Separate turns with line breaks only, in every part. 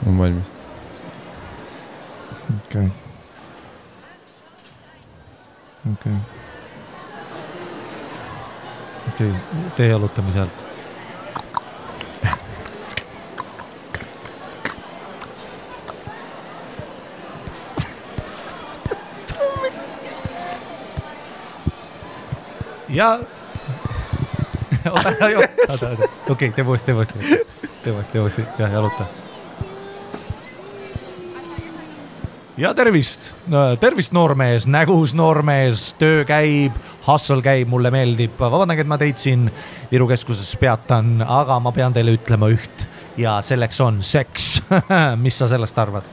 On valmis.
Okei. Tee jalutame sealt. Ja okei, tee uuesti. Ja jaluta. Ja tervist noormees, nägus noormees, töö käib, hustle käib, mulle meeldib. Vabandage, et ma teid siin Viru keskuses peatan, aga ma pean teile ütlema üht ja selleks on seks. Mis sa sellest arvad?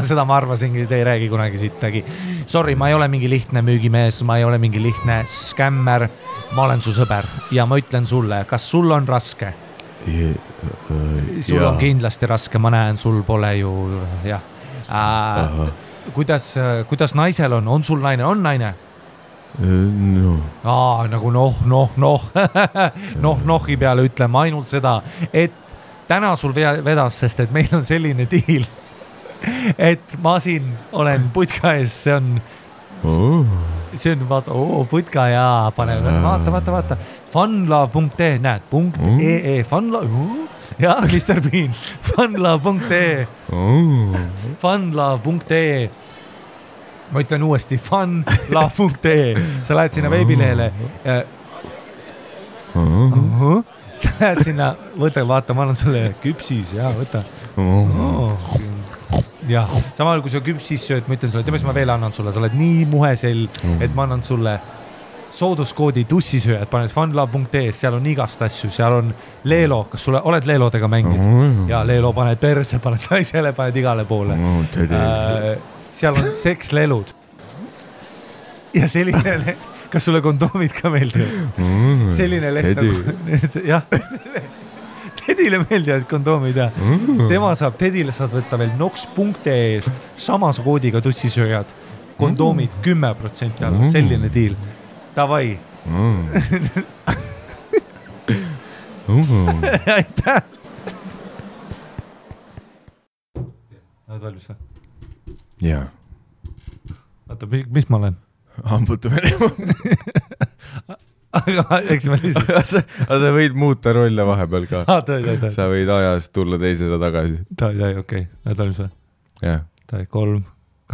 Seda ma arvasingi, te ei räägi kunagi sittagi. Sorry, ma ei ole mingi lihtne müügimees, ma ei ole mingi lihtne skämmer, ma olen su sõber ja ma ütlen sulle, kas sul on raske? Sul on kindlasti raske, ma näen, sul pole ju jah. Kuidas naisel on sul naine, on naine?
No.
Nagu nohi peale ütleme ainult seda, et täna sul vedas, sest et meil on selline diil, et ma siin olen putka ees, see on vaata, putka ja pane, vaata, funlove.ee, näed, .ee, funlove, ja Mr. Bean, funlove.ee, funlove.ee, ma ütlen uuesti, funlove.ee, sa lähed sinna veebilehele, sa lähed sinna, võta, vaata, ma annan sulle küpsis, ja võta. Ja, samal kui sa küpsis sööd, ma ütlen sulle, teeme, ma veel annan sulle, sa oled nii muhesel, et ma annan sulle sooduskoodi tussisööjad, paned funlove.ee, seal on igast asju, seal on Leelo, kas sulle oled Leelodega mängid? Ja Leelo paned perse, paned naisele, paned igale poole. Seal on sekslelud. Ja selline kas sulle kondoomid ka meeldivad? Selline leht nagu, jah, Tedile meeldivad kondoomid ja Tedile saad võtta veel nox.ee eest samas koodiga tussisööjad, kondoomid 10% alla, selline diil. Davai. Aitäh. Oled valmis või?
Jaa.
Vaata, mis ma olen?
Hambutamine.
Aga eks ma lihtsalt...
Aga sa võid muuta rolle vahepeal ka.
Tõi.
Sa võid ajast tulla teisele tagasi.
Tõi, okei. Oled valmis või?
Jah.
Tõi, 3,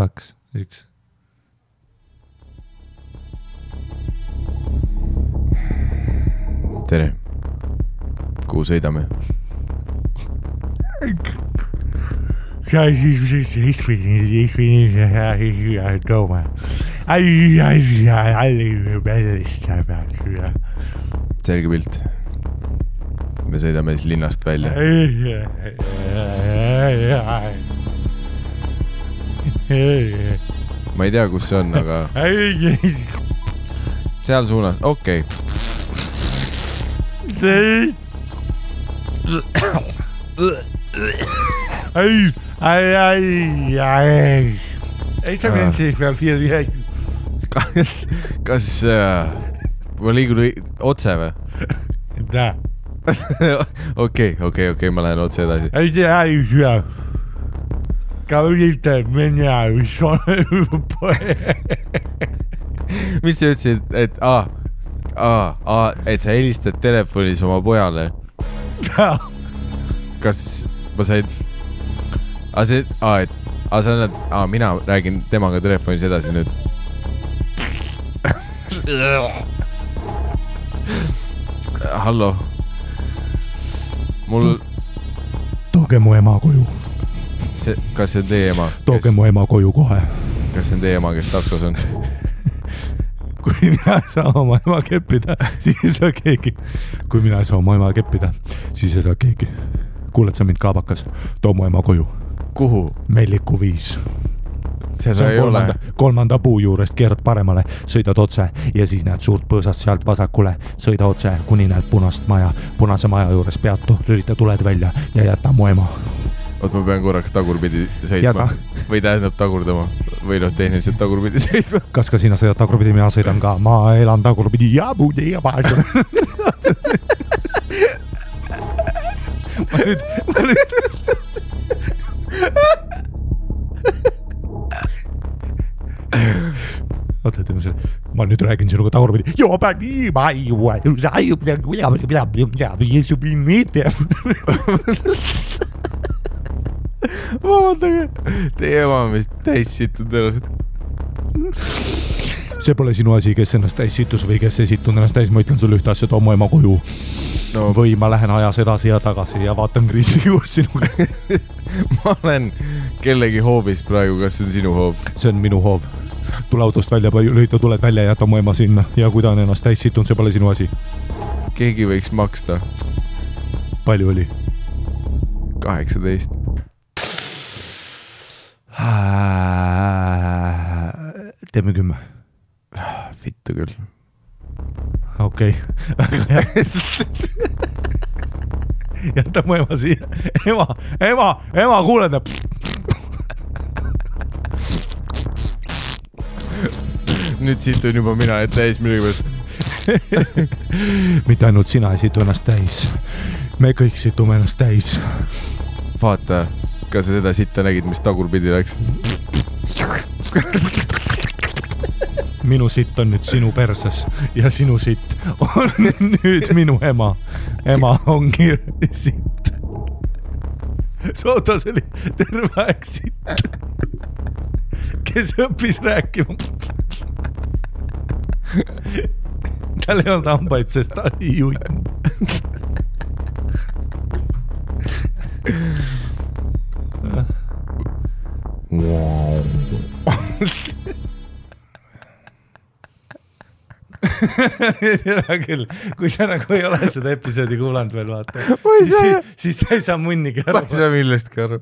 2, 1.
Tere. Kuhu sõidame? Selge pilt. Me sõidame siis linnast välja. Ma ei tea, kus see on, aga... Seal suunas, okei. Kas ma liigun otse või? Okei, ma lähen otse edasi. Mis sa ütlesid, et et sa helistad telefonis oma pojale? Kas ma sain... mina räägin temaga telefonis edasi nüüd. Hallo.
Tooge mu ema koju.
Kas see on teie ema?
Tooge mu ema koju kohe.
Kas see on teie ema, kes taksos on?
Kui mina ei saa oma ema keppida, siis ei saa keegi. Kui mina ei saa oma ema keppida, siis ei saa keegi. Kuuled sa mind kaabakas? Too mu ema koju.
Kuhu?
Melliku 5.
Seda ei ole.
Kolmanda puu juurest keerad paremale, sõidad otse ja siis näed suurt põõsast sealt vasakule. Sõida otse, kuni näed punase maja juures peatu, lülita tuled välja ja jäta mu ema.
Oot, ma pean korraks tagurpidi sõitma. Või tähendab tagurdama. Või tehniliselt tagurpidi sõitma.
Kas ka sina sõidad tagurpidi, mina sõidan ka. Ma elan tagurpidi ja puudi ja paadu. Oota, teeme selle. Ma nüüd räägin sinuga tagurpidi.
Vabandage, teie ema on vist täis situd ennast.
See pole sinu asi, kes ennast täis situs või kes ei situnud ennast täis. Ma ütlen sulle ühte asja, too mu ema koju. No. Või ma lähen ajas edasi ja tagasi ja vaatan kriisi koos sinuga.
Ma olen kellegi hoovis praegu, kas see on sinu hoov?
See on minu hoov. Tule autost välja, tuled välja ja jäta mu ema sinna. Ja kui ta on ennast täis situnud, see pole sinu asi.
Keegi võiks maksta.
Palju oli?
18.
Teeme 10.
Vittu küll.
Okei. Jäta mu ema siia. Ema, kuuled.
Nüüd situn juba mina, et täis millegi.
Mitte ainult sina ei situ ennast täis. Me kõik situme ennast täis.
Vaata, kas sa seda sitta nägid, mis tagurpidi läks?
Minu sitt on nüüd sinu perses ja sinu sitt on nüüd minu ema. Ema ongi sitt. Sootas oli terve aeg sitt, kes õppis rääkima. Tal ei olnud hambaid, sest ta oli juin.
Wow.
Küll, kui sa nagu ei ole seda episoodi kuulanud veel, vaata, siis sa ei saa munnigi aru.
Ma ei saa millestki aru.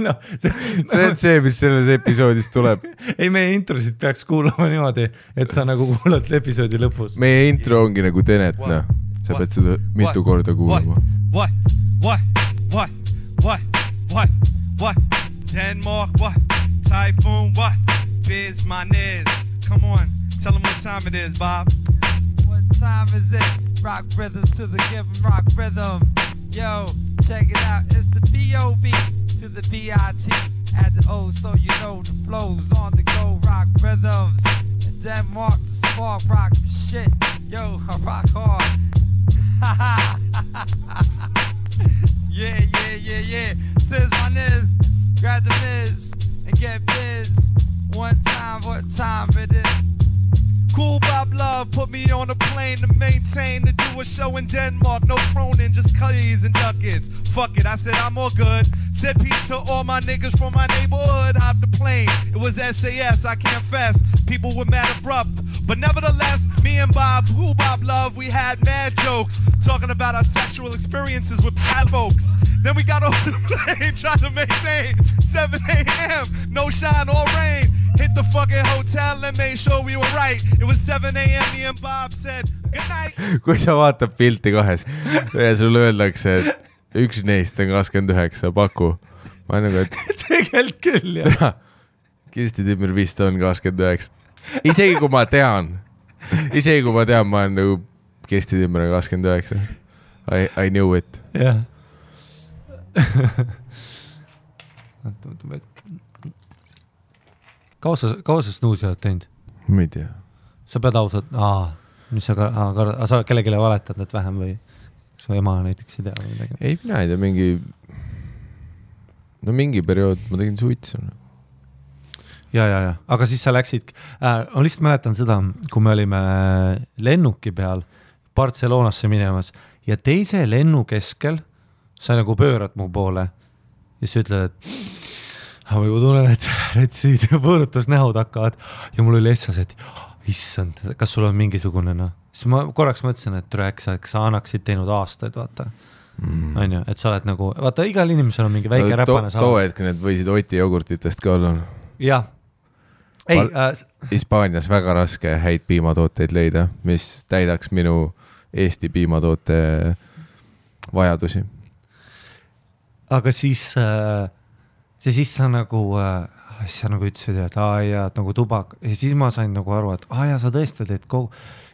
No,
see on see, mis selles episoodis tuleb.
Ei, meie introsid peaks kuulama niimoodi, et sa nagu kuulad episoodi lõpus.
Meie intro ongi nagu Tenet, no. Sa pead seda mitu korda kuulama.
What? Denmark, what? Typhoon, what? Biz my niz. Come on, tell them what time it is, Bob.
What time is it? Rock rhythms to the given rock rhythm. Yo, check it out. It's the B.O.B. to the B.I.T. At the O, so you know the flows on the go. Rock rhythms. And Denmark, the spark, rock the shit. Yo, I rock hard. Yeah. Says my niz. Grab the Miz and get biz. One time, what time it is?
Cool Bob Love put me on a plane to maintain, to do a show in Denmark. No Cronin, just cutties and duckets. Fuck it, I said I'm all good. Said peace to all my niggas from my neighborhood. Hopped the plane, it was SAS, I confess. People were mad abrupt, but nevertheless, me and Bob, Cool Bob Love, we had mad jokes, talking about our sexual experiences with bad folks. Then we got off the plane, trying to maintain 7 a.m., no shine or rain. Hit the fucking hotel and made sure we were right. It was 7 a.m. Me and Bob said good night.
Kui sa vaatad pilti kahest ja sulle öeldakse, et üks neist on 29, paku. Ma nagu, et
tegelikult küll, jah.
Kirsti Timmer vist on 29. Isegi kui ma tean, ma olen nagu Kirsti Timmer on 29. I knew it.
Jah. Kaua sa snuusi oled teinud?
Ma ei tea.
Sa pead ausalt, mis sa kellelegi valetad need vähem või su ema näiteks ei tea või midagi?
Ei, mina ei tea, mingi periood ma tegin suitsu.
Ja. Aga siis sa läksid, ma lihtsalt mäletan seda, kui me olime lennuki peal Barcelonasse minemas ja teise lennu keskel sa nagu pöörad mu poole ja sa ütled, et ma juba tunnen, et retsid ja põõrutusnähud hakkavad ja mul oli essas, et issand, kas sul on mingisugune siis ma korraks mõtlesin, et äkki sa annaksid teinud aastaid, vaata. On ju, et sa oled nagu, vaata, igal inimesel on mingi väike räpane saanud.
Too hetk need võisid Oti jogurtitest ka olla.
Jah.
Hispaanias väga raske häid piimatooteid leida, mis täidaks minu Eesti piimatoote vajadusi.
Aga siis sa nagu ütlesid, et nagu tubak ja siis ma sain nagu aru, et sa tõesti teed kogu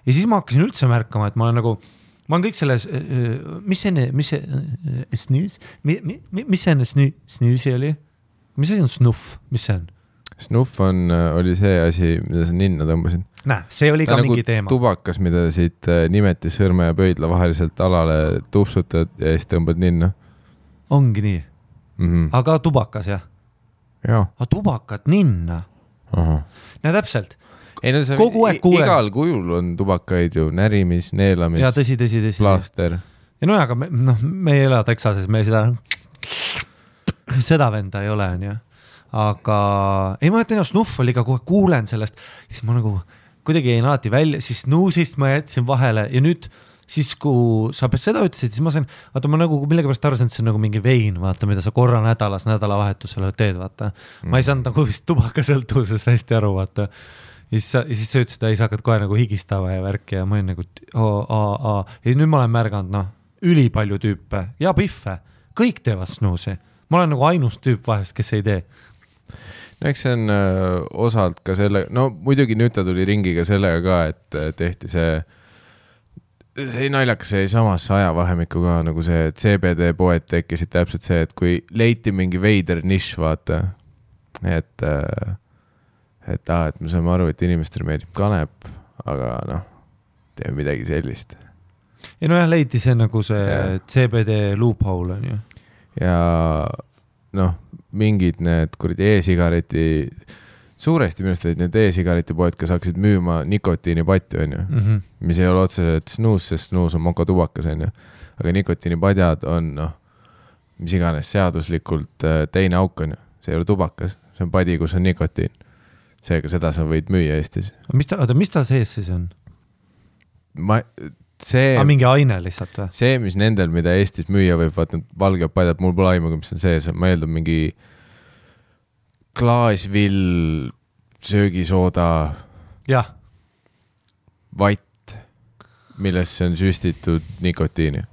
ja siis ma hakkasin üldse märkama, et ma olen nagu ma olen kõik selles, mis see snüüs, mis see snüüsi oli? Mis see on snuff, mis see on?
Snuff oli see asi, mida sa ninna tõmbasid.
Näe, see oli ka mingi teema.
Tubakas, mida siit nimetis sõrme ja pöidla vaheliselt alale tupsutad ja siis tõmbad ninna.
Ongi nii. Aga tubakas, jah?
Jaa.
Aga tubakat ninna? Näe, täpselt.
Ei, no
kogu aeg kuulen.
Igal kujul on tubakaid ju, närimis, neelamis,
ja, tõsi.
plaaster.
Ja no aga me ei ela Texases, me seda venda ei ole, on ju. Aga ei, ma ütlen, snuff oli ka kohe kuulen sellest, siis ma nagu kuidagi jäin alati välja, siis snuusist ma jätsin vahele ja nüüd siis, kui sa seda ütlesid, siis ma sain, vaata ma nagu millega pärast arvasin, et see on nagu mingi vein, vaata, mida sa korra nädalavahetusele teed, vaata. Ma ei saanud nagu vist tubakasõltuvusest hästi aru, vaata. Ja siis sa ütlesid, et sa hakkad kohe nagu higistava ja värki ja ma olin nagu ja nüüd ma olen märganud, üli palju tüüpe ja piffe, kõik teevad snuusi. Ma olen nagu ainus tüüp vahest, kes ei tee.
No eks see on osalt ka selle, no muidugi nüüd ta tuli ringiga sellega ka, et tehti see naljakas see samas ajavahemikku ka nagu see, et CBD poed tekkisid täpselt see, et kui leiti mingi veider nišš, vaata, et me saame aru, et inimestele meeldib kanep, aga noh, teeme midagi sellist.
Ja no jah, leiti see nagu see CBD loophole on ju.
Ja noh, mingid need kuradi e-sigareti, suuresti minust olid need e-sigareti poed, kes hakkasid müüma nikotiinipatju, on ju, mis ei ole otseselt snuus, sest snuus on mokotubakas, on ju, aga nikotiinipadjad on, noh, mis iganes seaduslikult teine auk on ju, see ei ole tubakas, see on padi, kus on nikotiin. Seega seda sa võid müüa Eestis.
Mis ta sees siis on?
See,
mingi aine lihtsalt või?
See, mis nendel, mida Eestis müüa võib, vaata valge padjad, mul pole aimuga, mis on sees, ma eeldan mingi klaasvill, söögisooda, vatt, millesse on süstitud nikotiini.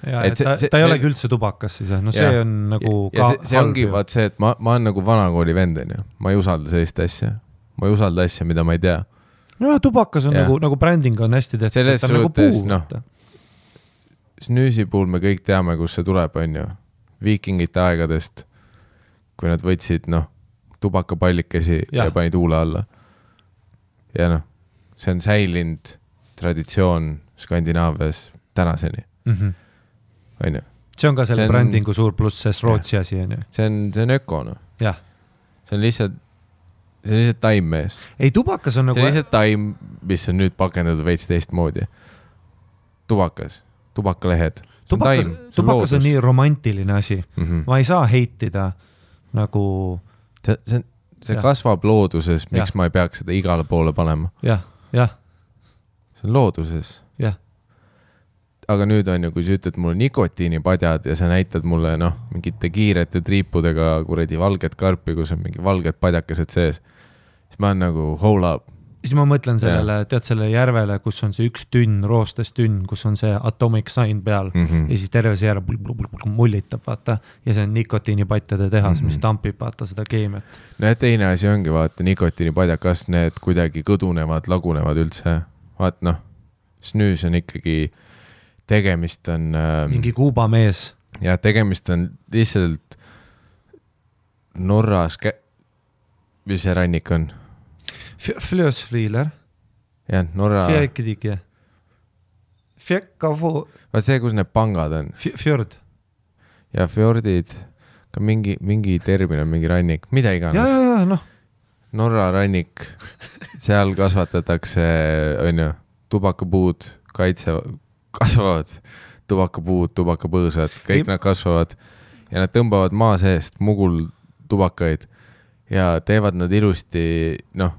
Ja, ta ei olegi üldse tubakas siis, no see on nagu
ja see ongi vaat see, et ma olen nagu vanakooli venden, ma ei usalda sellist asja, ma ei usalda asja, mida ma ei tea.
No tubakas on nagu bränding on hästi tehtud.
Selles suhtes, noh, snüüsi puhul me kõik teame, kus see tuleb, on ju. Viikingite aegadest, kui nad võtsid, noh, tubakapallikesi ja panid huule alla. Ja noh, see on säilinud traditsioon Skandinaavias tänaseni. On ju.
See on ka selle brändingu suur pluss, sest Rootsi asi on ju.
See on öko, noh.
Jah.
See on lihtsalt taim mees.
Ei, tubakas on nagu...
See on lihtsalt taim, mis on nüüd pakendatud veits teist moodi. Tubakalehed.
Tubakas on nii romantiline asi. Ma ei saa heitida nagu...
See kasvab looduses, miks ma ei peaks seda igale poole panema.
Jah.
See on looduses.
Jah.
Aga nüüd on ju, kui sa ütled mulle nikotiinipadjad ja sa näitad mulle, noh, mingite kiirete triipudega kuradi valget karpi, kus on mingi valged padjakesed sees, siis ma olen nagu hold up.
Siis ma mõtlen sellele, tead selle järvele, kus on see üks tünn, roostes tünn, kus on see atomic sign peal ja siis terve see järve mullitab, vaata, ja see on nikotiinipatjade tehas, mis tampib, vaata seda keemiat.
No ja teine asi ongi, vaata, nikotiinipadjad, kas need kuidagi kõdunevad, lagunevad üldse? Vaat noh, snüüs on ikkagi tegemist on...
mingi Kuuba mees.
Ja tegemist on lihtsalt Norras... Mis see rannik on?
Flösfriiler.
Jah, Norra...
Fjäkidike. Fjäkkavu...
Vaat see, kus need pangad on.
Fjord.
Ja fjordid, ka mingi termin on mingi rannik, mida iganes.
Ja, noh.
Norra rannik, seal kasvatatakse, on ju, tubakapuud, kasvavad tubakapuud, tubakapõõsad, kõik nad kasvavad ja nad tõmbavad maa seest mugul tubakaid ja teevad nad ilusti, noh,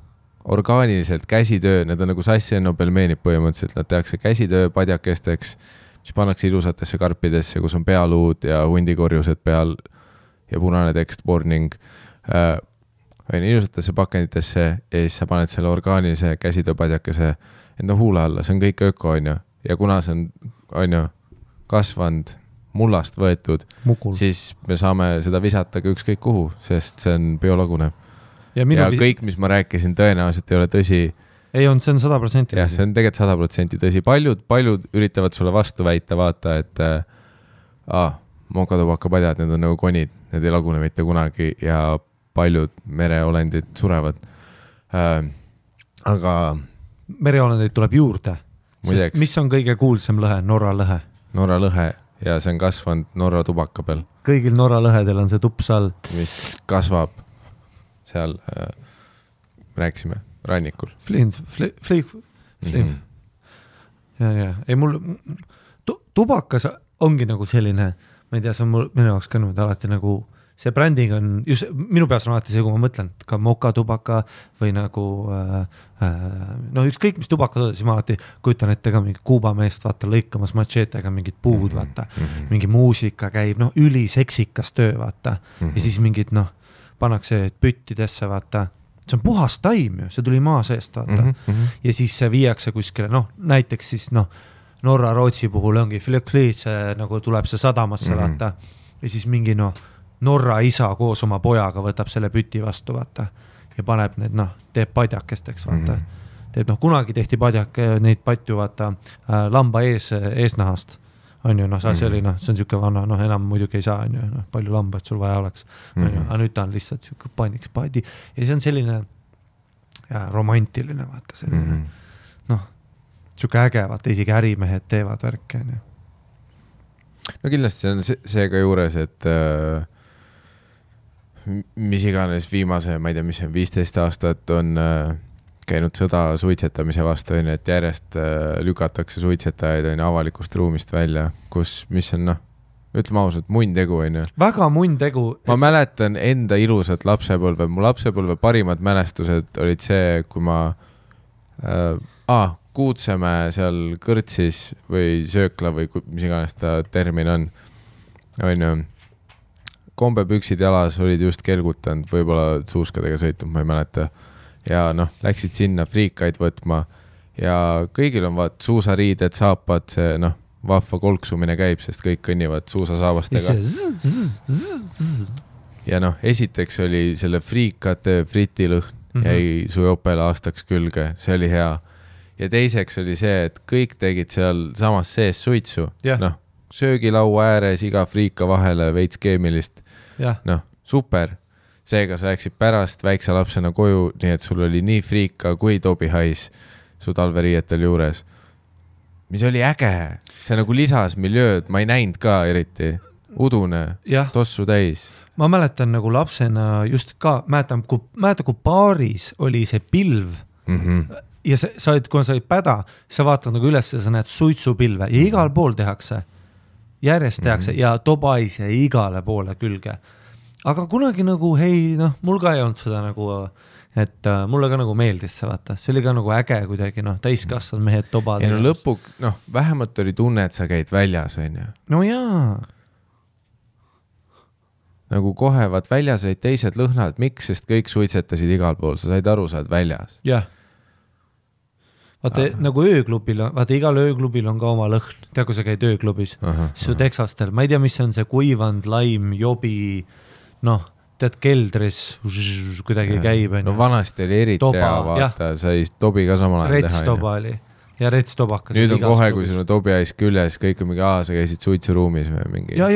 orgaaniliselt käsitöö, need on nagu sassiennopelmeenid põhimõtteliselt, nad tehakse käsitöö padjakesteks, mis pannakse ilusatesse karpidesse, kus on pealuud ja hundikorjused peal ja punane tekst warning ilusatesse pakenditesse ja siis sa paned selle orgaanilise käsitöö padjakese enda huule alla, see on kõik öko, on ju. Ja kuna see on ju kasvanud, mullast võetud, siis me saame seda visata ka ükskõik kuhu, sest see on biolagunev. Ja kõik, mis ma rääkisin, tõenäoliselt ei ole tõsi,
ei on, see on 100%
jah, see on tegelikult 100% tõsi. Paljud üritavad sulle vastu väita, vaata, et mokatubakapadjad, need on nagu konid, need ei lagune mitte kunagi ja paljud mereolendid surevad. Aga
mereolendeid tuleb juurde.
Muideks,
mis on kõige kuulsam lõhe? Norra lõhe.
Norra lõhe ja see on kasvanud Norra tubaka peal.
Kõigil Norra lõhedel on see tups all. Mis
kasvab seal, rääkisime, rannikul.
Flim. Ja. Ei, mul tubakas ongi nagu selline, ma ei tea, see on minu jaoks ka nüüd alati nagu, see bränding on, just minu peas on alati see, kui ma mõtlen, ka mokatubaka või nagu, ükskõik mis tubaka, siis ma alati kujutan ette ka mingi Kuuba meest, vaata, lõikamas matšeetega mingid puud, vaata, mingi muusika käib, üliseksikas töö, vaata, ja siis mingid, pannakse püttidesse, vaata, see on puhas taim ju, see tuli maa seest, vaata, ja siis see viiakse kuskile, näiteks siis, Norra Rootsi puhul ongi Flökliit, nagu tuleb see sadamasse, vaata, ja siis mingi, Norra isa koos oma pojaga võtab selle püti vastu, vaata, ja paneb need, teeb padjakesteks, vaata. Teeb, kunagi tehti neid patju, vaata, lamba eesnahast, on ju, see oli, see on siuke vana, enam muidugi ei saa, on ju, palju lambaid sul vaja oleks, on ju, aga nüüd ta on lihtsalt siuke paniks padi, ja see on selline romantiline, vaata, selline, siuke äge, vaata, isegi ärimehed teevad värke, on ju.
No kindlasti see on see ka juures, et mis iganes viimase, ma ei tea, mis on 15 aastat on käinud sõda suitsetamise vastu, et järjest lükatakse suitsetajaid avalikust ruumist välja, mis on, ütleme ausalt, munn tegu, on ju.
Väga munn tegu.
Ma mäletan enda ilusat lapsepõlve. Mu lapsepõlve parimad mälestused olid see, kui ma Kuutsemäe seal kõrtsis või söökla või mis iganes ta termin on ju, kombepüksid jalas olid just kelgutanud, võib-olla suuskadega sõitnud, ma ei mäleta. Ja läksid sinna friikaid võtma ja kõigil on suusariided, saapad, see vahva kolksumine käib, sest kõik kõnnivad suusasaabastega. Ja esiteks oli selle friikate fritilõhn jäi su jopele aastaks külge, see oli hea. Ja teiseks oli see, et kõik tegid seal samas sees suitsu. Söögilaua ääres, iga friika vahele, veits keemilist. Super. Seega sa läksid pärast väikse lapsena koju, nii et sul oli nii friika kui tobihais su talveriietel juures. Mis oli äge. See nagu lisas miljööd, ma ei näinud ka eriti. Udune, tossu täis.
Ma mäletan nagu lapsena just ka, mäletan, kui paaris oli see pilv, ja kui sa olid päda, sa vaatad nagu üles ja sa näed suitsupilve ja igal pool tehakse, järjest tehakse ja tobais ja igale poole külge. Aga kunagi nagu, mul ka ei olnud seda nagu, et mulle ka nagu meeldis see, vaata. See oli ka nagu äge kuidagi, täiskasvanud mehed tobad.
Ja lõpuk, vähemalt oli tunne, et sa käid väljas, on ju.
No jaa.
Nagu kohe, väljas olid teised lõhnad, miks, sest kõik suitsetasid igal pool, sa said aru, sa oled väljas.
Jah. Vaata, nagu ööklubil, vaata, igal ööklubil on ka oma lõhn. Tea, kui sa käid ööklubis, su teksastel, ma ei tea, mis on see kuivand, laim, jobi, tead, keldris kuidagi käib.
No vanasti oli eriti hea, vaata, sai tobi ka samal ajal teha.
Retstoba oli ja retstobakas.
Nüüd on kohe, kui sul on tobi ais küljes, kõik on mingi, sa käisid suitsuruumis või mingi.
Ja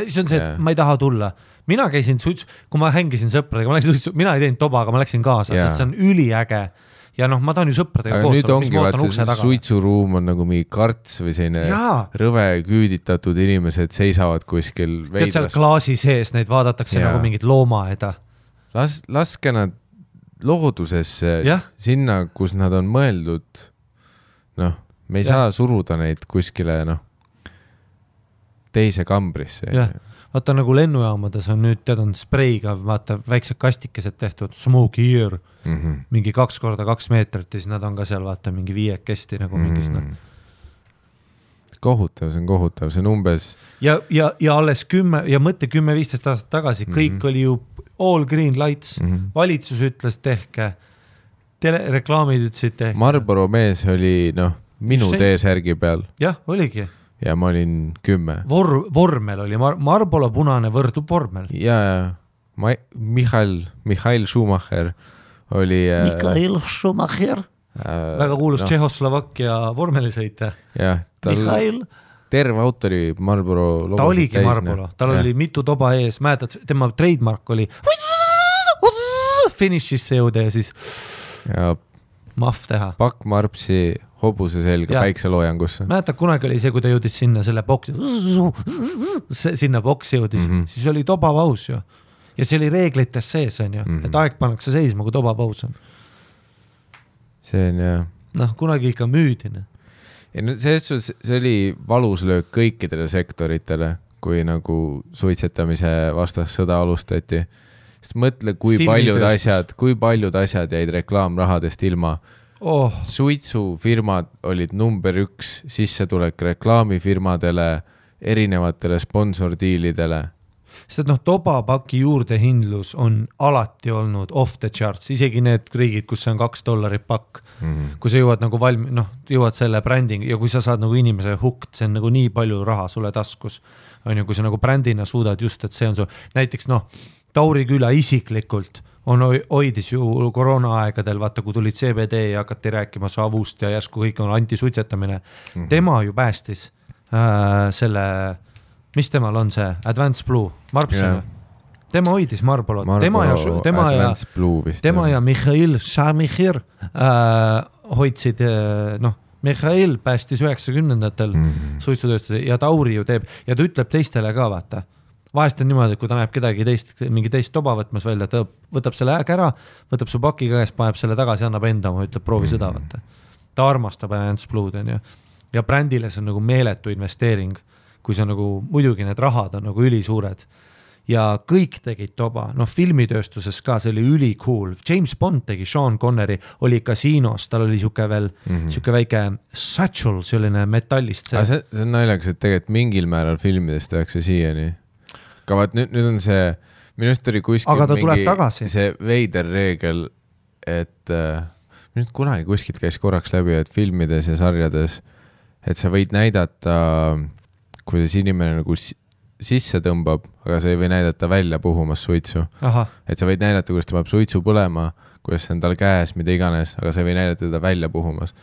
see on see, et ma ei taha tulla. Mina käisin kui ma hängisin sõpradega, mina ei teinud toba, aga ma läksin kaasa, sest see on üliäge. Ja ma tahan ju sõpradega
koos. Aga nüüd ongi, see suitsuruum on nagu mingi karts või selline rõve küüditatud inimesed seisavad kuskil veidras.
Tead seal klaasi sees, neid vaadatakse nagu mingid loomaeda.
Laske nad loodusesse sinna, kus nad on mõeldud. Me ei saa suruda neid kuskile teise kambrisse.
Vaata nagu lennujaamades on nüüd, on spreiga, vaata väiksed kastikesed tehtud, smoke here, mingi 2x2 meetrit ja siis nad on ka seal, vaata, mingi 5 kesti nagu mingis.
Kohutav, see on umbes.
Ja alles 10 ja mõtte 10-15 aastat tagasi, kõik oli ju all green lights, valitsus ütles tehke, reklaamid ütlesid tehke.
Marlboro mees oli, minu T-särgi peal.
Jah, oligi.
Ja ma olin 10.
Vormel oli, Marlboro punane võrdub vormel.
Ja Michael Schumacher oli...
Michael Schumacher? väga kuulus Tšehhoslovakkia vormelisõitja.
jah,
Mihhail.
Terve autori Marlboro
ta oligi Marlboro, tal oli mitu toba ees, mäletad, tema trademark oli finishisse jõuda ja siis
ja
mahv teha.
Pakk Marpsi hobuse selga päikseloojangusse.
Mäletad, kunagi oli see, kui ta jõudis sinna selle boksi, sinna boksi jõudis, siis oli tobapaus ju. Ja see oli reeglites sees, on ju, et aeg pannakse seisma, kui tobapaus on.
See on jah.
Noh, kunagi ikka müüdine.
See oli valus löök kõikidele sektoritele, kui nagu suitsetamise vastas sõda alustati. Sest mõtle, kui paljud asjad jäid reklaamrahadest ilma. Suitsufirmad olid number 1 sissetulek reklaamifirmadele, erinevatele sponsordiilidele.
Sest tobapaki juurdehindlus on alati olnud off the charts, isegi need riigid, kus see on $2 pakk, kui sa jõuad nagu jõuad selle bränding ja kui sa saad nagu inimese hooked, see on nagu nii palju raha sulle taskus, on ju, kui sa nagu brändina suudad just, et see on su, näiteks Tauri Küla isiklikult hoidis ju koroona aegadel, vaata kui tulid CBD ja hakati rääkima savust ja järsku kõik on antisuitsetamine, tema ju päästis selle mis temal on see? Advanced Blue, Marpsime. Tema hoidis Marlborot. Tema ja Mihhail Šamichir hoidsid, Mihhail päästis 90-ndatel suitsutööstuse ja Tauri ju teeb ja ta ütleb teistele ka, vaata. Vahest on niimoodi, kui ta näeb kedagi mingi teist toba võtmas välja, ta võtab selle äg ära, võtab su paki käest, paneb selle tagasi, annab enda, ütleb proovi seda, vaata. Ta armastab Advanced Blue'd, on ju. Ja brändile see on nagu meeletu investeering. Kui see nagu, muidugi need rahad on nagu ülisuured ja kõik tegid toba, filmitööstuses ka, see oli üli cool. James Bond tegi, Sean Connery oli kasiinos, tal oli siuke veel, siuke väike satchel, selline metallist.
See on naljakas, et tegelikult mingil määral filmidest tehakse siiani. Aga vaat nüüd on see, minust oli kuskil see veider reegel, et minust kunagi kuskilt käis korraks läbi, et filmides ja sarjades, et sa võid näidata kuidas inimene nagu sisse tõmbab, aga sa ei või näidata välja puhumas suitsu. Et sa võid näidata, kuidas ta peab suitsu põlema, kuidas see on tal käes, mida iganes, aga sa ei või näidata teda välja puhumas.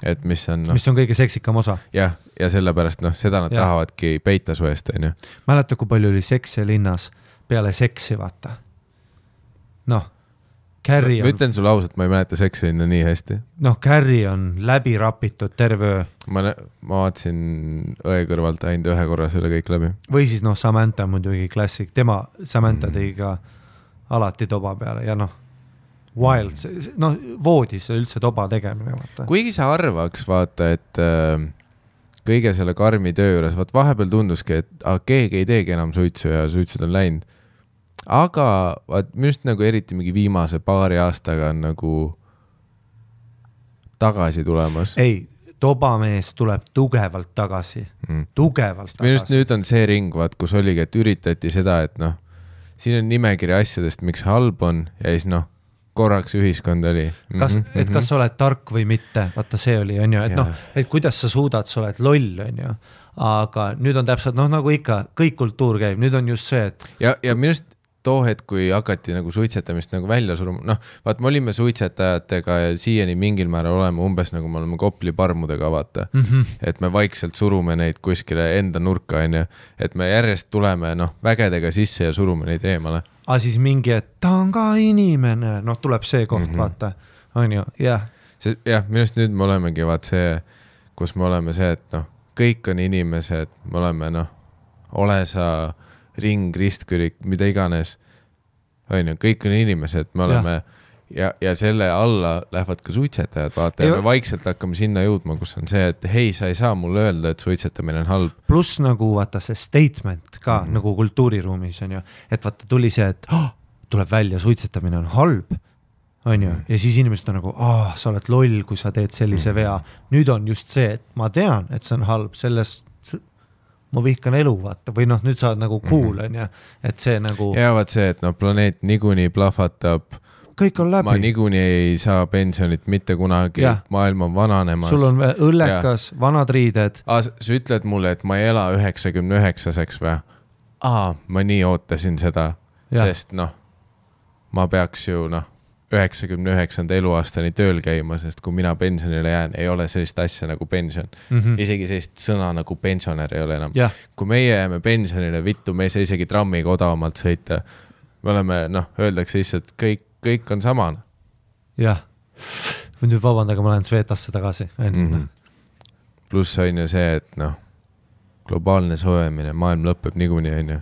Et mis on
kõige seksikam osa.
Ja sellepärast seda nad tahavadki peita su eest.
Mäleta, kui palju oli seksi linnas peale seksi, vaata. Carrie on...
Ma ütlen sulle ausalt, ma ei mäleta seksi linna nii hästi.
Carrie on läbi rapitud terve öö.
Ma vaatasin õe kõrvalt ainult ühe korra selle kõik läbi.
Või siis Samantha muidugi klassik. Samantha tegi ka alati toba peale ja wild, voodis üldse toba tegemine. Vaata.
Kuigi sa arvaks, vaata, et kõige selle karmi töö juures, vahepeal tunduski, et keegi ei teegi enam suitsu ja suitsud on läinud. Aga minust nagu eriti mingi viimase paari aastaga on nagu tagasi tulemas.
Ei, tobamees tuleb tugevalt tagasi. Tugevalt tagasi.
Minust nüüd on see ring, kus oligi, et üritati seda, et siin on nimekiri asjadest, miks halb on ja siis korraks ühiskond oli.
Kas sa oled tark või mitte, vaata see oli, on ju, et kuidas sa suudad, sa oled loll, on ju. Aga nüüd on täpselt, nagu ikka, kõik kultuur käib, nüüd on just see, et...
Ja minust too hetk, kui hakati nagu suitsetamist nagu välja suruma, vaat me olime suitsetajatega ja siiani mingil määral oleme umbes nagu me oleme Kopli parmudega, vaata, et me vaikselt surume neid kuskile enda nurka, on ju, et me järjest tuleme vägedega sisse ja surume neid eemale.
Aga siis mingi, et ta on ka inimene, tuleb see koht, vaata, on ju, jah.
Minust nüüd me olemegi vaat see, kus me oleme see, et kõik on inimesed, me oleme ole sa ring, ristkürik, mida iganes, on ju, kõik on inimesed, me oleme ja selle alla lähevad ka suitsetajad, vaata, ja me vaikselt hakkame sinna jõudma, kus on see, et hei, sa ei saa mulle öelda, et suitsetamine on halb.
Pluss nagu vaata see statement ka nagu kultuuriruumis on ju, et vaata tuli see, et tuleb välja, suitsetamine on halb, on ju, ja siis inimesed on nagu, sa oled loll, kui sa teed sellise vea. Nüüd on just see, et ma tean, et see on halb, sellest ma vihkan elu, vaata, või nüüd sa oled nagu cool, on ju, et see nagu...
Ja vaat see, et planeet niikuinii plahvatab,
kõik on läbi.
Ma niikuinii ei saa pensionit mitte kunagi, maailm on vananemas.
Sul on õllekas, vanad riided.
Sa ütled mulle, et ma ei ela 99-seks või? Ma nii ootasin seda, sest ma peaks ju 99. eluaastani tööl käima, sest kui mina pensionile jään, ei ole sellist asja nagu pension. Isegi sellist sõna nagu pensionär ei ole enam. Kui meie jääme pensionile, vittu, me ei saa isegi trammiga odavamalt sõita. Me oleme, öeldakse lihtsalt, kõik on samana.
Jah. Nüüd vabandage, ma lähen Svetasse tagasi.
Pluss on ju see, et globaalne soojemine, maailm lõpeb niikuinii, on ju.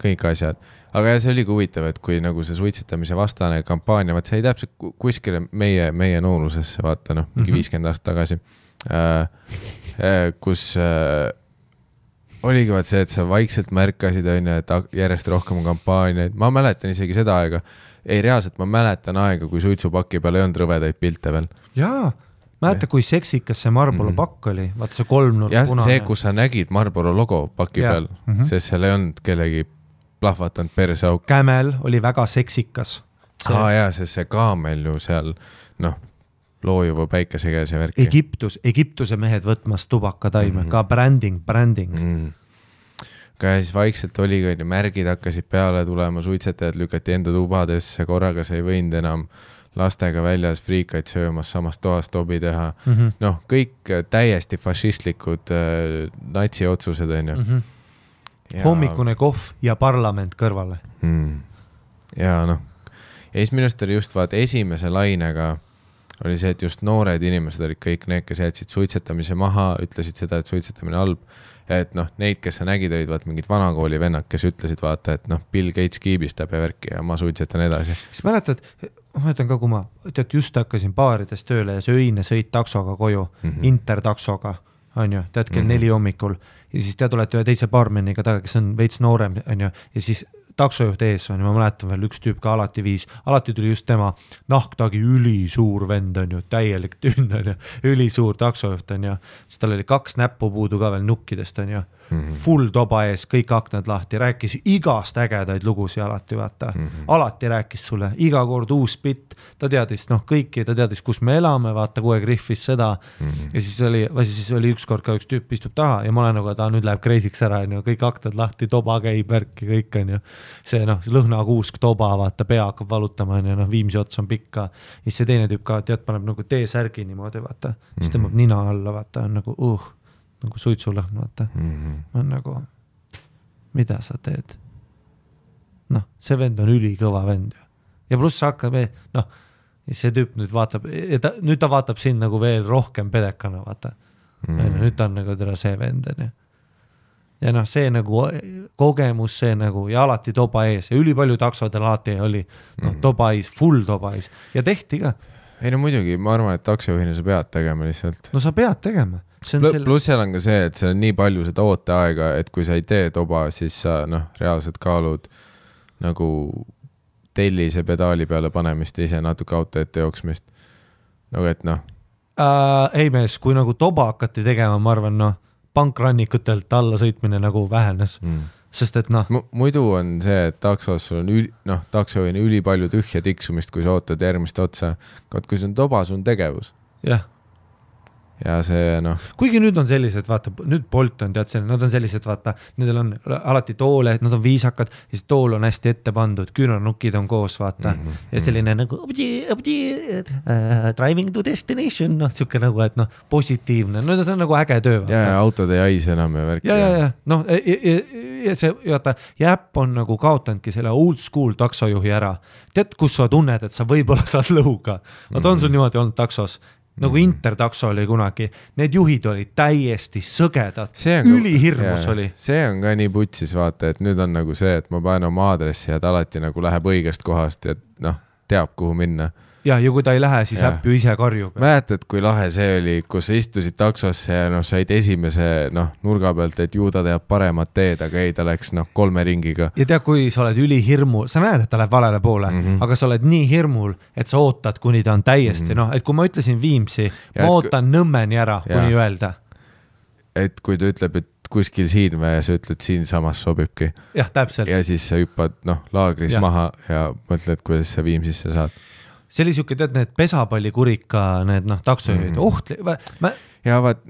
Kõik asjad. Aga see oli huvitav, et kui nagu see suitsetamise vastane kampaania, vaat see ei täpselt kuskile meie noorusesse, vaata, mingi 50 aastat tagasi, kus oligi vaat see, et sa vaikselt märkasid, on ju, et järjest rohkem kampaaniaid. Ma mäletan isegi seda aega, reaalselt ma mäletan aega, kui suitsupaki peal ei olnud rõvedaid pilte veel.
Jaa, mäleta, kui seksikas see Marlboro pakk oli, vaata see kolmnurk punane.
See, kus sa nägid Marlboro logo paki peal, sest seal ei olnud kellegi plahvatanud perseauk.
Camel oli väga seksikas.
Jaa, sest see kaamel ju seal, loojuva päikese käes ja värki.
Egiptuse mehed võtmas tubakataime, ka branding.
Ka siis vaikselt oli, kui märgid hakkasid peale tulema, suitsetajad lükati enda tubadesse, korraga sa ei võinud enam lastega väljas friikaid söömas, samast toast tobi teha. Kõik täiesti fašistlikud natsi otsused, on ju.
Hommikune kohv ja parlament kõrvale.
Ja ja siis minust oli just esimese lainega oli see, et just noored inimesed olid kõik need, kes jätsid suitsetamise maha, ütlesid seda, et suitsetamine halb. Et neid, kes sa nägid, olid mingid vanakooli vennad, kes ütlesid vaata, et Bill Gates kiibistab ja värki ja ma suitsetan edasi.
Siis mäletad, ma mõtlen ka, kui ma just hakkasin baarides tööle ja see öine sõit taksoga koju, intertaksoga, on ju, tead kell 4 hommikul ja siis te tulete ühe teise baarmeniga taga, kes on veits noorem, on ju, ja siis taksojuht ees on, ma mäletan veel üks tüüp ka alati tuli just tema nahktagi ülisuur vend on ju, täielik tünn on ju, ülisuur taksojuht on ju, siis tal oli 2 näppu puudu ka veel nukkidest on ju, full toba ees, kõik aknad lahti, rääkis igast ägedaid lugusi alati, vaata, alati rääkis sulle, iga kord uus bitt, ta teadis kõiki, ta teadis, kus me elame, vaata, kogu aeg riffis seda ja siis oli ükskord ka üks tüüp istub taha ja ma olen nagu, ta nüüd läheb kreisiks ära, on ju, kõik aknad lahti, toba käib, värki, kõik on ju, see lõhnakuusk toba, vaata, pea hakkab valutama, on ju, Viimsi ots on pikka, siis see teine tüüp ka, tead, paneb nagu T-särgi niimoodi, vaata, siis tõmbab nina alla, vaata, on nagu nagu suitsulõhn, vaata. On nagu, mida sa teed? See vend on ülikõva vend. Ja pluss hakkab, see tüüp nüüd vaatab, nüüd ta vaatab siin nagu veel rohkem pedekana, vaata. Nüüd ta on nagu teda see vend. Ja see nagu kogemus, see nagu, ja alati toba ees, ja ülipalju taksodel alati oli, toba ees, full toba ees. Ja tehti ka.
Ei muidugi, ma arvan, et taksojuhina sa pead tegema lihtsalt.
Sa pead tegema.
Pluss seal on ka see, et seal on nii palju seda ooteaega, et kui sa ei tee toba, siis sa reaalselt kaalud nagu tellise pedaali peale panemist ja ise natuke auto ette jooksmist. Nagu et
ei mees, kui nagu toba hakati tegema, ma arvan, pankrannikutelt alla sõitmine nagu vähenes. Sest et
muidu on see, et taksos sul on taksojuhina üli palju tühja tiksumist, kui sa ootad järgmist otsa. Kui see on toba, sul on tegevus.
Jah.
Ja see
kuigi nüüd on sellised, vaata, nüüd Bolt on tead selline, nad on sellised, vaata, nendel on alati toole, nad on viisakad, siis tool on hästi ette pandud, küünarnukid on koos, vaata, ja selline nagu driving to destination, siuke nagu, et positiivne, see on nagu äge töö.
Ja autod ei haise enam ja värk.
Ja see, vaata, jäpp on nagu kaotandki selle old school taksojuhi ära. Tead, kus sa tunned, et sa võib-olla saad lõhuga. Nad on sul niimoodi olnud taksos. Nagu intertakso oli kunagi, need juhid olid täiesti sõgedad, ülihirmus oli.
See on ka nii putsis, vaata, et nüüd on nagu see, et ma panen oma aadressi ja ta alati nagu läheb õigest kohast ja teab, kuhu minna.
Ja kui ta ei lähe, siis äpp ju ise karjub.
Mäletad, kui lahe see oli, kus sa istusid taksosse ja said esimese nurga pealt, et ju ta teab paremat teed, aga ei, ta läks 3 ringiga.
Ja tead, kui sa oled ülihirmul, sa näed, et ta läheb valele poole, aga sa oled nii hirmul, et sa ootad, kuni ta on täiesti, et kui ma ütlesin Viimsi, ma ootan Nõmmeni ära, kuni öelda.
Et kui ta ütleb, et kuskil siin või sa ütled, siin samas sobibki.
Jah, täpselt.
Ja siis sa hüppad laagris maha ja mõtled, kuidas sa Viimsisse saad.
See oli siuke, tead, need pesapallikurika, need taksojuhid,
ja vaat,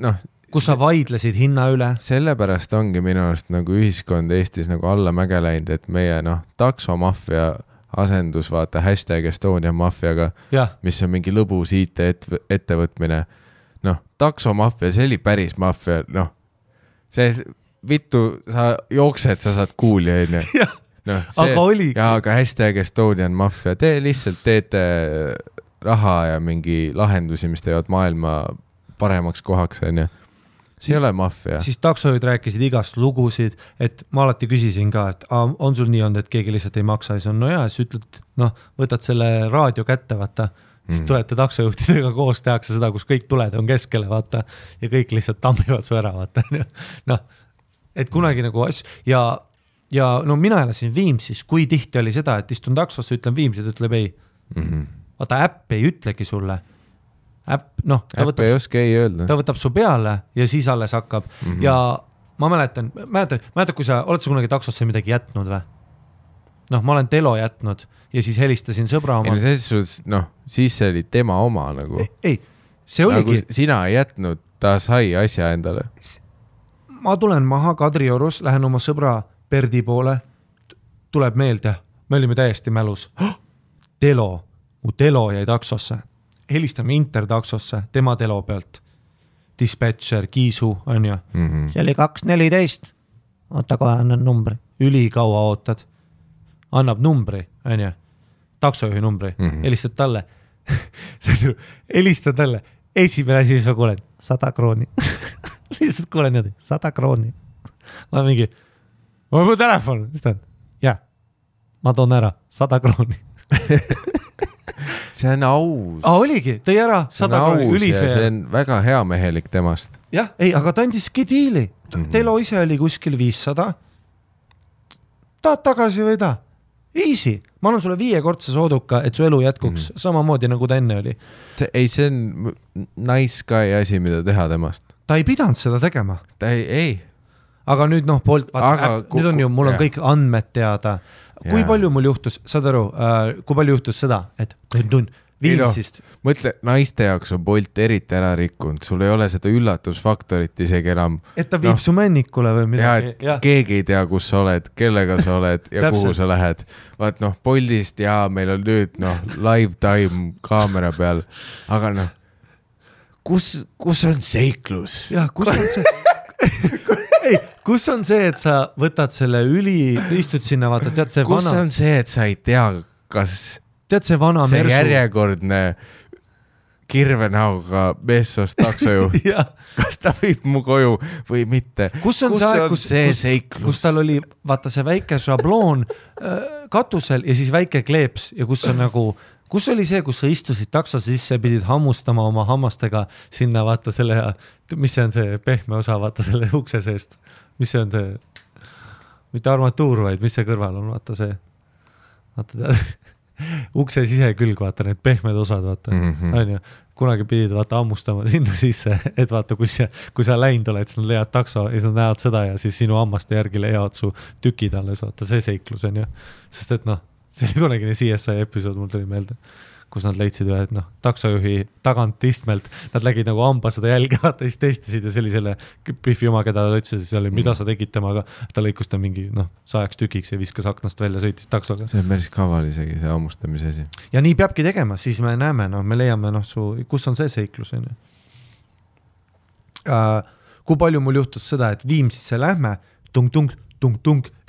kus sa vaidlesid hinna üle.
Sellepärast ongi minu arust nagu ühiskond Eestis nagu alla mäge läinud, et meie taksomafia asendus, vaata hashtag Estonian Mafiaga, mis on mingi lõbus IT-ettevõtmine. Noh, taksomafia, see oli päris mafia, noh, see vittu, sa jooksed, sa saad kuuli, onju. No,
aga oli.
Ja, aga hashtag Estonian Mafia, te lihtsalt teete raha ja mingi lahendusi, mis teevad maailma paremaks kohaks, onju. See ei ole mafia.
Siis taksojuhid rääkisid igast lugusid, et ma alati küsisin ka, et on sul nii olnud, et keegi lihtsalt ei maksa, siis on, no jaa, siis ütled, noh, võtad selle raadio kätte, vaata, siis tulete taksojuhtidega koos, tehakse seda, kus kõik tuled on keskele, vaata, ja kõik lihtsalt tammivad su ära, vaata, noh, et kunagi nagu asju, ja no mina elasin Viimsis, kui tihti oli seda, et istun taksosse, ütlen Viimsid, ütleb ei. Vaata, äpp ei ütlegi sulle. Äpp
ei oska ei öelda.
Ta võtab su peale ja siis alles hakkab. Ja ma mäletan, kui sa oled sa kunagi taksosse midagi jätnud või? Noh, ma olen telo jätnud ja siis helistasin sõbra oma.
Siis see oli tema oma nagu.
Ei, see oligi.
Nagu sina ei jätnud, ta sai asja endale.
Ma tulen maha Kadriorus, lähen oma sõbra Perdi poole, tuleb meelde, me olime täiesti mälus. Mu telo jäi taksosse. Helistame intertaksosse, tema telo pealt. Dispatcher, Kiisu, on ju. See oli 214. Oota kohe, annan numbri. Ülikaua ootad. Annab numbri, on ju. Taksojuhi numbri. Helistad talle. Helistad talle. Esimene asi, mis ma kuulen. 100 krooni. Lihtsalt kuulen niimoodi. 100 krooni. Ma mingi... mu telefon, jah, ma toon ära 100 krooni.
See on aus.
Oligi, tõi ära 100 krooni, ülifeer.
See on väga hea mehelik temast.
Jah, ei, aga ta andiski diili. Telo ise oli kuskil 500. Tahad tagasi või ta? Easy. Ma annan sulle 5-kordse sooduka, et su elu jätkuks samamoodi, nagu ta enne oli.
See on nice guy asi, mida teha temast.
Ta ei pidanud seda tegema.
Ta ei.
Aga nüüd nüüd on ju, mul on kõik andmed teada. Kui palju mul juhtus, saad aru, kui palju juhtus seda, et Viimsist.
Mõtle, naiste jaoks on Bolt eriti ära rikkunud, sul ei ole seda üllatusfaktorit isegi enam.
Et ta viib su männikule või midagi.
Keegi ei tea, kus sa oled, kellega sa oled ja kuhu sa lähed. Vaat Boltist meil on nüüd live time kaamera peal, aga kus on seiklus?
Jah, kus on see? Ei, kus on see, et sa võtad selle istud sinna, vaata, tead see
kus vana... on see, et sa ei tea, kas
tead see vana
see
Mersu
järjekordne kirvenauga meessost taksojuht, kas ta viib mu koju või mitte?
Kus on see
seiklus?
Kus tal oli, vaata see väike šabloon katusel ja siis väike kleeps ja kus on nagu kus oli see, kus sa istusid takso sisse, pidid hammustama oma hammastega sinna, vaata selle, mis see on see pehme osa, vaata selle ukse seest. Mis see on see, mitte armatuur, vaid mis see kõrval on, vaata see, vaata ukse sisekülg, vaata need pehmed osad, vaata, on ju. Kunagi pidid vaata hammustama sinna sisse, et vaata, kui sa läinud oled, siis nad leiad takso ja siis nad näevad seda ja siis sinu hammaste järgi leiavad su tükid alles, vaata see seiklus on ju. Sest et see oli kunagine CSI episood, mul tuli meelde, kus nad leidsid ühe, et taksojuhi tagant istmelt, nad lägid nagu hamba seda jälge, vaata, siis testisid ja see oli selle Biffi oma, keda ta ütles, see oli, mida sa tegid temaga, ta lõikus ta mingi 100 tükiks ja viskas aknast välja, sõitis taksoga.
See on päris kaval isegi, see hammustamise asi.
Ja nii peabki tegema, siis me näeme, me leiame, kus on see seiklus. Kui palju mul juhtus seda, et Viimsisse lähme, tung,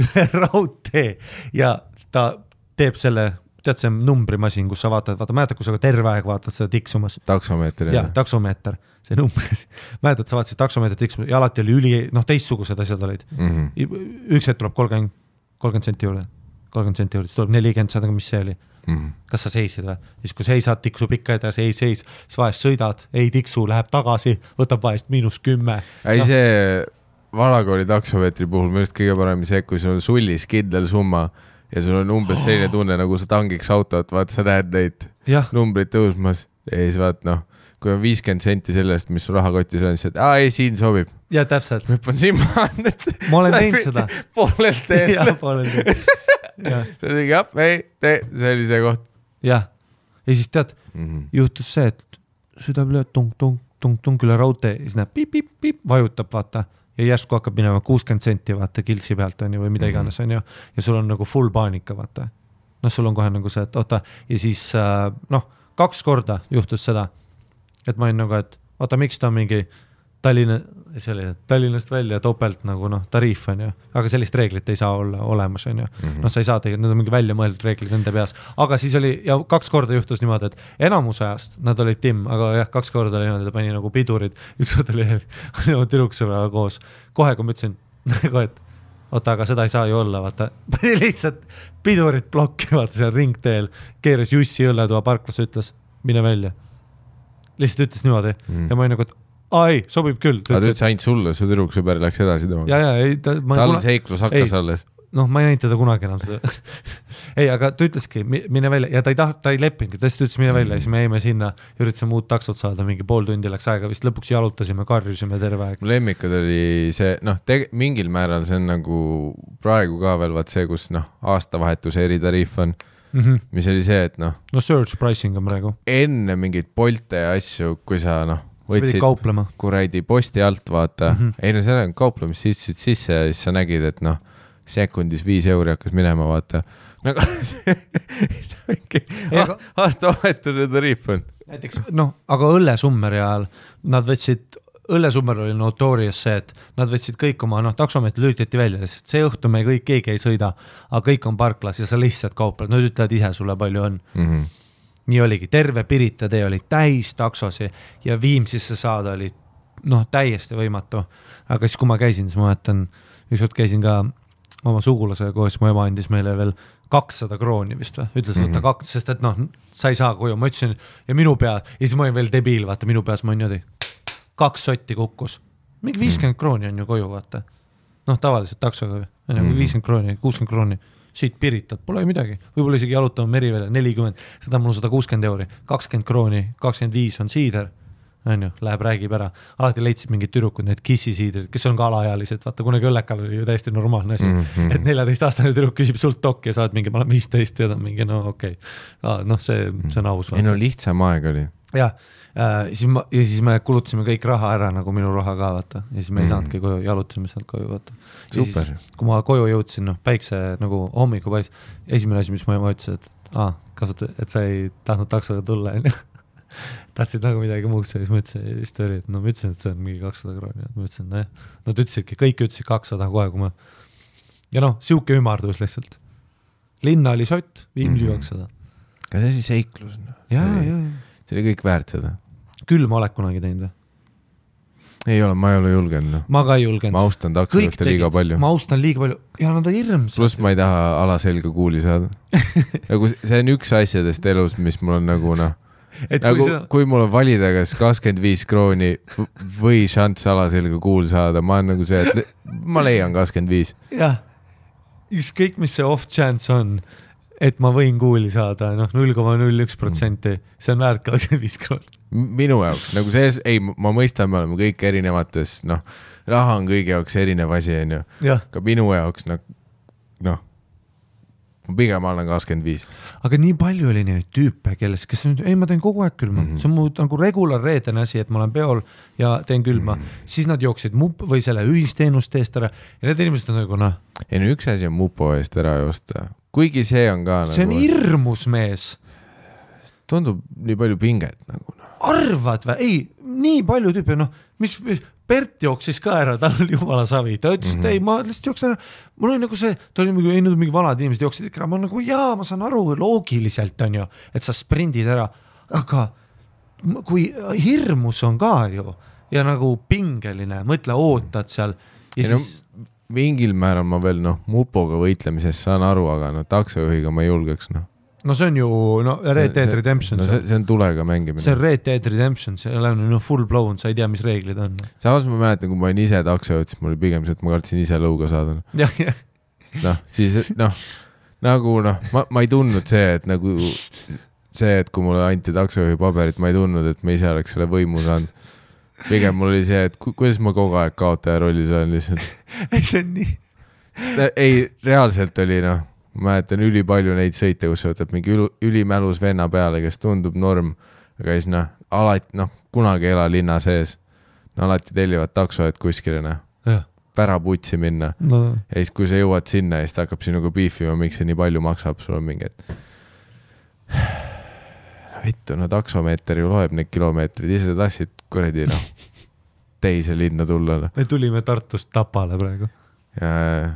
üle raudtee ja ta teeb selle, tead see numbrimasin, kus sa vaatad, mäletad, kus sa terve aeg vaatad seda tiksumas.
Taksomeeter.
Ja, taksomeeter, see numbris. Mäletad, sa vaatasid taksomeeter tiksumas ja alati oli teistsugused asjad olid. Üks hetk tuleb 30 senti juurde, siis tuleb 40, saad, mis see oli. Kas sa seisid või? Siis kui seisad, tiksub ikka edasi, ei seis, siis vahest sõidad, ei tiksu, läheb tagasi, võtab vahest -10.
Ei see valakooli taksomeetri puhul minu just kõige parem see, kui sul on sullis kindel summa ja sul on umbes selline tunne, nagu sa tangiks autot, vaata, sa näed neid numbrid tõusmas ja siis vaat, kui on 50 senti sellest, mis su rahakotis on, siis ei, siin sobib.
Ja täpselt.
Hüppan siin maha, et
ma olen teinud seda.
Poolelt teed.
Ja, poolelt teed.
See oli see oli see koht.
Jah. Ja siis tead, juhtus see, et süda üle tung üle raudtee, siis näeb piip, vajutab, vaata. Ja järsku hakkab minema 60 senti, vaata, kiltsi pealt on ju, või mida iganes on ju. Ja sul on nagu full paanika, vaata. noh, sul on kohe nagu see, et oota, ja siis 2 korda juhtus seda, et ma olin nagu, et oota, miks ta on mingi Tallinnast välja topelt nagu tariif on ju, aga sellist reeglit ei saa olla olemas on ju. Sa ei saa tegelikult, need on mingi välja mõeldud reeglid nende peas, aga siis oli ja 2 korda juhtus niimoodi, et enamus ajast nad olid timm, aga jah, 2 korda oli niimoodi, ta pani nagu pidurid, üks kord oli tüdruksõbraga koos, kohe kui ma ütlesin, et oota, aga seda ei saa ju olla, vaata, pani lihtsalt pidurid plokki, vaata seal ringteel, keeras Jussi õlletuva parklas, ütles, mine välja. Lihtsalt ütles niimoodi ja ma olin nagu, et ei, sobib küll.
Aga ta ütles ainult sulle, su tüdruksõber läks edasi temaga. Tal seiklus hakkas alles.
Ma ei näinud teda kunagi enam seda. Ei, aga ta ütleski, mine välja ja ta ei leppinud, ta ütles mine välja ja siis me jäime sinna, üritasime uut taksot saada, mingi pool tundi läks aega, vist lõpuks jalutasime, karjusime terve aeg.
Lemmikad oli see, mingil määral see on nagu praegu ka veel vaat see, kus aastavahetuse eritariif on, mis oli see, et
surge pricing on praegu.
Enne mingid Bolte ja asju, kui sa võtsid kuradi posti alt, vaata. Ei, see on kauplemis, sisse ja siis sa nägid, et sekundis 5 euri hakkas minema, vaata. Aastavahetuse tariif on.
Näiteks, aga õllesummeri ajal nad võtsid, õllesummer oli notorious see, et nad võtsid kõik oma, taksomeetri lülitati välja, sest see õhtu me kõik keegi ei sõida, aga kõik on parklas ja sa lihtsalt kaupled, nad ütlevad ise sulle palju on. Nii oligi, terve Pirita tee oli täis taksosi ja Viimsisse saada oli täiesti võimatu. Aga siis, kui ma käisin, siis ma mõtlen, ükskord käisin ka oma sugulasega koos, mu ema andis meile veel 200 krooni vist või, ütles võtta 2, sest et sa ei saa koju, ma ütlesin ja minu pea, ja siis ma olin veel debiil, vaata minu peas ma niimoodi 2 sotti kukkus, mingi 50 krooni on ju koju, vaata tavaliselt taksoga, 50 krooni, 60 krooni siit Piritat, pole midagi, võib-olla isegi jalutama Merivele 40, seda mul 160 euri, 20 krooni, 25 on siider, läheb räägib ära, alati leidsid mingid tüdrukud, need kissisiidrid, kes on ka alaealised, vaata kunagi õllekal oli ju täiesti normaalne asi, et 14-aastane tüdruk küsib sult tokki ja saad mingi, ma olen 15 ja ta on mingi, okei. See on aus.
Ei lihtsam aeg oli.
Ja siis me kulutasime kõik raha ära, nagu minu raha ka, vaata. Ja siis me ei saanudki koju, jalutasime sealt koju, vaata.
Super.
Siis, kui ma koju jõudsin, päikse nagu hommiku pais, esimene asi, mis ma ütlesin, et sa ei tahtnud taksoga tulla, tahtsid nagu midagi muud, siis ma ütlesin, et ma ütlesin, et see on mingi 200 krooni. Ma ütlesin, nad ütlesidki, kõik ütlesid 200 kohe, kui ma... Ja siuke ümardus lihtsalt. Linna oli sott, Viimsi 200.
Ja see oli seiklus.
Ja.
See oli kõik väärt seda.
Küll ma oled kunagi teinud.
Ei ole, ma ei ole julgenud.
Ma ka ei julgenud.
Ma austan taksojuhte liiga palju.
Ma austan liiga palju. Ja nad on hirmsad.
Plus ma ei taha alaselga kuuli saada. See on üks asjadest elus, mis mul on nagu kui mul on valida kas 25 krooni või šants alaselga kuul saada, ma on nagu see, et ma leian 25.
Jah, ükskõik mis see off chance on, et ma võin kuuli saada 0,01%, see on väärt 25 krooni.
Minu jaoks, nagu see, ei, ma mõistan, me oleme kõik erinevates, raha on kõigi jaoks erinev asi, ka minu jaoks, pigem annan 25.
Aga nii palju oli neid tüüpe, kes on, ei, ma teen kogu aeg külma. See on mu nagu regular reedene asi, et ma olen peol ja teen külma. Siis nad jooksid või selle ühisteenust eest ära ja need inimesed on nagu,
Ei, üks asi on mupo eest ära joosta. Kuigi see on ka
see on hirmus mees.
Tundub nii palju pinget nagu.
Arvad või? Ei, nii palju tüüpe, mis Bert jooksis ka ära, tal oli jumala savi. Ta ütles, et ei, ma lihtsalt jooksin ära. Mul oli nagu see, ta oli mingi vanad inimesed jooksid ikka ära. Ma nagu, ma saan aru loogiliselt on ju, et sa sprindid ära. Aga kui hirmus on ka ju ja nagu pingeline, mõtle, ootad seal. Ja siis...
Mingil määral ma veel mupoga võitlemisest saan aru, aga taksojuhiga ma ei julgeks.
See on ju Red Dead Redemption.
See on tulega mängimine.
See on Red Dead Redemption, see on full blown, sa ei tea, mis reeglid on.
Samas ma mäletan, kui ma olin ise taksojuht, siis mul oli pigem see, et ma kartsin ise lõuga saada. Siis nagu ma ei tundnud see, et nagu see, et kui mulle anti taksojuhi paberit, ma ei tundnud, et ma ise oleks selle võimu saanud. Pigem mul oli see, et kuidas ma kogu aeg kaotaja rollis olen lihtsalt.
See on nii.
Ei, reaalselt oli ma mäletan ülipalju neid sõite, kus sa võtad mingi ülimälus venna peale, kes tundub norm, aga siis alati, kunagi ei ela linna sees. Alati tellivad takso, et kuskile. päraputsi minna
no.
Ja siis kui sa jõuad sinna ja siis ta hakkab sinuga beefima, miks see nii palju maksab, sul on mingi, et vittu, no taksomeeter ju loeb need kilomeetrid, ise tahtsid kuradi teise linna tulla.
Me tulime Tartust Tapale praegu.
Ja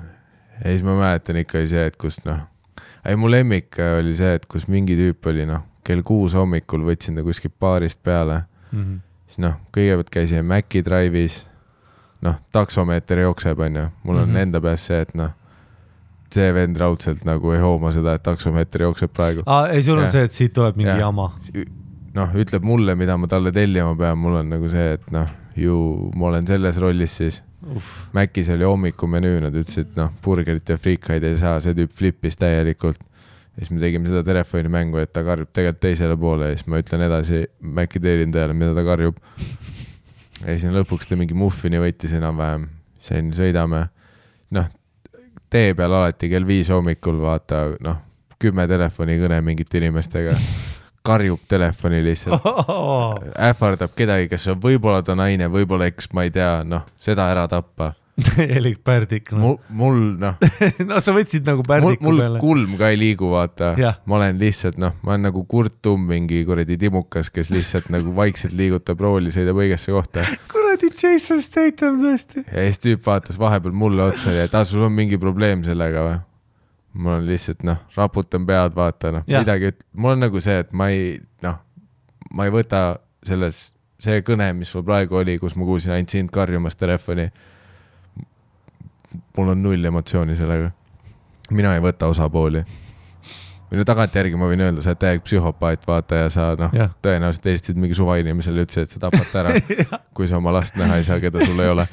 siis ma mäletan ikka see, et kus mu lemmik oli see, et kus mingi tüüp oli kell 6 hommikul võtsin ta kuskil baarist peale. Siis kõigepealt käisin Maci Drive'is, taksomeeter jookseb, mul on enda peas see, et see vend raudselt ei hooma seda, et taksomeeter jookseb praegu.
Ei, sul on see, et siit tuleb mingi jama.
Ütleb mulle, mida ma talle tellima pean, mul on see, et ma olen selles rollis siis. Macis oli hommikumenüü, nad ütlesid, burgerit ja friikaid ei saa, see tüüp flippis täielikult. Ja siis me tegime seda telefonimängu, et ta karjub tegelikult teisele poole ja siis ma ütlen edasi Maci teenindajale, mida ta karjub. Ja siis lõpuks ta mingi muffini võttis enam-vähem, sain sõidame. Tee peal alati kell 5 hommikul vaata, 10 telefonikõne mingite inimestega. Karjub telefoni lihtsalt. Ähvardab kedagi, kes on võib-olla ta naine, võib-olla eks, ma ei tea, seda ära tappa.
Elik pärdik.
Mul,
sa võtsid nagu pärdiku
peale.
Mul
kulm ka ei liigu, vaata. Ma olen lihtsalt, ma olen nagu Kurt Tumm, mingi kuradi timukas, kes lihtsalt nagu vaikselt liigutab rooli, sõidab õigesse kohta.
Kuradi Jason Statham tõesti.
Ja siis tüüp vaatas vahepeal mulle otsa ja sul on mingi probleem sellega või? Mul on lihtsalt, raputan pead, vaata, midagi, mul on nagu see, et ma ei võta see kõne, mis sul praegu oli, kus ma kuulsin ainult sind karjumas telefoni. Mul on 0 emotsiooni sellega. Mina ei võta osapooli. Või tagantjärgi ma võin öelda, sa oled täiega psühhopaat, vaata, ja sa tõenäoliselt eestisid mingi suva inimesele, ütlesid, et sa tapad ära, kui sa oma last näha ei saa, keda sul ei ole.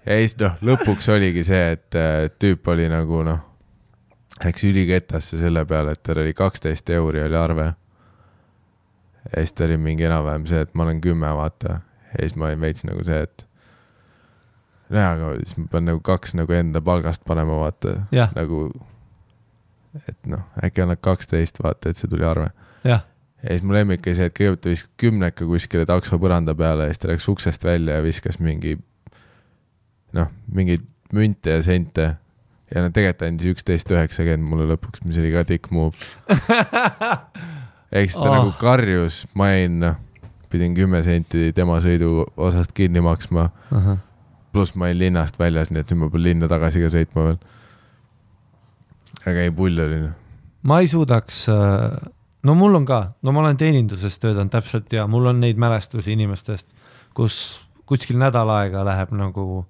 Ja siis lõpuks oligi see, et tüüp oli nagu läks üliketasse selle peale, et tal oli 12 euri oli arve. Ja siis ta oli mingi enam-vähem see, et ma olen 10, vaata. Ja siis ma veits nagu see, et aga siis ma pean nagu 2 nagu enda palgast panema, vaata. Nagu, et äkki annad 12, vaata, et see tuli arve. Ja siis mu lemmik oli see, et kõigepealt ta viskas 10 kuskile takso põranda peale ja siis ta läks uksest välja ja viskas mingi münte ja sente ja tegelikult andis 11.90 mulle lõpuks, mis oli ka tikk move. Eks ta nagu karjus, ma pidin 10 senti tema sõidu osast kinni maksma. Pluss ma olin linnast väljas, nii et nüüd ma pean linna tagasi ka sõitma veel. Aga ei pull oli.
Ma ei suudaks, mul on ka, ma olen teeninduses töötanud täpselt ja mul on neid mälestusi inimestest, kus kuskil nädal aega läheb nagu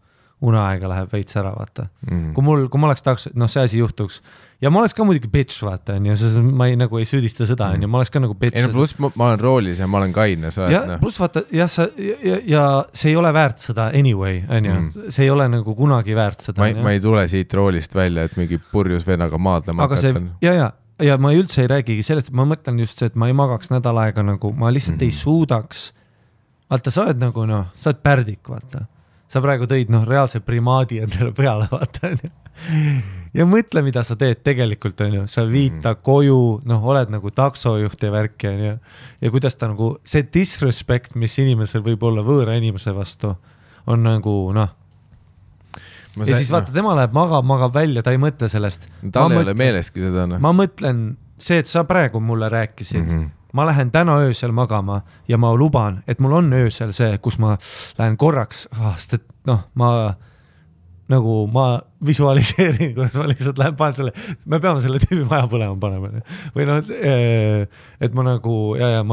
uneaega läheb veits ära, vaata. Kui ma oleks tahaks, see asi juhtuks. Ja ma oleks ka muidugi bitch, vaata, ma ei süüdista seda, ma oleks ka nagu bitch.
Ei, pluss ma olen roolis ja ma olen kaine.
Pluss vaata, ja see ei ole väärt seda anyway, see ei ole nagu kunagi väärt seda.
Ma ei tule siit roolist välja, et mingi purjus vennaga maadlema hakatan.
Ja ma üldse ei räägigi sellest, ma mõtlen just see, et ma ei magaks nädal aega nagu, ma lihtsalt ei suudaks. Vaata, sa oled nagu, sa oled pärdik, vaata. Sa praegu tõid reaalse primaadi endale peale, vaata. Ja mõtle, mida sa teed tegelikult, sa viita koju, oled nagu taksojuht ja värk ja kuidas ta nagu, see disrespect, mis inimesel võib olla võõra inimese vastu, on nagu, ja siis vaata, tema läheb magab välja, ta ei mõtle sellest.
Tal ei ole meeleski seda.
Ma mõtlen see, et sa praegu mulle rääkisid, ma lähen täna öösel magama ja ma luban, et mul on öösel see, kus ma lähen korraks, sest et ma visualiseerin, kuidas ma lihtsalt lähen panen selle, me peame selle tüübi maja põlema panema. Või et ma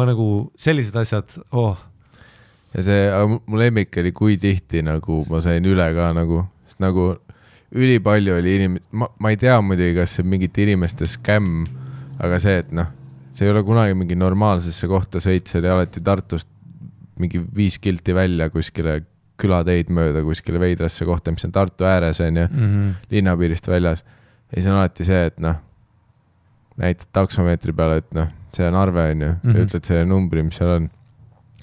nagu sellised asjad,
Ja see, mu lemmik oli kui tihti nagu ma sain üle ka sest nagu ülipalju oli ma ei tea muidugi, kas see mingite inimeste skämm, aga see, et see ei ole kunagi mingi normaalsesse kohta sõit, see oli alati Tartust mingi 5 kilti välja kuskile külateid mööda, kuskile veidrasse kohta, mis on Tartu ääres, linnapiirist väljas. Ja siis on alati see, et näitad taksomeetri peale, et see on arve, ja ütled selle numbri, mis seal on.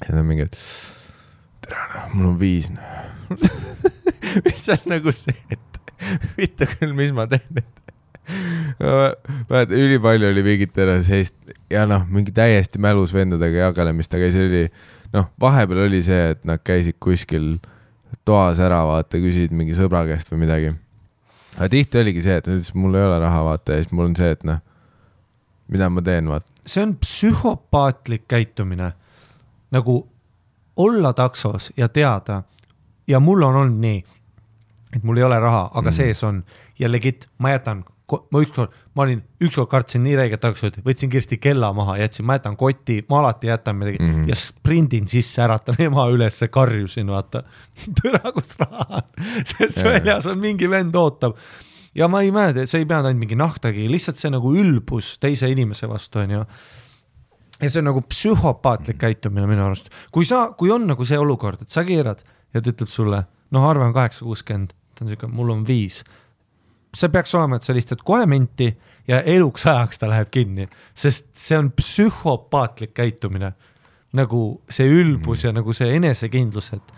Ja ta on mingi, et tere, mul on 5. Mis on nagu see, et vitta küll, mis ma teen, ülipalju oli mingit seist ja mingi täiesti mälus vendadega jagalemist, aga see oli vahepeal oli see, et nad käisid kuskil toas ära, vaata, küsid mingi sõbra käest või midagi. Aga tihti oligi see, et mul ei ole raha, vaata, ja siis mul on see, et noh, mida ma teen, vaata.
See on psühhopaatlik käitumine. Nagu olla taksos ja teada. Ja mul on olnud nii, et mul ei ole raha, aga sees on. Ja legit, ma olin ükskord kartsin nii räiget taksot, võtsin kirsti kella maha, ma jätan kotti, ma alati jätan midagi ja sprindin sisse, äratan ema üles, karjusin, vaata, tõra, kus raha on, sest väljas on mingi vend ootab. Ja ma ei mäleta, see ei pea ainult mingi nahtagi, lihtsalt see nagu ülbus teise inimese vastu on ju. Ja see on nagu psühhopaatlik käitumine minu arust. Kui on nagu see olukord, et sa keerad ja ta ütleb sulle, arve on 860, ta on siuke, mul on 5. See peaks olema, et sa lihtsalt kohe minti ja eluks ajaks ta läheb kinni, sest see on psühhopaatlik käitumine. Nagu see ülbus ja nagu see enesekindlus, et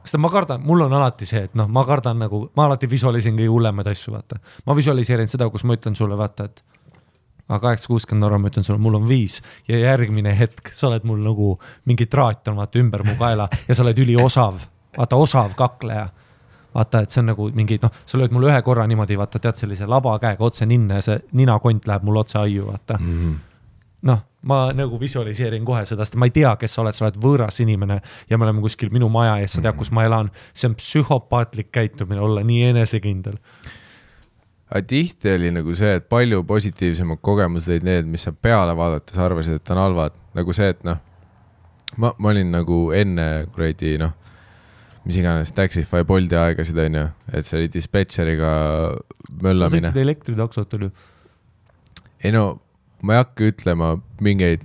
sest ma kardan, mul on alati see, et ma kardan nagu, ma alati visualisin kõige hullemaid asju, vaata. Ma visualiseerin seda, kus ma ütlen sulle, vaata, et 860 € ma ütlen sulle, mul on 5 ja järgmine hetk sa oled mul nagu mingi traat on vaata ümber mu kaela ja sa oled üliosav, vaata osav kakleja. Vaata, et see on nagu mingi, sa lööd mul ühe korra niimoodi, vaata, tead sellise laba käega otse ninna ja see ninakont läheb mul otse aiu, vaata. Ma nagu visualiseerin kohe seda, sest ma ei tea, kes sa oled võõras inimene ja me oleme kuskil minu maja ees, sa tead, kus ma elan. See on psühhopaatlik käitumine olla nii enesekindel.
Aga tihti oli nagu see, et palju positiivsemad kogemused olid need, mis sa peale vaadates arvasid, et on halvad. Nagu see, et ma olin nagu enne kuradi, mis iganes Taxify Bolti aegasid on ju, et see oli dispetšeriga möllamine.
Sa sõitsid elektritaksot oli?
Ei ma ei hakka ütlema mingeid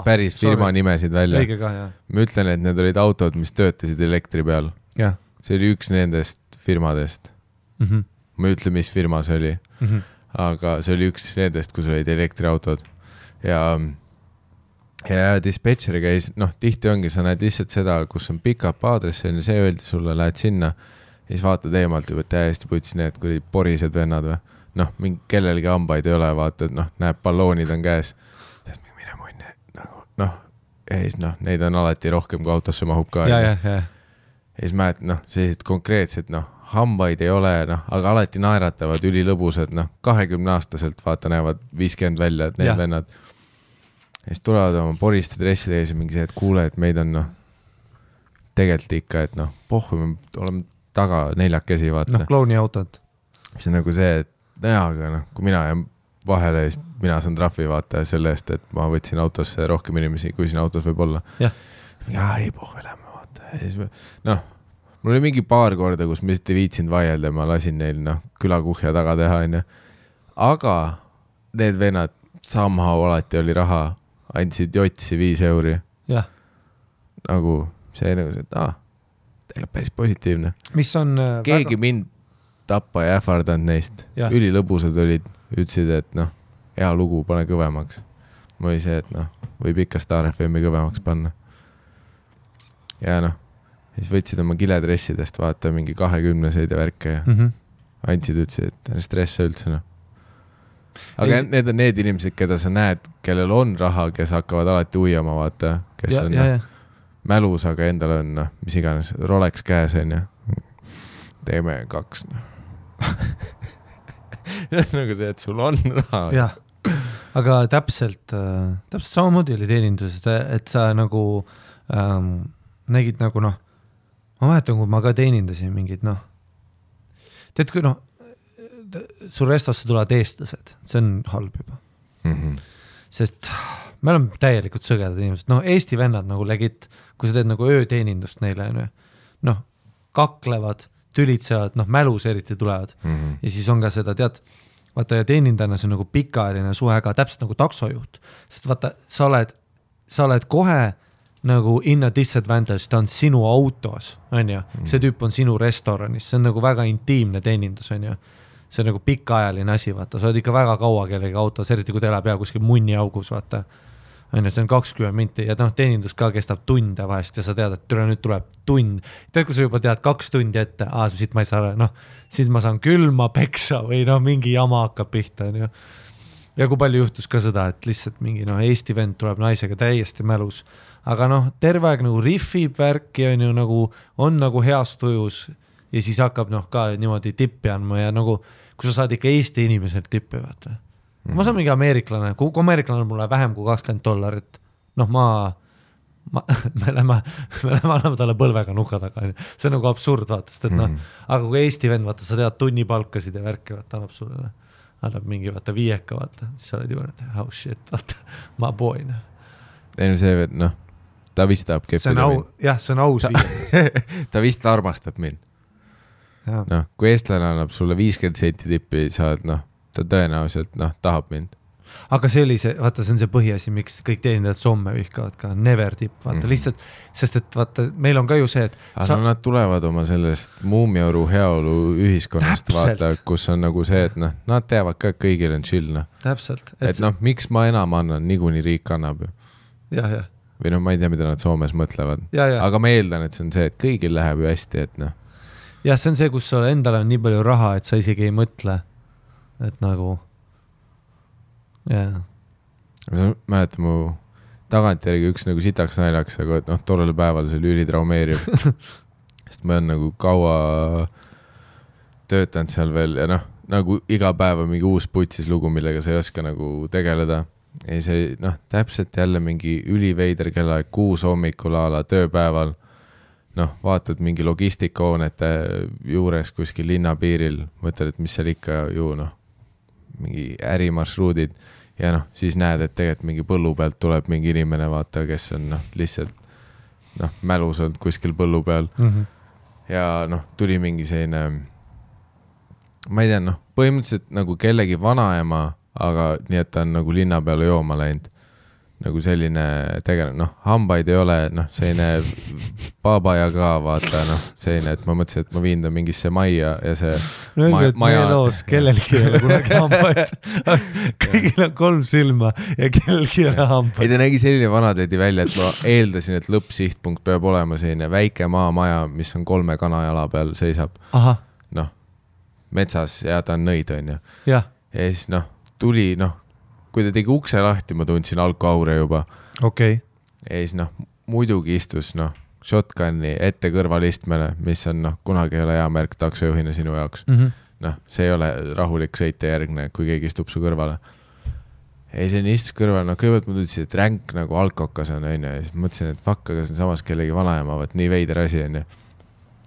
päris firma nimesid välja.
Õige ka, jah.
Ma ütlen, et need olid autod, mis töötasid elektri peal.
Ja.
See oli üks nendest firmadest. Ma ei ütle, mis firma see oli. Aga see oli üks nendest, kus olid elektriautod. Ja dispetšeri käis, tihti ongi, sa näed lihtsalt seda, kus on pick-up aadress, see öeldi sulle, lähed sinna ja siis vaatad eemalt juba täiesti putsi need, kui porised vennad või. Mingi kellelgi hambaid ei ole, vaatad, näeb balloonid on käes. Mine munni, ja siis neid on alati rohkem, kui autosse mahub ka.
Ja
siis mäed, sellised konkreetsed, hambaid ei ole, aga alati naeratavad, ülilõbusad, 20-aastaselt vaata näevad 50 välja, et need vennad. Ja siis tulevad oma poriste dresside ees ja mingi see, et kuule, et meid on tegelikult ikka, et pohhu, me oleme taga 4 käsi, vaata.
Klouni autod.
See on nagu see, et aga kui mina jään vahele, siis mina saan trahvi vaata selle eest, et ma võtsin autosse rohkem inimesi, kui siin autos võib olla. Ei pohhu, lähme vaata. Ja siis mul oli mingi paar korda, kus ma lihtsalt ei viitsinud vaielda ja ma lasin neil külakuhja taga teha. Aga need vennad somehow alati oli raha, andsid jotsi 5 €. Nagu see nagu see, et tegelikult päris positiivne.
Mis on
keegi mind tappa ja ähvardanud neist. Ülilõbusad olid, ütlesid, et hea lugu, pane kõvemaks. Ma oli see, et võib ikka Star FM-i kõvemaks panna. Ja siis võtsid oma kiledressidest vaata mingi 20-seid ja värke ja andsid, ütlesid, et stressa üldse. Aga need on need inimesed, keda sa näed, kellel on raha, kes hakkavad alati uiama, vaata, kes on mälus, aga endal on, mis iganes, Rolex käes on ja teeme 2. Nagu see, et sul on raha.
Jah, aga täpselt samamoodi oli teeninduses, et sa nagu nägid nagu ma mäletan, kui ma ka teenindasin mingid tead, kui sul restosse tulevad eestlased, see on halb juba. Sest me oleme täielikult sõgedad inimesed. Eesti vennad nagu legit, kui sa teed nagu ööteenindust neile, kaklevad, tülitsevad, mälus eriti tulevad. Ja siis on ka seda, tead, vaata ja teenindajana see on nagu pikaajaline suhe ka, täpselt nagu taksojuht. Sest vaata, sa oled kohe nagu in a disadvantage, ta on sinu autos, on ju. See tüüp on sinu restoranis, see on nagu väga intiimne teenindus, on ju. See on nagu pikaajaline asi, vaata, sa oled ikka väga kaua kellegi autos, eriti kui teile pea kuskil munni augus, vaata. See on 20 minti ja teenindus ka kestab tunde vahest ja sa tead, et nüüd tuleb tund. Tead, kui sa juba tead 2 tundi ette, siit ma ei saa, siit ma saan külma peksa või mingi jama hakkab pihta. Ja kui palju juhtus ka seda, et lihtsalt mingi Eesti vend tuleb naisega täiesti mälus, aga noh, terve aeg nagu riffib värki on nagu heas tujus ja siis hakkab noh ka niimoodi tippi andma ja nagu, kui sa saad ikka Eesti inimeselt tippi, vaata. Ma saan mingi ameeriklane, kui ameeriklane mulle vähem kui $20, noh me lähme anname talle põlvega nuka taga, see on nagu absurd, vaata, sest et noh, aga kui Eesti vend, vaata, sa tead tunnipalkasid ja värki, vaata, annab mingi, vaata, 5, vaata, siis sa oled juba, oh shit, vaata, ma poin.
Ei no see, noh, ta vist tahab keppida mind.
Jah, see on aus viie.
Ta vist armastab mind. Noh, kui eestlane annab sulle 50 senti tippi, saad, noh, ta tõenäoliselt, noh, tahab mind.
Aga see oli see, vaata, see on see põhiasi, miks kõik teenindajad somme vihkavad ka, never tip, vaata, lihtsalt, sest et vaata, meil on ka ju see, et
aga nad tulevad oma sellest Muumiauru heaolu ühiskonnast, vaata, kus on nagu see, et noh, nad teavad ka, kõigil on chill, noh.
Täpselt.
Et noh, miks ma enam annan, niikuinii riik annab ju.
Jah.
Või noh, ma ei tea, mida nad Soomes mõtlevad. Aga ma eeldan, et see on see, et kõigil läheb ju hästi, et noh.
Jah, see on see, kus sul endal on nii palju raha, et sa isegi ei mõtle, et nagu
sa mäletad mu tagantjärgi üks nagu sitaks naljaks, aga noh, tollel päeval see oli ülitraumeeriv. Sest ma olen nagu kaua töötanud seal veel ja noh, nagu iga päev on mingi uus putsis lugu, millega sa ei oska nagu tegeleda. Ja see, noh, täpselt jälle mingi üliveider kellaeg 6 hommikul ala tööpäeval. Noh, vaatad mingi logistikahoonete juures kuskil linnapiiril, mõtled, et mis seal ikka ju, noh, mingi ärimarsruudid ja noh, siis näed, et tegelikult mingi põllu pealt tuleb mingi inimene, vaata, kes on noh, lihtsalt noh, mälus olnud kuskil põllu peal ja noh, tuli mingi selline ma ei tea, noh, põhimõtteliselt nagu kellegi vanaema, aga nii, et ta on nagu linna peale jooma läinud nagu selline tegelane, noh, hambaid ei ole, noh, selline babaja ka, vaata, noh, selline, et ma mõtlesin, et ma viin ta mingisse majja ja see
maja loos, kellelgi ei ole kunagi hambaid. Kõigil on 3 silma ja kellelgi ei ole hambaid.
Ei, ta nägi selline vanatädi välja, et ma eeldasin, et lõppsihtpunkt peab olema selline väike maamaja, mis on 3 kanajala peal seisab. Noh, metsas ja ta on nõid, on ju. Ja siis, noh, tuli, noh, kui ta tegi ukse lahti, ma tundsin alkoaure juba.
Okay.
Ja siis, noh, muidugi istus, noh, shotgunni ette kõrvalistmele, mis on, noh, kunagi ei ole hea märk taksojuhina sinu jaoks. Noh, see ei ole rahulik sõite järgne, kui keegi istub su kõrvale. Ja siis on istus kõrval, noh, kõigepealt ma tundsin, et ränk nagu alkokas on, on ju. Ja siis mõtlesin, et fuck, aga see on samas kellegi vanaema, vaat nii veider asi on ju.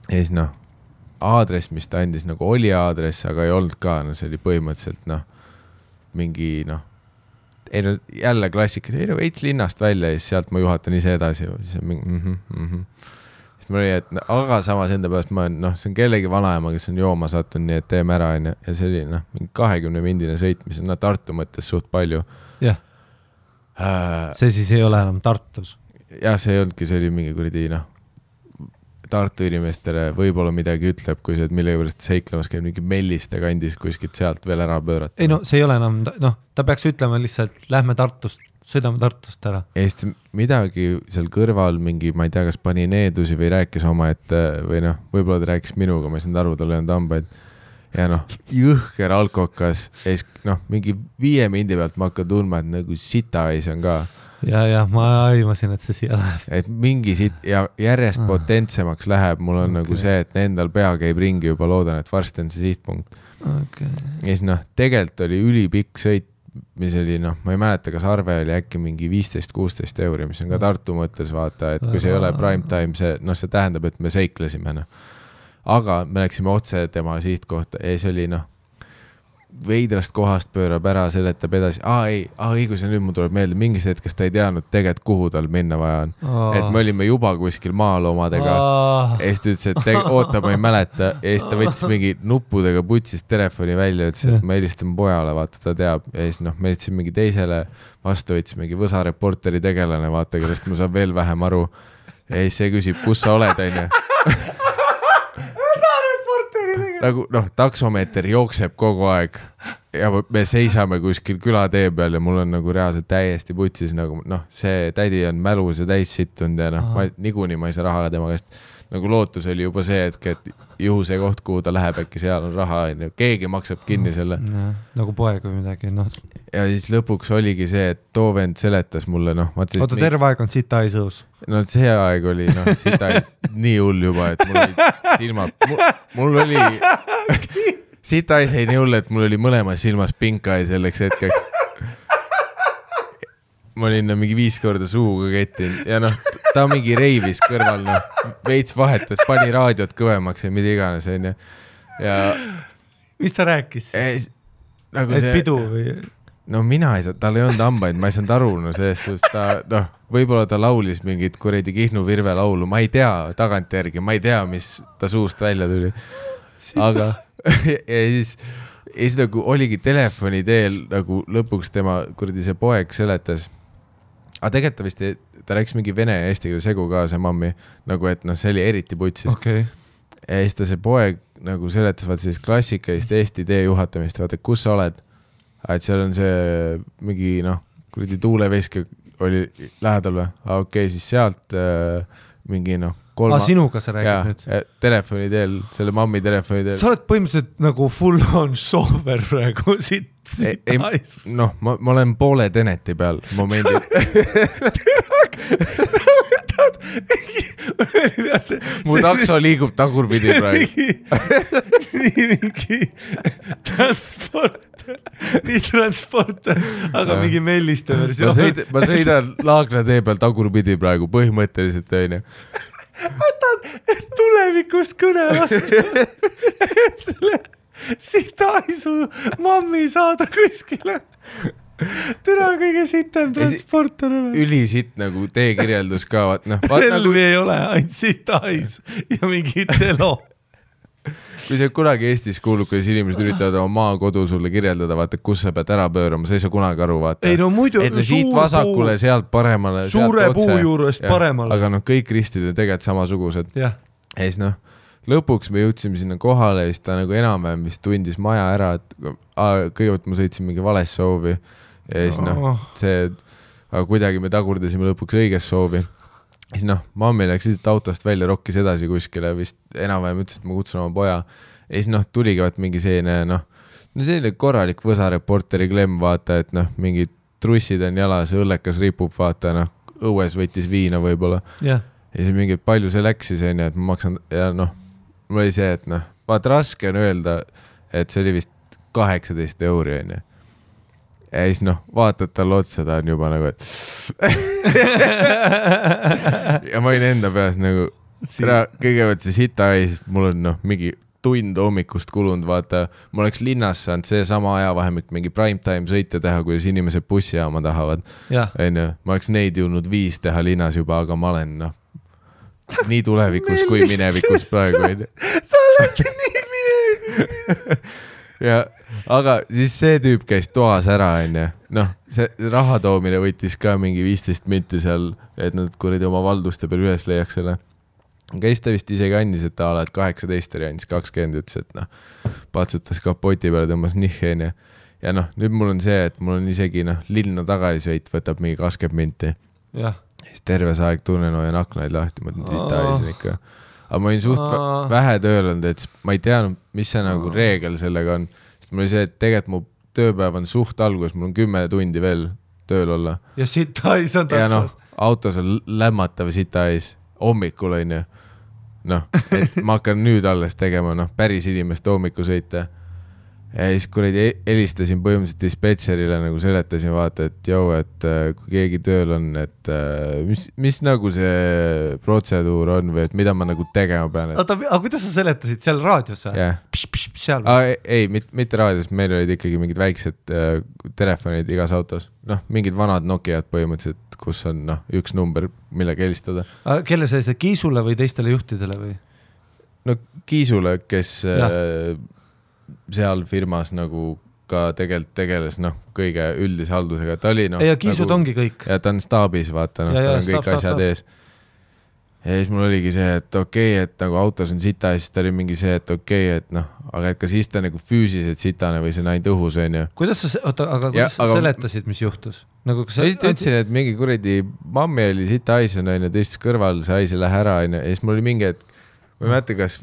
Ja siis, noh, aadress, mis ta andis, nagu oli aadress, aga ei olnud ka, no see oli põhimõtteliselt, noh, mingi, noh, ei no jälle klassika, ei no veits linnast välja ja siis sealt ma juhatan ise edasi. Siis on mingi, Siis ma oli, et aga samas enda pärast ma olen, noh, see on kellegi vanaema, kes on jooma sattunud, nii et teeme ära ja see oli, noh, mingi 20-mindine sõit, mis on Tartu mõttes suht palju.
Jah. See siis ei ole enam Tartus.
Jah, see ei olnudki, see oli mingi kuradi, noh, Tartu inimestele võib-olla midagi ütleb, kui see, et millega pärast seiklemas käib mingi Melliste kandis kuskilt sealt veel ära pöörata.
Ei no, see ei ole enam, noh, ta peaks ütlema lihtsalt, lähme Tartust, sõidame Tartust ära.
Eest midagi seal kõrval mingi, ma ei tea, kas pani needusi või rääkis oma, et või noh, võib-olla ta rääkis minuga, ma ei saanud aru, tal ei olnud hambaid. Ja noh, jõhker alkokas, ees, noh, mingi 5 mindi pealt ma hakkan tundma, et nagu sitaais on ka.
Ja ma aimasin, et see siia läheb.
Et mingi ja järjest potentsemaks läheb, mul on nagu see, et endal pea käib ringi juba, loodan, et varsti on see sihtpunkt. Ja siis noh, tegelikult oli ülipikk sõit, mis oli, noh, ma ei mäleta, kas arve oli äkki mingi 15-16 €, mis on ka Tartu mõttes, vaata, et kui see ei ole prime time, see, noh, see tähendab, et me seiklesime, noh. Aga me läksime otse tema sihtkohta ja see oli, noh, veidrast kohast pöörab ära, seletab edasi. Ei, kui see nüüd mul tuleb meelde, mingis hetkest ta ei teadnud tegelikult, kuhu tal minna vaja on. Et me olime juba kuskil maaloomadega. Ja siis ta ütles, et oota, ma ei mäleta. Ja siis ta võttis mingi nuppudega putsist telefoni välja, ütles, et ma helistame pojale, vaata, ta teab. Ja siis, noh, me helistame mingi teisele vastu, võttis mingi Võsa reporteri tegelane, vaata, kellest ma saan veel vähem aru. Ja siis see küsib, kus sa oled, on ju. Nagu, noh, taksomeeter jookseb kogu aeg ja me seisame kuskil külatee peal ja mul on nagu reaalselt täiesti putsis, nagu, noh, see tädi on mälus ja täis sittunud ja noh, niikuinii ma ei saa raha tema käest. nagu lootus oli juba see hetk, et juhu see koht, kuhu ta läheb, äkki seal on raha, keegi maksab kinni selle.
Nagu poeg või midagi, noh.
Ja siis lõpuks oligi see, et too vend seletas mulle, noh.
Oota, terve aeg on sita ees õus.
No see aeg oli, noh, sita ees nii hull juba, et mul olid silmad, mul oli, sita ees ei nii hull, et mul oli mõlemas silmas pinka ja selleks hetkeks. Ma olin mingi 5 korda suuga kettin ja noh, ta mingi reivis kõrval, noh, veits vahetas, pani raadiot kõvemaks ja mida iganes, onju. Ja
mis ta rääkis?
Nagu
et pidu või?
No mina ei saa, tal ei olnud hambaid, ma ei saanud aru, no selles suhtes ta, noh, võib-olla ta laulis mingit kuredi Kihnu Virve laulu, ma ei tea tagantjärgi, ma ei tea, mis ta suust välja tuli. Aga ja siis nagu oligi telefoni teel nagu lõpuks tema kuradi see poeg seletas. Aga tegelikult vist ta rääkis mingi vene ja eesti keele segu ka see mammi, nagu et noh, see oli eriti putsis.
Okay.
Ja siis ta see poeg nagu seletas vaata sellist klassikalist Eesti tee juhatamist, vaata, kus sa oled. Et seal on see mingi noh, kuradi tuuleveske oli lähedal või? Okei, siis sealt mingi noh,
sinuga sa räägid nüüd?
Telefoni teel, selle mammi telefoni teel.
Sa oled põhimõtteliselt nagu full on sober praegu siit haisus.
Noh, ma olen poole Teneti peal momendil. Mu takso liigub tagurpidi praegu.
Nii mingi transporter, aga mingi melliste versioon.
Ma sõidan Laagna tee peal tagurpidi praegu, põhimõtteliselt õine.
Võtad tulevikust kõne vastu, et selle sitaisu mammi saada kuskile. Türa kõige sitem transporter.
Ülisitt nagu teekirjeldus ka.
Relvi nagu ei ole, ainult sitais ja mingi telo.
Kui see kunagi Eestis kuulub, kuidas inimesed üritavad oma maakodu sulle kirjeldada, vaata, kus sa pead ära pöörama, sa ei saa kunagi aru, vaata.
Ei no muidu,
et siit vasakule, sealt paremale,
suure puu juurest paremale.
Aga noh, kõik ristid on tegelikult samasugused.
Ja
siis noh, lõpuks me jõudsime sinna kohale ja siis ta nagu enam-vähem vist tundis maja ära, et kõigepealt ma sõitsin mingi vales soovi ja siis noh, aga kuidagi me tagurdasime lõpuks õiges soovi. Siis noh, mammi läks lihtsalt autost välja, rokkis edasi kuskile, vist enam-vähem ütles, et ma kutsun oma poja. Ja siis noh, tuligi vaat mingi selline korralik võsareporteri klemm, vaata, et noh, mingid trussid on jalas, õllekas ripub, vaata, noh, õues võttis viina võib-olla.
Yeah.
Ja siis mingi, palju see läks siis, et ma maksan, ja noh, mul oli see, et noh, vaata raske on öelda, et see oli vist 18 €, on. Ja siis noh, vaatad tal otsa, ta on juba nagu, et ja ma olin enda peas nagu, kõigepealt see sita ees, mul on noh, mingi tund hommikust kulunud, vaata, ma oleks linnas saanud see sama ajavahemik mingi primetime sõite teha, kuidas inimesed bussijaama tahavad. Ma oleks neid jõudnud 5 teha linnas juba, aga ma olen noh, nii tulevikus kui minevikus praegu.
Sa oledki nii minevikus.
Ja, aga siis see tüüp käis toas ära, noh, see raha toomine võttis ka mingi 15 minti seal, et nad kuradi oma valduste peal üles leiaks selle. Käis ta vist isegi andis, et ta oled 18 ja andis 20, ütles, et noh, patsutas kapoti peale, tõmbas nihhe, ja noh, nüüd mul on see, et mul on isegi noh, linna tagasisõit võtab mingi 20 minti.
Ja.
Siis terve see aeg tunnen hoian aknaid lahti, ma mõtlen, sita ees ikka. Aga ma olin suht vähe tööl olnud, et ma ei teadnud, mis see nagu reegel sellega on. Sest mul oli see, et tegelikult mu tööpäev on suht algus, mul on 10 tundi veel tööl olla.
Ja sita ees on taksas.
Ja noh, autos on lämmatav sita ees, hommikul on ju. Noh, et ma hakkan nüüd alles tegema, noh, päris inimeste hommiku sõita. Ja siis kuradi helistasin põhimõtteliselt dispetšerile, nagu seletasin vaata, et joo, et kui keegi tööl on, et mis nagu see protseduur on või et mida ma nagu tegema pean.
Oota, aga kuidas sa seletasid seal raadios?
Yeah.
Seal?
Ei, mitte raadios, meil olid ikkagi mingid väiksed telefonid igas autos. Noh, mingid vanad Nokiad põhimõtteliselt, kus on noh, üks number, millega helistada.
Kelle see Kiisule või teistele juhtidele või?
No Kiisule, kes seal firmas nagu ka tegelikult tegeles noh, kõige üldise haldusega. Ta oli noh,
ja Kiisud nagu, ongi kõik.
Ja ta on staabis, vaata, noh, ta on kõik asjad ees. Ja siis mul oligi see, et okei, et nagu autos on sita ja siis ta oli mingi see, et okei, et noh, aga et ka siis ta nagu füüsiliselt sitane või see näin tõhus, on ju.
Kuidas sa seletasid, mis juhtus? Nagu,
ma siis ütlesin, et mingi kuradi mammi oli sita ais on, teistes kõrval, see ais ei lähe ära, on ju. Ja siis mul oli mingi, et ma ei mäleta, kas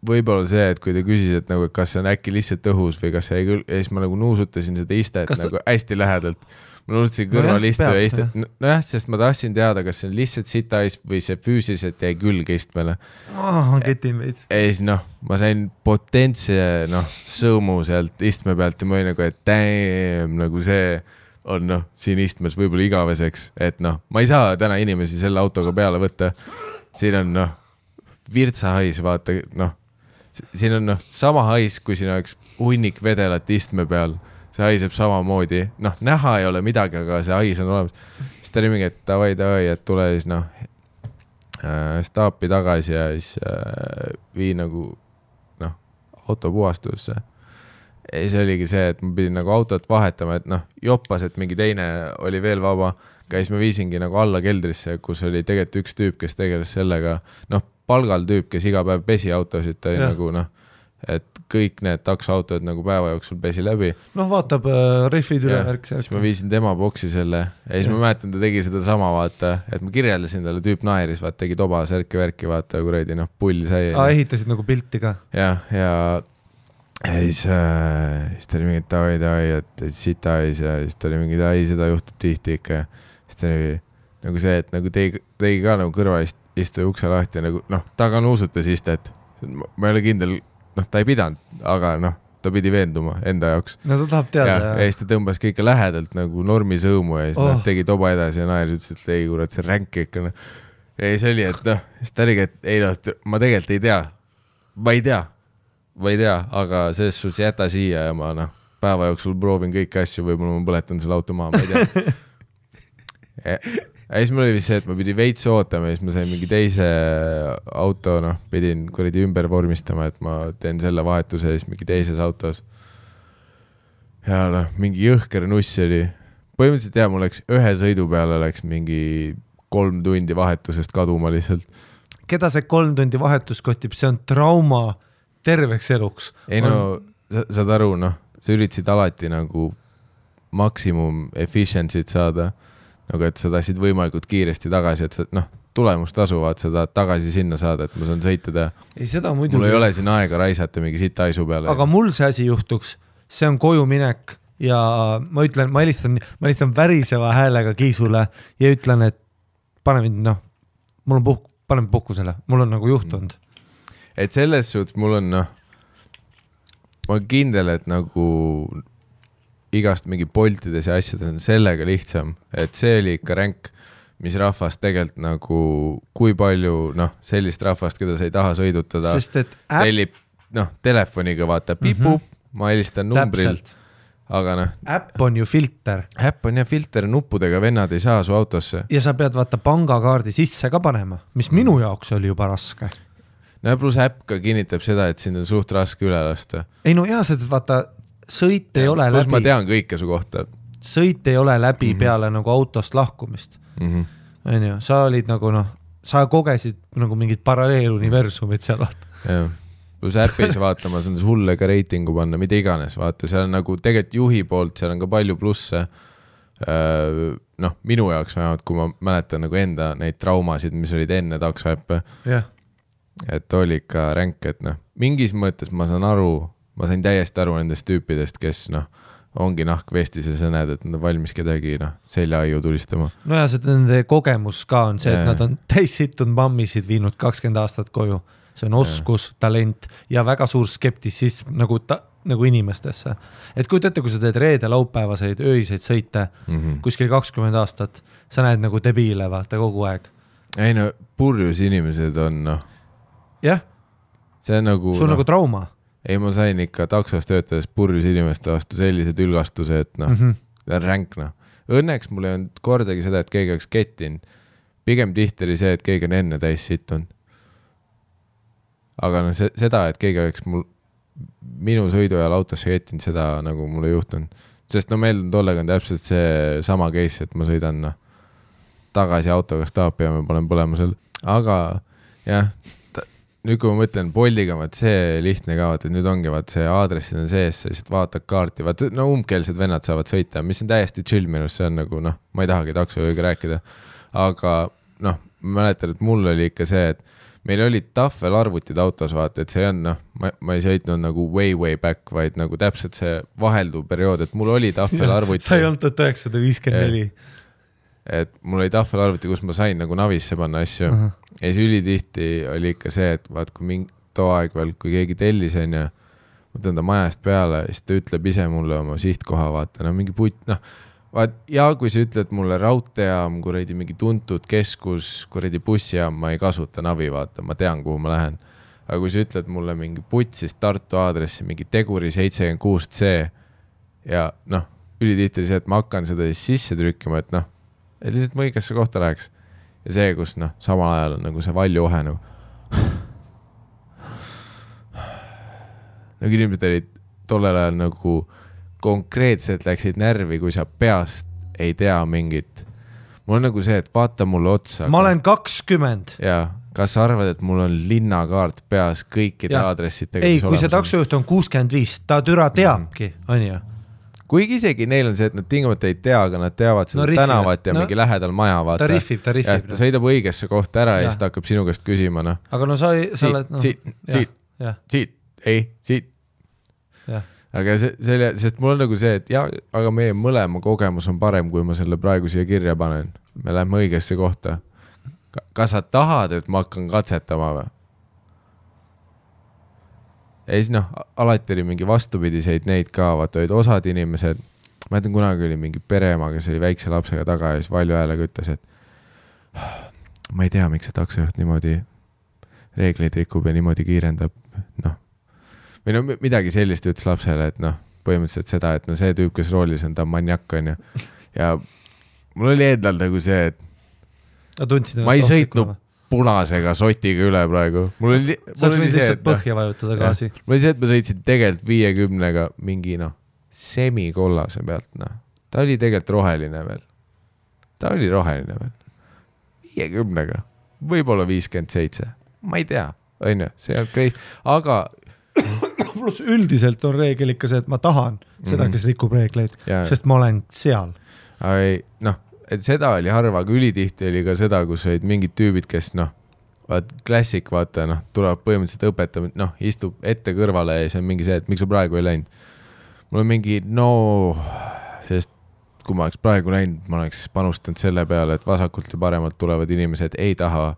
võib-olla see, et kui ta küsis, et nagu, kas see on äkki lihtsalt õhus või kas see ei küll, ja siis ma nagu nuusutasin seda istet nagu hästi lähedalt. Ma nuusutasin kõrval istu ja istet. Nojah, sest ma tahtsin teada, kas see on lihtsalt sitais või see füüsiliselt jäi külge istmele.
Ketin veits.
Ja siis ma sain potentse sõõmu sealt istme pealt ja ma olin nagu, et damn, nagu see on siin istmes võib-olla igaveseks, et ma ei saa täna inimesi selle autoga peale võtta. Siin on virtsahais, vaata, siin on sama hais, kui siin oleks hunnik vedelat istme peal. See haiseb samamoodi, näha ei ole midagi, aga see hais on olemas. Siis ta oli mingi, et davai, et tule siis staapi tagasi ja siis vii nagu autopuhastusse. Ja siis oligi see, et ma pidin nagu autot vahetama, et joppas, et mingi teine oli veel vaba. Siis ma viisingi nagu alla keldrisse, kus oli tegelikult üks tüüp, kes tegeles sellega, palgal tüüp, kes iga päev pesi autosid, ta oli nagu et kõik need taksoautod nagu päeva jooksul pesi läbi.
Vaatab rehvid üle värk.
Siis ma viisin tema boksi selle ja siis ma mäletan, ta tegi seda sama, vaata, et ma kirjeldasin talle, tüüp naeris, vaata, tegi toba, särki-värki, vaata, kuredi, pull sai.
Ehitasid nagu pilti ka.
Ja siis ta oli mingi davai, et sita ja siis ta oli mingi seda juhtub tihti ikka. Siis ta oli nagu see, et nagu tegi ka nagu kõrval istu ukse lahti ja nagu, ta ka nuusutas istet. Ma ei ole kindel, ta ei pidanud, aga ta pidi veenduma enda jaoks.
No ta tahab teada.
Ja siis ta tõmbas kõike lähedalt nagu normi sõõmu ja siis tegi toba edasi ja naer ütles, et ei kurat, see ränk ikka. Ja siis oli, et siis ta oligi, et ei ma tegelikult ei tea. Ma ei tea, aga selles suhtes jäta siia ja ma päeva jooksul proovin kõiki asju, võib-olla ma põletan selle auto maha, ma ei tea. Ja siis mul oli vist see, et ma pidi veits ootama ja siis ma sain mingi teise auto, pidin kuradi ümber vormistama, et ma teen selle vahetuse ja siis mingi teises autos. Ja mingi jõhker nuss oli. Põhimõtteliselt mul läks ühe sõidu peale läks mingi 3 tundi vahetusest kaduma lihtsalt.
Keda see 3 tundi vahetus kotib? See on trauma terveks eluks.
Ei saad aru, sa üritasid alati nagu maksimum efficiency't saada. Nagu, et sa tahtsid võimalikult kiiresti tagasi, et sa, tulemust tasuvad, sa tahad tagasi sinna saada, et ma saan sõita.
Ei, seda muidugi.
Mul ei ole siin aega raisata mingi sita aisu peale.
Aga mul see asi juhtuks, see on koju minek ja ma ütlen, ma helistan väriseva häälega Kiisule ja ütlen, et pane mind, mul on paneme puhkusele, mul on nagu juhtunud.
Et selles suhtes mul on, ma olen kindel, et nagu igast mingi poltides ja asjades on sellega lihtsam, et see oli ikka ränk, mis rahvast tegelikult nagu, kui palju sellist rahvast, keda sa ei taha sõidutada, tellib telefoniga vaata pipup, ma helistan numbrilt, aga
äpp on ju filter.
Äpp on filter, nuppudega vennad ei saa su autosse.
Ja sa pead vaata pangakaardi sisse ka panema, mis minu jaoks oli juba raske.
Plus äpp ka kinnitab seda, et sind on suht raske üle lasta.
Ei seda vaata sõit ei ole läbi.
Ma tean kõike su kohta.
Sõit ei ole läbi peale nagu autost lahkumist. Sa olid nagu sa kogesid nagu mingid paralleeluniversumid seal.
Plus äppis vaatama, see on sulle ka reitingu panna, mida iganes. Vaata, seal on nagu tegelikult juhi poolt, seal on ka palju plusse. Minu jaoks vähemalt, kui ma mäletan nagu enda neid traumasid, mis olid enne taksoäppe. Et oli ikka ränk, et mingis mõttes ma saan aru, ma sain täiesti aru nendest tüüpidest, kes ongi nahkvestis ja sa näed, et nad on valmis kedagi seljaaiu tulistama.
Ja see nende kogemus ka on see, et nad on täissittunud mammisid viinud 20 aastat koju. See on oskus, talent ja väga suur skeptisism nagu inimestesse. Et kui teete, kui sa teed reede laupäevaseid öiseid sõite kuskil 20 aastat, sa näed nagu debiile vaata kogu aeg.
Ei purjus inimesed on
Jah,
see on nagu
sul nagu trauma.
Ei, ma sain ikka taksos töötades purjus inimeste vastu sellised ülgastuse, et ränk. Õnneks mul ei olnud kordagi seda, et keegi oleks kettinud. Pigem tihti oli see, et keegi on enne täis situnud. Aga seda, et keegi oleks minu sõidu ajal autosse kettinud, seda nagu mul ei juhtunud. Sest meil tollega on täpselt see sama case, et ma sõidan tagasi autoga staapi ja ma panen põlemusel. Aga jah, nüüd kui ma mõtlen Boldiga, see lihtne ka, et nüüd ongi see aadressid on sees, siis vaatad kaarti, umbkeelsed vennad saavad sõita, mis on täiesti chill minus, see on nagu, ma ei tahagi taksojuhiga rääkida, aga ma mäletan, et mul oli ikka see, et meil olid tahvelarvutid autos, vaata, et see on, ma ei sõitnud nagu way back, vaid nagu täpselt see vahelduv periood, et mul oli tahvelarvuti.
Sa ei olnud 1954.
Et mul oli tahvelarvuti, kus ma sain nagu navisse panna asju. Ja siis ülitihti oli ikka see, et vaat kui too aeg veel, kui keegi tellis on ja ma tõin ta majast peale, siis ta ütleb ise mulle oma sihtkoha, vaata, mingi putt, vaat, ja kui sa ütled mulle raudteejaam, kuradi mingi tuntud keskus, kuradi bussijaam, ma ei kasuta navi, vaata, ma tean, kuhu ma lähen. Aga kui sa ütled mulle mingi putt, siis Tartu aadressi, mingi Teguri 76C ja ülitihti see, et ma hakkan seda siis sisse trükkima, et et lihtsalt ma õigesse kohta läheks. Ja see, kus samal ajal on nagu see valjuohe nagu. Nagu inimesed olid tollel ajal nagu konkreetselt läksid närvi, kui sa peast ei tea mingit. Mul on nagu see, et vaata mulle otsa.
Ma olen 20.
Jaa, kas sa arvad, et mul on linnakaart peas kõikide aadressitega?
Ei, kui see taksojuht on 65, ta türa teabki, on ju?
Kuigi isegi neil on see, et nad tingimata ei tea, aga nad teavad seda tänavat ja mingi lähedal maja, vaata.
Ta riffib.
Ta sõidab õigesse kohta ära ja siis ta hakkab sinu käest küsima,
Aga sa oled...
Siit. Aga sest mul on nagu see, et aga meie mõlema kogemus on parem, kui ma selle praegu siia kirja panen. Me läheme õigesse kohta. Kas sa tahad, et ma hakkan katsetama või? Ja siis alati oli mingi vastupidiseid neid ka, vaata olid osad inimesed, ma ütlen kunagi oli mingi pereema, kes oli väikse lapsega taga ja siis valju häälega ütles, et ma ei tea, miks see taksojuht niimoodi reegleid rikub ja niimoodi kiirendab, või midagi sellist ütles lapsele, et põhimõtteliselt seda, et see tüüp, kes roolis on, ta maniak on ja mul oli endal nagu see, et ma ei sõitnud punasega sotiga üle praegu.
Saaks võid lihtsalt põhja vajutada gaasi.
Mul oli see, et ma sõitsin tegelikult 50-ga mingi semikollase pealt. Ta oli tegelikult roheline veel. 50-ga. Võib-olla 57. Ma ei tea. See on crazy. Aga
plus üldiselt on reegel ikka see, et ma tahan seda, kes rikub reegleid, sest ma olen seal.
Et seda oli harva, aga ülitihti oli ka seda, kus olid mingid tüübid, kes klassik, vaata, tuleb põhimõtteliselt õpetama, istub ette kõrvale ja see on mingi see, et miks sa praegu ei läinud. Mul on mingi, sest kui ma oleks praegu läinud, ma oleks panustanud selle peale, et vasakult ja paremalt tulevad inimesed ei taha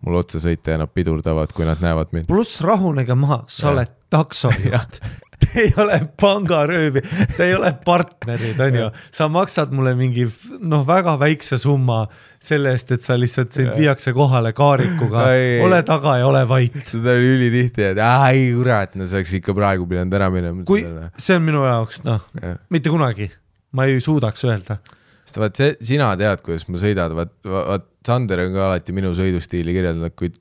mul otsa sõita ja nad pidurdavad, kui nad näevad mind.
Pluss rahunega maha, sa oled taksojuht. Te ei ole pangaröövi, te ei ole partnerid, on ju. Sa maksad mulle mingi väga väikse summa selle eest, et sa lihtsalt viiakse kohale kaarikuga. Ole taga ja ole vait.
Seda oli ülitihti, et ei kurat, saaks ikka praegu pidanud ära minema.
Kui see on minu jaoks, mitte kunagi. Ma ei suudaks öelda.
Sest vaat sina tead, kuidas ma sõidad. Vaat Sander on ka alati minu sõidustiili kirjeldanud, kui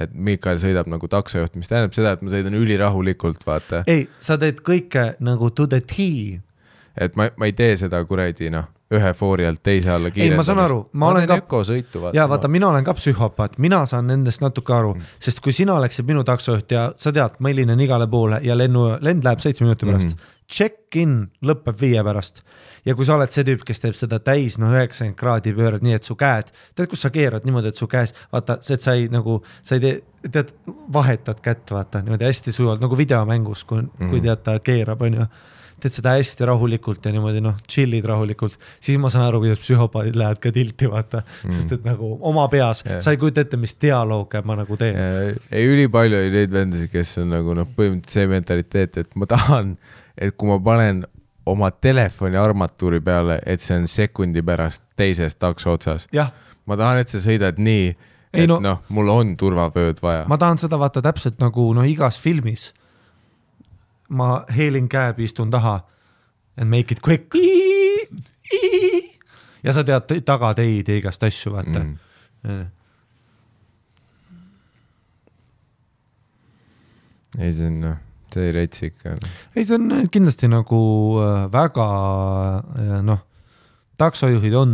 et Mikael sõidab nagu taksojuht, mis tähendab seda, et ma sõidan ülirahulikult, vaata.
Ei, sa teed kõike nagu to the tea.
Et ma ei tee seda kuradi, ühe foori alt teise alla kiirendamist.
Ei, ma saan aru.
Ma olen ökosõitu, vaata.
Vaata, mina olen ka psühhopaat, mina saan nendest natuke aru, sest kui sina oleksid minu taksojuht ja sa tead, ma helinen igale poole ja lend läheb 7 minuti pärast, check-in lõpeb 5 pärast. Ja kui sa oled see tüüp, kes teeb seda täis 90 kraadi pöörad nii, et su käed, tead, kus sa keerad niimoodi, et su käes, vaata, see, et sa ei tead, vahetad kätt, vaata, niimoodi hästi sujuvalt, nagu videomängus, kui tead, ta keerab, on ju, teed seda hästi rahulikult ja niimoodi, chillid rahulikult, siis ma saan aru, kuidas psühhopaadid lähevad ka tilti, vaata, sest et nagu oma peas, sa ei kujuta ette, mis dialoog ma nagu teen.
Ei, ülipalju oli neid vendasi, kes on nagu põhimõtteliselt see mentaliteet, et ma tahan, et kui ma panen oma telefoni armatuuri peale, et see on sekundi pärast teises takso otsas. Ma tahan, et sa sõidad nii, et mul on turvavööd vaja.
Ma tahan seda vaata täpselt nagu igas filmis. Ma heelin käeb, istun taha and make it quick. Ja sa tead taga teid ja igast asju, vaata.
Ei, see on... See ei reitsi ikka.
Ei, see on kindlasti nagu väga, taksojuhid on,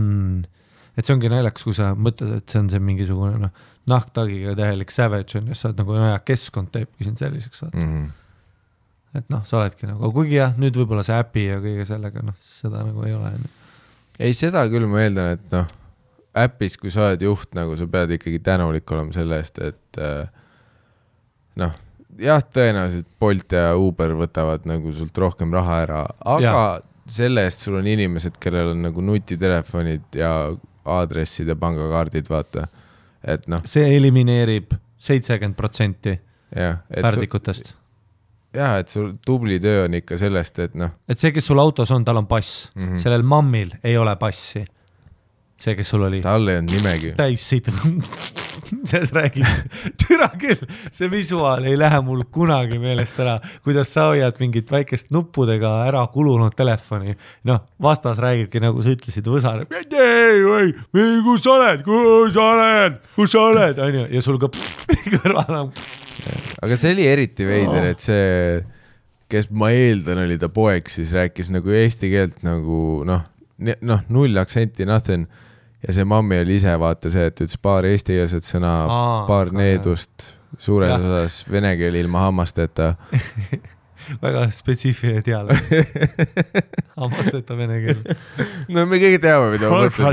et see ongi naljakas, kui sa mõtled, et see on see mingisugune nahktagiga tähelik savage on, ja sa oled nagu, keskkond teebki sind selliseks. Et sa oledki nagu, kuigi jah, nüüd võib-olla see äpi ja kõige sellega, seda nagu ei ole.
Ei, seda küll ma eeldan, et äpis, kui sa oled juht, nagu sa pead ikkagi tänulik olema selle eest, et noh, jah, tõenäoliselt Bolt ja Uber võtavad nagu sult rohkem raha ära, aga selle eest sul on inimesed, kellel on nagu nutitelefonid ja aadressid ja pangakaardid, vaata, et noh.
See elimineerib 70% pärdikutest.
Jah, et sul tubli töö on ikka sellest, et noh.
Et see, kes sul autos on, tal on pass. Sellel mammil ei ole passi. See, kes sul oli.
Tal ei on nimegi.
Täis siit. Selles räägib. Türa küll. See visuaal ei lähe mul kunagi meelest ära. Kuidas sa hoiad mingit väikest nuppudega ära kulunud telefoni. Noh, vastas räägibki, nagu sa ütlesid, võsar. Kus sa oled? Ja sul ka kõrval.
Aga see oli eriti veider, et see, kes ma eeldan, oli ta poeg, siis rääkis nagu eesti keelt nagu noh, null aktsenti, nothing. Ja see mammi oli ise vaata see, et ütles paar eestikeelset sõna, paar needust, suures osas vene keel ilma hammasteta.
Väga spetsiifiline dialoog. Hammasteta vene keel.
No me kõik teame, mida ma mõtlen.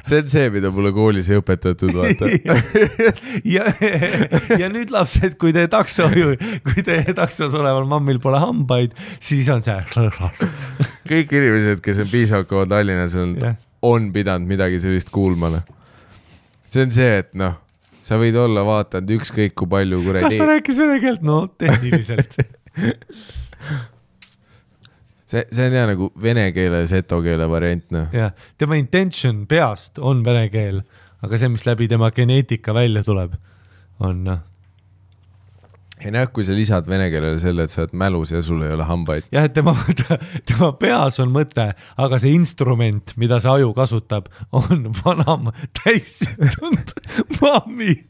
See on see, mida mulle koolis ei õpetatud, vaata.
Ja nüüd lapsed, kui teie taksos oleval mammil pole hambaid, siis on see.
Kõik inimesed, kes on piisavalt Tallinnas, on pidanud midagi sellist kuulmana. See on see, et noh, sa võid olla vaatanud ükskõik kui palju kuradi.
Kas ta rääkis vene keelt? No, tehniliselt.
see on jah nagu vene keele, seto keele variant. No.
Ja, tema intention peast on vene keel, aga see, mis läbi tema geneetika välja tuleb, on noh.
Ei näe, kui sa lisad vene keelele selle, et sa oled mälus ja sul ei ole hambaid.
Jah, et tema peas on mõte, aga see instrument, mida see aju kasutab, on vanam täissitud mammi.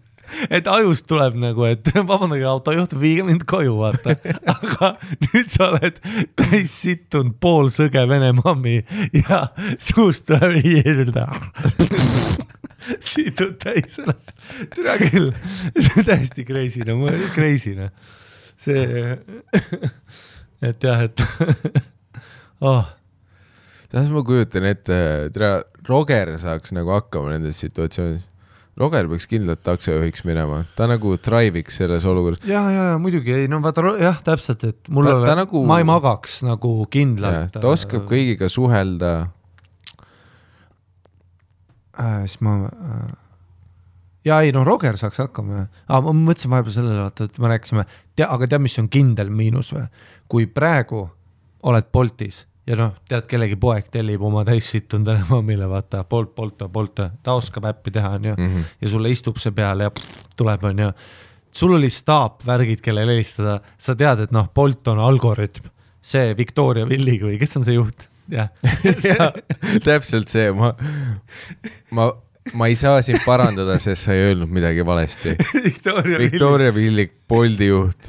Et ajust tuleb nagu, et vabandage, autojuht, viige mind koju, vaata. Aga nüüd sa oled täissittunud pool sõge vene mammi ja suust tuleb situd täis ennast. Türa küll. See on täiesti kreisine. See, et jah, et
Tähes ma kujutan ette, Roger saaks nagu hakkama nendes situatsioonis. Roger peaks kindlalt taksojuhiks minema. Ta nagu thriviks selles olukorras.
Ja, muidugi ei, no vaata, jah, täpselt, et mul nagu, ma ei magaks nagu kindlalt.
Ta oskab kõigiga suhelda.
Siis ma Roger saaks hakkama. Ma mõtlesin vahepeal sellele, et me rääkisime, aga tead, mis on kindel miinus või? Kui praegu oled Boltis ja noh, tead, kellegi poeg tellib oma täissittunud mammile, vaata, Bolt, ta oskab äppi teha, on ju, ja sulle istub see peale ja tuleb, on ju. Sul oli staap värgid, kelle helistada, sa tead, et noh, Bolt on algoritm, see Victoria Villig või kes on see juht? Ja,
täpselt see, ma ei saa sind parandada, sest sa ei öelnud midagi valesti. Victoria Villig, Bolti juht.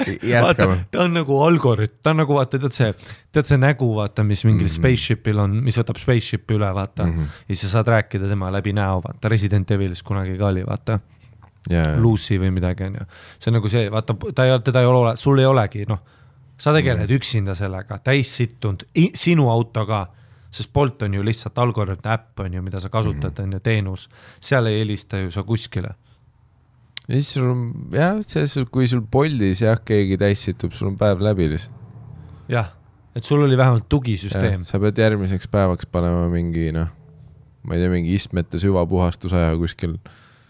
Jätkame.
Vaata, ta on nagu algoritm, ta on nagu vaata, tead see nägu, vaata, mis mingil spaceshipil on, mis võtab spaceshipi üle, vaata, ja sa saad rääkida tema läbi näo, vaata, Resident Evilis kunagi ka oli, vaata, Lucy või midagi, on ju. See on nagu see, vaata, teda ei ole, sul ei olegi, noh, sa tegeled üksinda sellega, täis sittunud, sinu autoga, sest Bolt on ju lihtsalt algoritm äpp, on ju, mida sa kasutad, on ju, teenus. Seal ei helista ju sa kuskile.
Ja siis sul on, jah, kui sul Boltis jah, keegi täis situb, sul on päev läbi lihtsalt.
Jah, et sul oli vähemalt tugisüsteem.
Sa pead järgmiseks päevaks panema mingi, noh, ma ei tea, mingi istmete süvapuhastusaja kuskil.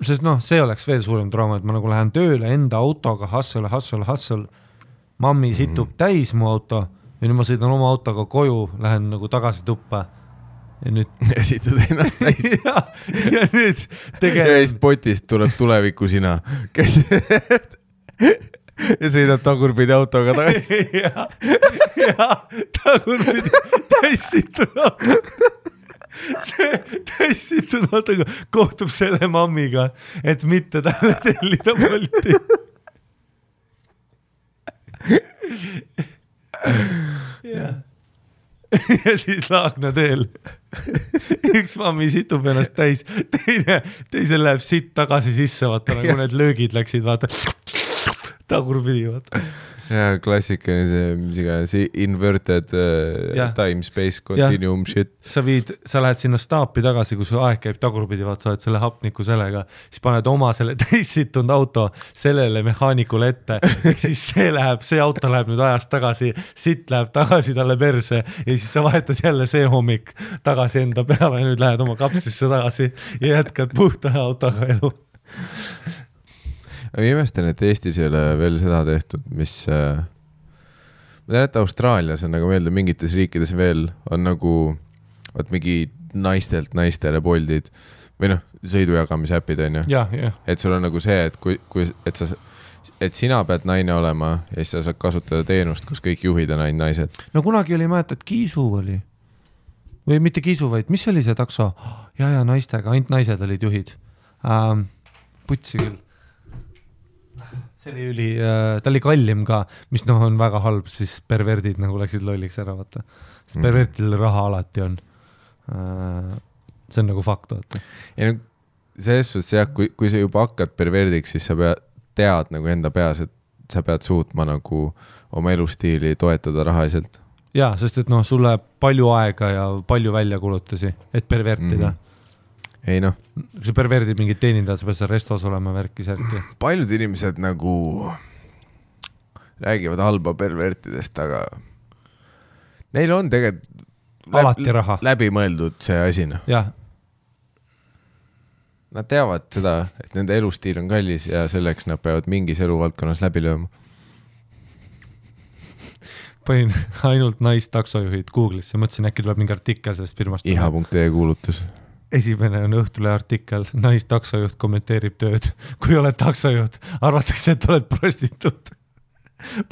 Sest noh, see oleks veel suurem trauma, et ma nagu lähen tööle enda autoga, hustle. Mammi situb täis mu auto ja nüüd ma sõidan oma autoga koju, lähen nagu tagasi tuppa ja nüüd
situd ennast täis.
ja nüüd
ja siis potist tuleb tuleviku sina, kes ja sõidab tagurpidi autoga tagasi.
ja tagurpidi täissitud auto. See täissitud autoga kohtub selle mammiga, et mitte talle tellida Bolti. ja siis Laagna teel üks mammi situb ennast täis, teisel läheb sitt tagasi sisse, vaata, nagu need löögid läksid, vaata, tagurpidi, vaata.
ja klassikaline see, mis iganes, inverted time, space, continuum shit.
Sa lähed sinna staapi tagasi, kus aeg käib tagurpidi, vaat sa oled selle hapniku sellega, siis paned oma selle teissitunud auto sellele mehaanikule ette, siis see auto läheb nüüd ajast tagasi, sitt läheb tagasi talle perse ja siis sa vahetad jälle see hommik tagasi enda peale ja nüüd lähed oma kapslisse tagasi ja jätkad puhta autoga elu.
Ma imestan, et Eestis ei ole veel seda tehtud, mis ma tean, et Austraalias on nagu meelde mingites riikides veel on nagu mingi naistelt naistele poldid või noh, sõidujagamise äpid on ju. Et sul on nagu see, et et sina pead naine olema ja siis sa saad kasutada teenust, kus kõik juhid on ainult naised.
No kunagi oli, mäletad, Kiisu oli või mitte Kiisu, vaid mis oli see takso? Ja naistega, ainult naised olid juhid. Putsi küll. See oli ta oli kallim ka, mis on väga halb, siis perverdid nagu läksid lolliks ära, vaata. Pervertidel raha alati on. See on nagu fakt, vaata.
Ja selles suhtes jah, kui sa juba hakkad perverdiks, siis sa tead nagu enda peas, et sa pead suutma nagu oma elustiili toetada rahaliselt.
Jaa, sest et sul läheb palju aega ja palju väljakulutusi, et pervertida.
Ei noh.
Kui sa perverdid mingid teenindajad, sa pead seal restos olema värki-särki.
Paljud inimesed nagu räägivad halba pervertidest, aga neil on tegelikult
alati raha.
Läbimõeldud see asi.
Jah.
Nad teavad seda, et nende elustiil on kallis ja selleks nad peavad mingis eluvaldkonnas läbi lööma.
Panin ainult naistaksojuhid Google'isse, mõtlesin, äkki tuleb mingi artikkel sellest firmast.
Iha.ee kuulutus.
Esimene on Õhtule artikkel, naistaksojuht kommenteerib tööd. Kui oled taksojuht, arvatakse, et oled prostituut.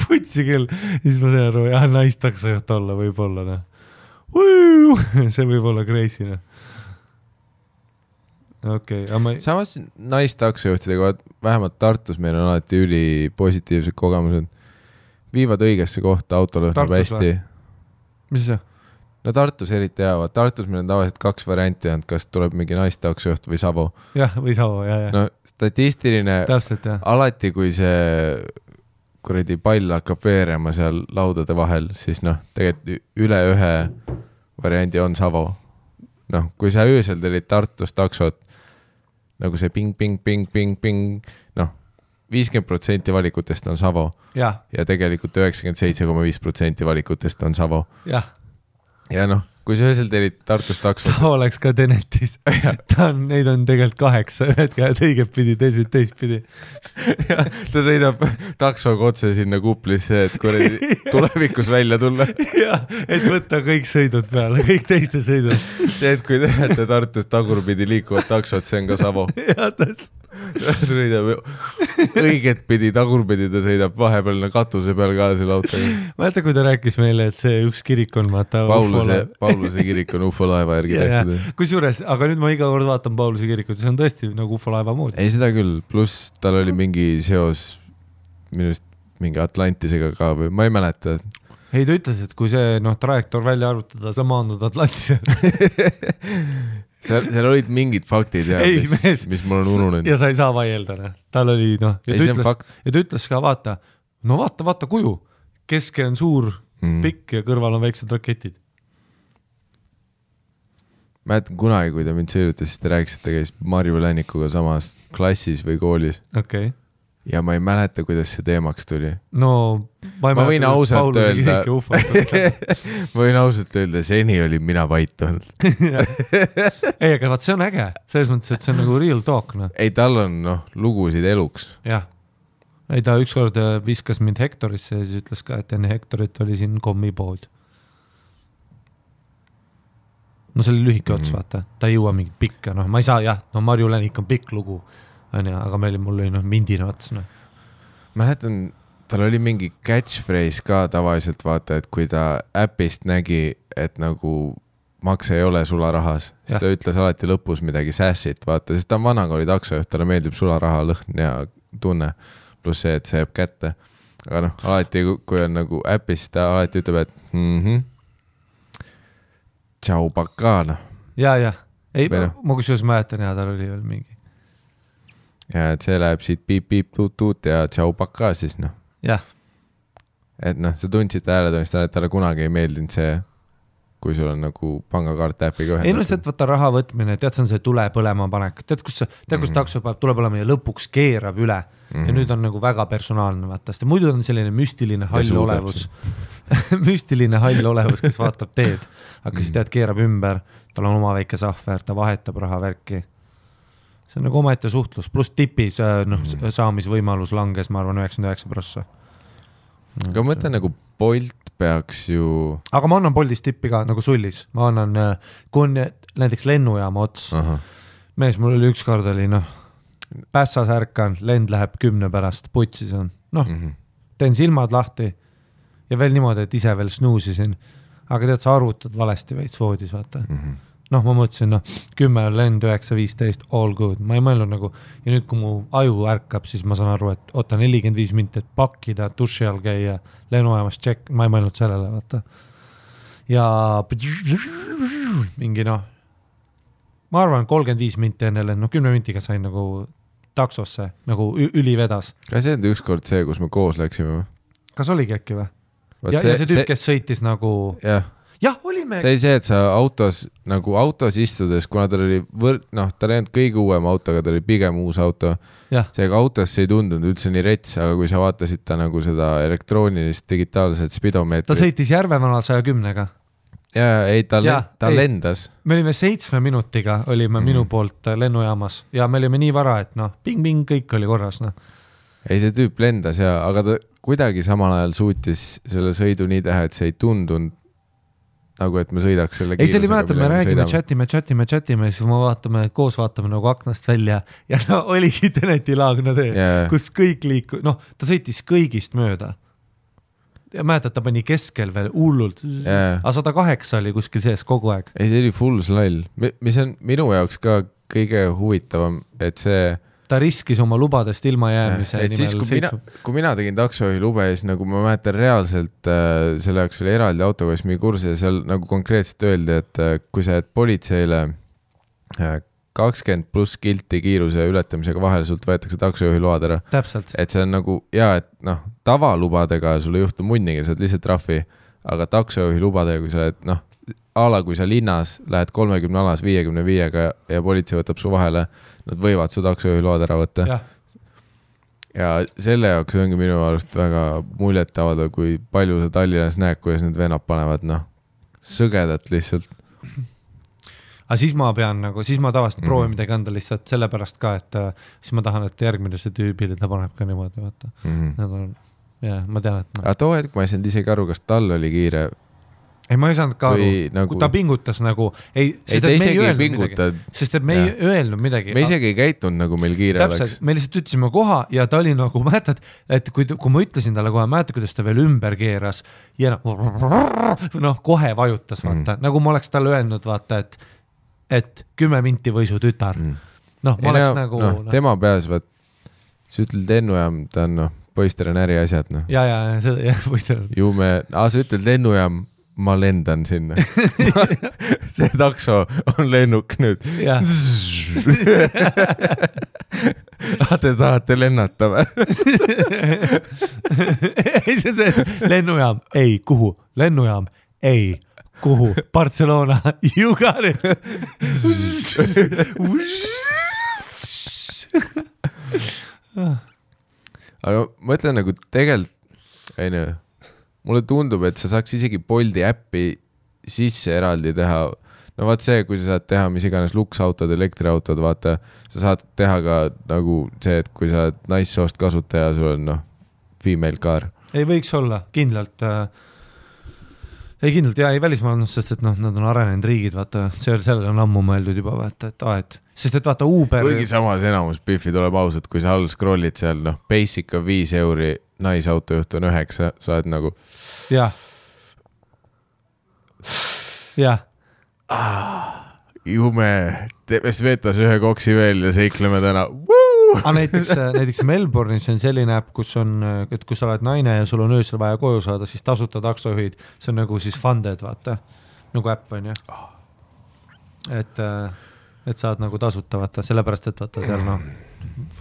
Putsi küll. Siis ma tean aru, jah, naistaksojuht olla võib-olla. See võib olla crazy. Okay,
samas naistaksojuhtidega, vähemalt Tartus meil on alati üli positiivsed kogemused. Viivad õigesse kohta, auto lõhnab hästi.
Mis see?
No Tartus eriti hea, Tartus meil on tavaliselt 2 varianti, kas tuleb mingi naistaksojuht või Savo.
Jah, või Savo, jah.
No statistiline,
täpselt, jah.
Alati kui see kuradi pall hakkab veerema seal laudade vahel, siis tegelikult üle ühe variandi on Savo. Kui sa öösel telid Tartus taksot, nagu see ping, 50% valikutest on Savo. Ja tegelikult 97,5% valikutest on Savo.
Jah.
Ja kui sa öösel telid Tartus taksot.
Savo oleks ka Tenetis. Neid on tegelikult 8, ühed käed õiget pidi, teist pidi.
Ta sõidab taksoga otse sinna kuplisse, et kuradi tulevikus välja tulla.
Jah, et võtta kõik sõidud peale, kõik teiste sõidud.
See, et kui te näete Tartus tagurpidi liikuvat taksot, see on ka Savo.
Jah, tõesti.
Sõidab õiget pidi, tagurpidi ta sõidab vahepeal katuse peal ka selle autoga.
Mäeta, kui ta rääkis meile, et see üks kirik on
Pauluse kirik on UFO laeva järgi tehtud.
Kusjuures, aga nüüd ma iga kord vaatan Pauluse kirikut, see on tõesti nagu UFO laeva moodi.
Ei, seda küll, pluss tal oli mingi seos minust mingi Atlantisega ka või ma ei mäleta.
Ei, ta ütles, et kui see trajektoor välja arvutada, sa maandud Atlantisega.
Seal olid mingid faktid, mis mul on ununenud.
Ja sa ei saa vaielda. Tal oli, ja ta ütles ka, vaata kuju. Keske on suur, pikk ja kõrval on väiksed raketid.
Mäletan kunagi, kui ta mind sõidutas, siis ta rääkis, et ta käis Marju Lännikuga samas klassis või koolis.
Okay.
Ja ma ei mäleta, kuidas see teemaks tuli.
No,
ma võin ausalt öelda, ma võin ausalt öelda, seni oli mina vait olnud.
Ei, aga vaat see on äge. Selles mõttes, et see on nagu real talk.
Ei, tal on lugusid eluks.
Jah. Ei, ta ükskord viskas mind Hektorisse ja siis ütles ka, et enne Hektorit oli siin kommipood. No see oli lühike ots, vaata. Ta ei jõua mingit pikka. Ma ei saa, Marju Lännik on pikk lugu. Aga mul oli mindine ots.
Mäletan, tal oli mingi catchphrase ka tavaliselt, vaata, et kui ta äpist nägi, et nagu makse ei ole sularahas, siis ta ütles alati lõpus midagi sässit, vaata, sest ta on vanakooli taksojuht, talle meeldib sularaha lõhn ja tunne, pluss see, et see jääb kätte. Aga alati, kui on nagu äpis, ta alati ütleb, et tšau pakana.
Ja. Ei, ma kusjuures mäletan, tal oli veel mingi.
Ja et see läheb siit piip-piip-tuut-tuut ja tšau pakka siis,
Jah.
et noh, sa tundsid hääletamist, et talle kunagi ei meeldinud see, kui sul on nagu pangakaart äpiga ühendatud.
Ei no see, et võtta raha võtmine, tead, see on see tule põlema panek. Tead, kus takso peab tule põlema ja lõpuks keerab üle. Ja nüüd on nagu väga personaalne, vaata. Sest muidu on selline müstiline hall olevus. müstiline hall olevus, kes vaatab teed. Aga siis tead, keerab ümber, tal on oma väike sahver, ta vahetab raha värki. See on nagu omaette suhtlus, pluss tipis saamisvõimalus langes, ma arvan, 99%.
Aga ma mõtlen nagu Bolt peaks ju...
Aga ma annan Boltist tippi ka nagu sullis. Ma annan, kui on näiteks lennujaama ots. Mees, mul oli ükskord oli, Pässas ärkan, lend läheb 10 pärast, putsis on. Teen silmad lahti ja veel niimoodi, et ise veel snuusisin. Aga tead, sa arvutad valesti veits voodis, vaata. Ma mõtlesin, 10 lend, 9-15, all good. Ma ei mõelnud nagu, ja nüüd kui mu aju ärkab, siis ma saan aru, et oota 45 minti, et pakkida, duši all käia, lennuajamas check, ma ei mõelnud sellele, vaata. Ja mingi ma arvan 35 minti enne lend, 10 mintiga sain nagu taksosse, nagu üli vedas.
Kas see on ükskord see, kus me koos läksime?
Kas oligi äkki või? Ja see tüüp, kes sõitis nagu... Jah, olime.
See oli see, et sa autos istudes, kuna tal oli tal ei olnud kõige uuem auto, aga ta oli pigem uus auto. Seega autos ei tundunud üldse nii rets, aga kui sa vaatasid ta nagu seda elektroonilist digitaalset spidomeetrit.
Ta sõitis Järvevanal 110-ga.
Ta lendas.
Me olime 7 minutiga, olime minu poolt lennujaamas ja me olime nii vara, et ping-ping, kõik oli korras.
Ei, see tüüp lendas aga ta kuidagi samal ajal suutis selle sõidu nii teha, et see ei tundunud nagu, et me sõidaks selle
kiirusega. Ei, see oli mäletab, me räägime, chatime ja siis me koos vaatame nagu aknast välja ja oligi Teneti laagna tee, kus kõik liiku, ta sõitis kõigist mööda. Ja mäletad, ta pani keskel veel hullult, aga 108 oli kuskil sees kogu aeg.
Ei, see oli full slall, mis on minu jaoks ka kõige huvitavam, et see
ta riskis oma lubadest ilma jäämise
nimel. Kui mina tegin taksojuhi lube, siis nagu ma mäletan reaalselt selle jaoks oli eraldi autoga, mis mingi kursi ja seal nagu konkreetselt öeldi, et kui sa jääd politseile 20 pluss kilti kiiruse ületamisega vahel, sult võetakse taksojuhi load ära.
Täpselt.
Et see on nagu, et tavalubadega sul ei juhtu munniga, sa oled lihtsalt trahvi, aga taksojuhi lubadega, kui sa oled, kui sa linnas lähed 30 alas 55-ga ja politsei võtab su vahele, nad võivad su taksojuhi load ära võtta. Ja selle jaoks ongi minu arust väga muljet avaldada, kui palju sa Tallinnas näed, kuidas need venad panevad, sõgedat lihtsalt.
Aga siis ma pean siis ma tavaliselt proovin midagi anda lihtsalt sellepärast ka, et siis ma tahan, et järgmine see tüübile ta paneb ka niimoodi, vaata. Ma tean, et...
Aga too hetk ma ei saanud isegi aru, kas tal oli kiire...
Ei, ma ei saanud ka aru, kui ta pingutas nagu... Sest et me ei öelnud midagi.
Me isegi ei käitunud nagu meil kiire
oleks. Me lihtsalt ütlesime koha ja ta oli nagu, mäletad, et kui ma ütlesin talle kohe, mäletad, kuidas ta veel ümber keeras ja kohe vajutas, vaata. Nagu ma oleks talle öelnud, vaata, et 10 minti või su tütar. Ma oleks nagu...
Tema peas, vaat, sa ütled lennujaam, ta on poister on äri asjad.
Ja, poister on.
Ju me... sa ütled lennujaam, ma lendan sinna. See takso on lennuk nüüd. Te tahate lennata või?
Ei, see lennujaam, ei, kuhu? Lennujaam, ei, kuhu? Barcelona, you got it.
Aga ma ütlen nagu tegelikult, mulle tundub, et sa saaks isegi Bolti äppi sisse eraldi teha. Vaat see, kui sa saad teha mis iganes luksautod, elektriautod, vaata, sa saad teha ka nagu see, et kui sa oled naissoost kasutaja, sul on female car.
Ei võiks olla, kindlalt. Ei kindlalt, ei välismaailmas, sest et nad on arenenud riigid, vaata, sellele on ammu mõeldud juba, vaata, et sest et vaata Uber...
Kuigi samas enamus Biffi tuleb ausalt, kui sa all scrollid seal, basic on 5 euri, naisautojuht on 9, sa oled nagu...
Jah.
Jume, teeme Svetas ühe koksi veel ja seikleme täna.
Aga näiteks Melbourne'is on selline äpp, kus sa oled naine ja sul on öösel vaja koju saada, siis tasuta taksojuhid, see on nagu siis funded, vaata, nagu äpp on, jah. Et saad nagu tasuta, vaata, sellepärast, et vaata seal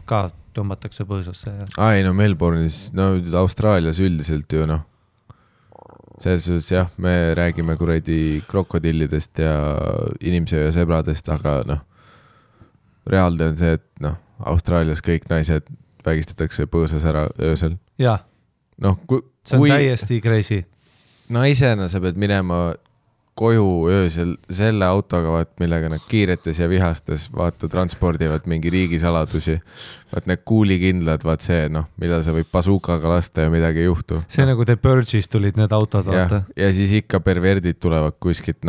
ka tõmbatakse põõsasse.
Ai, Melbourne'is, Austraalias üldiselt ju, selles suhtes jah, me räägime kuradi krokodillidest ja inimsööja sebradest, aga noh, reaalne on see, et noh, Austraalias kõik naised vägistatakse põõsas ära öösel.
Jah,
noh,
see on täiesti crazy.
Naisena sa pead minema koju öösel selle autoga, millega nad kiiretes ja vihastes transpordivad mingi riigisaladusi. Need kuulikindlad, see, mida sa võib basukaga lasta ja midagi ei juhtu.
See nagu The Purge'is tulid need autod, vaata.
Ja siis ikka perverdid tulevad kuskilt,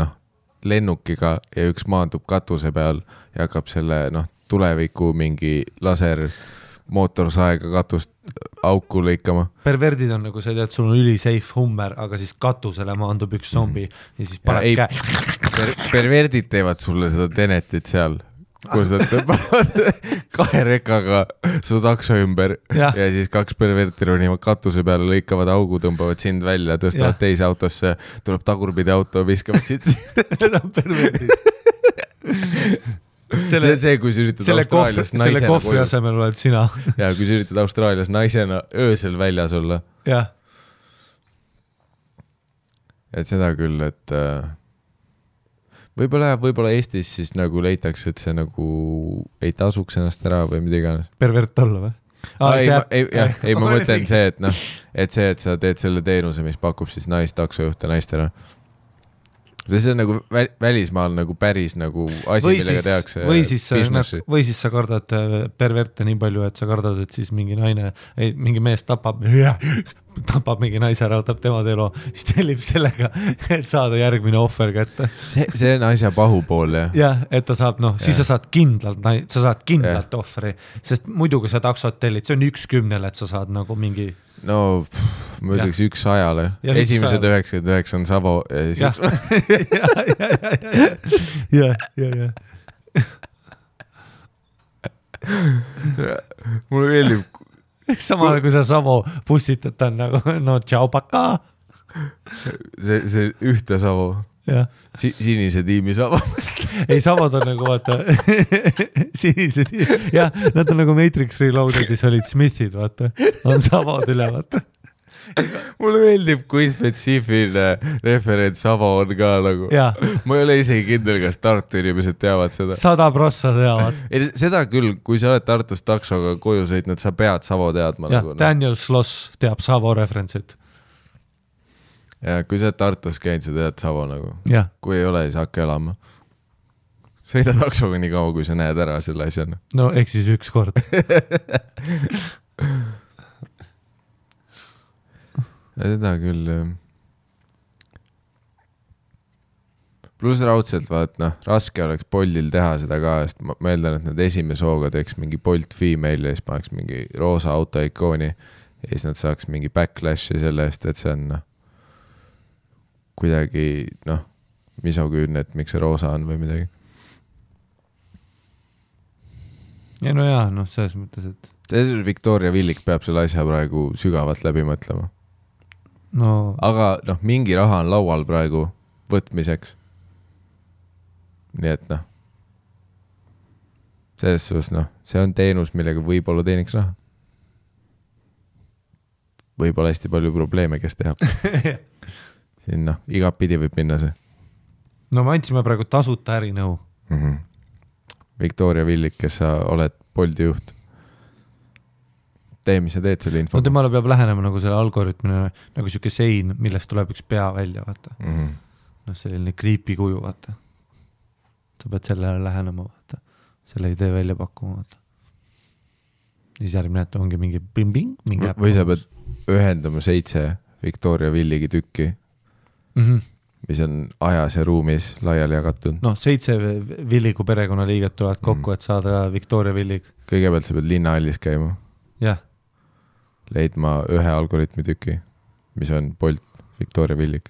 lennukiga ja üks maandub katuse peal ja hakkab selle, tuleviku mingi laser mootorsaega katust auku lõikama.
Perverdid on nagu see, et sul on ülisafe Hummer, aga siis katusele maandub üks zombi ja siis paneb käe.
Perverdid teevad sulle seda Tenetit seal, kus nad tõmbavad 2 rekaga su takso ümber ja siis 2 perverti ronivad katuse peale, lõikavad augu, tõmbavad sind välja, tõstavad teise autosse, tuleb tagurpidi auto, viskavad sind.
Need on perverdid.
See, kui sa üritad Austraalias naisena
selle kohvi asemel oled sina.
Ja kui sa üritad Austraalias naisena öösel väljas olla.
Jah.
Et seda küll, et võib-olla Eestis siis nagu leitakse, et see nagu ei tasuks ennast ära või mida iganes.
Pervert olla või?
Ei, ma mõtlen see, et sa teed selle teenuse, mis pakub siis naistaksojuhte naistele. See on nagu välismaal nagu päris nagu asi, millega tehakse businessi.
Või siis sa kardad perverte nii palju, et sa kardad, et siis mingi mees tapab mingi naise ära, võtab tema elu, siis tellib sellega, et saada järgmine ohver kätte.
See on asja pahupool, jah.
Jah, et ta saab, siis sa saad kindlalt ohveri, sest muidu, kui sa taksot tellid, see on 1/10, et sa saad nagu mingi...
No, ma ütleks 100-le. Esimesed 99 on Savo ja siis
Ja.
Mulle meeldib.
Samale, kui sa Savo bussitad, ta on nagu, tšau, paka.
See ühte Savo. Sinise tiimi Savo.
Ei, Savod on nagu, vaata, sinise tiimi. Jah, nad on nagu Matrix Reloadedis olid Smithid, vaata. On Savod üle, vaata.
Mulle meeldib, kui spetsiifiline referents Savo on ka nagu. Ma ei ole isegi kindel, kas Tartu inimesed teavad seda.
100% teavad.
Seda küll, kui sa oled Tartus taksoga koju sõitnud, sa pead Savo teadma.
Jah, Daniel Sloss teab Savo referentsit.
Ja kui sa oled Tartus käinud, sa tead Savo nagu. Kui ei ole, siis hakka elama. Sõida taksoga nii kaua, kui sa näed ära selle asjana.
No, eks siis üks kord.
Seda küll. Plus raudselt, raske oleks Boltil teha seda ka, sest ma meeldan, et nad esimese hooga teeks mingi Bolt female ja siis paneks mingi roosa autoikooni ja siis nad saaks mingi backlashi selle eest, et see on kuidagi, misoküünne, et miks see roosa on või midagi.
Ja no jaa, selles mõttes, et...
Victoria Villik peab selle asja praegu sügavalt läbi mõtlema. Aga mingi raha on laual praegu võtmiseks. Nii et selles suhtes, see on teenus, millega võib-olla teeniks raha. Võib-olla hästi palju probleeme, kes tehab. Siin igapidi võib minna see.
No me andsime praegu tasuta ärinõu.
Victoria Villik, kes sa oled Bolti juht. Tee, mis sa teed selle info.
No temale peab lähenema nagu selle algoritmine, nagu siuke sein, millest tuleb üks pea välja, vaata. Selline creepy kuju, vaata. Sa pead sellele lähenema, vaata. Selle idee välja pakkuma, vaata. Siis järgmine, et ongi mingi bing-bing, mingi
või sa pead ühendama 7 Victoria Villigi tükki, mis on ajas ja ruumis laiali jagatud.
7 Villigu perekonnaliiget tulevad kokku, et saada Victoria Villig.
Kõigepealt sa pead linnahallis käima.
Jah.
Leidma 1 algoritmi tüki, mis on Bolt Victoria Villig.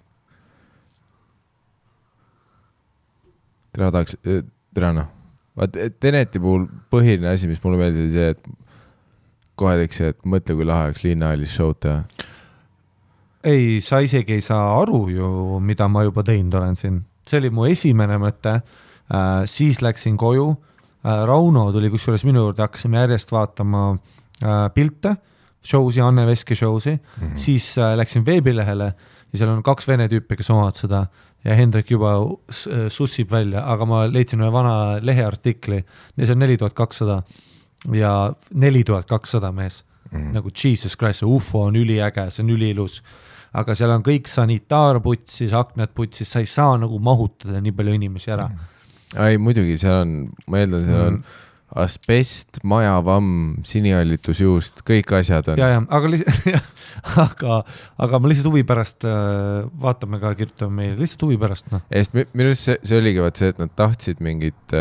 Teneti puhul põhiline asi, mis mulle meeldis, oli see, et kohe teeks see, et mõtle, kui lahe oleks linnahallis show'd teha.
Ei, sa isegi ei saa aru ju, mida ma juba teinud olen siin. See oli mu esimene mõte, siis läksin koju, Rauno tuli kusjuures minu juurde, hakkasime järjest vaatama pilte, show'si, Anne Veski show'si, siis läksin veebilehele ja seal on 2 vene tüüpi, kes omavad seda ja Hendrik juba sussib välja, aga ma leidsin ühe vana leheartikli ja see on 4200 ja 4200 mees. Nagu Jesus Christ, see UFO on üliäge, see on üliilus. Aga seal on kõik sanitaarputsis, aknad putsis, sa ei saa nagu mahutada nii palju inimesi ära.
Ei, muidugi, seal on, ma eeldan, seal on asbest, majavamm, sinihallitusjuust, kõik asjad on.
Ja, aga ma lihtsalt huvi pärast vaatame ka, kirjutame meile, lihtsalt huvi pärast. No.
Minu see oligi vaat see, et nad tahtsid mingit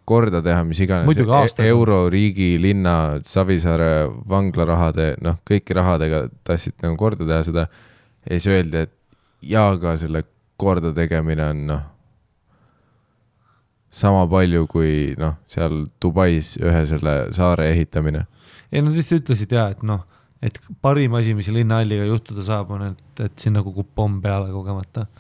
korda teha, mis iganes euro, riigi, linna, Savisaare vanglarahade, kõiki rahadega tahtsid nagu korda teha seda ja siis öeldi, et ka selle korda tegemine on sama palju kui seal Dubais ühe selle saare ehitamine.
Ei, nad lihtsalt ütlesid et parim asi, mis linnahalliga juhtuda saab, on, et siin nagu kukub pomm peale kogemata.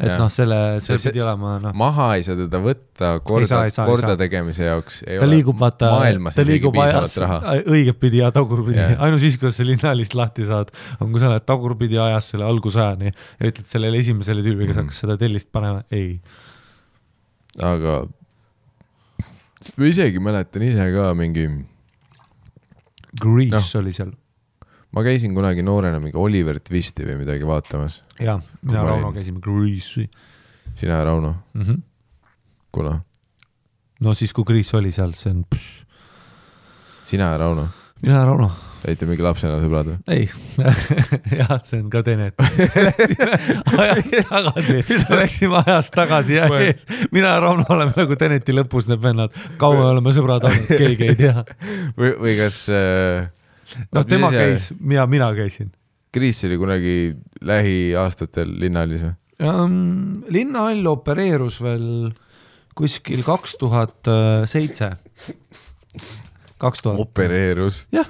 Et selle pidi olema.
Maha ei saa teda võtta korda tegemise jaoks.
Ta liigub vaata,
maailmas isegi piisavalt raha.
Õiget pidi ja tagurpidi. Ainus siis, kuidas see linnalist lahti saad, on kui sa oled tagurpidi ajas selle algusajani ja ütled sellele esimesele tüübi, kes hakkas seda tellist panema. Ei.
Aga ma isegi mäletan ise ka mingi
Grease oli seal.
Ma käisin kunagi noorena mingi Oliver Twisti või midagi vaatamas.
Jaa, mina Rauno käisime Grease'i.
Sina ja Rauno? Kuna?
No siis, kui Grease oli seal, see on...
Sina ja Rauno?
Mina ja Rauno.
Teite mingi lapsena sõbrad või?
Ei, jah, see on ka Tenet. Läksime ajast tagasi ja ees. Mina ja Rauno oleme nagu Teneti lõpus need vennad. Kaua oleme sõbrad olnud, keegi ei tea.
Või kas...
tema käis, mina käisin.
Kriis oli kunagi lähiaastatel linnahallis või?
Linnahall opereerus veel kuskil 2007.
Opereerus.
Jah.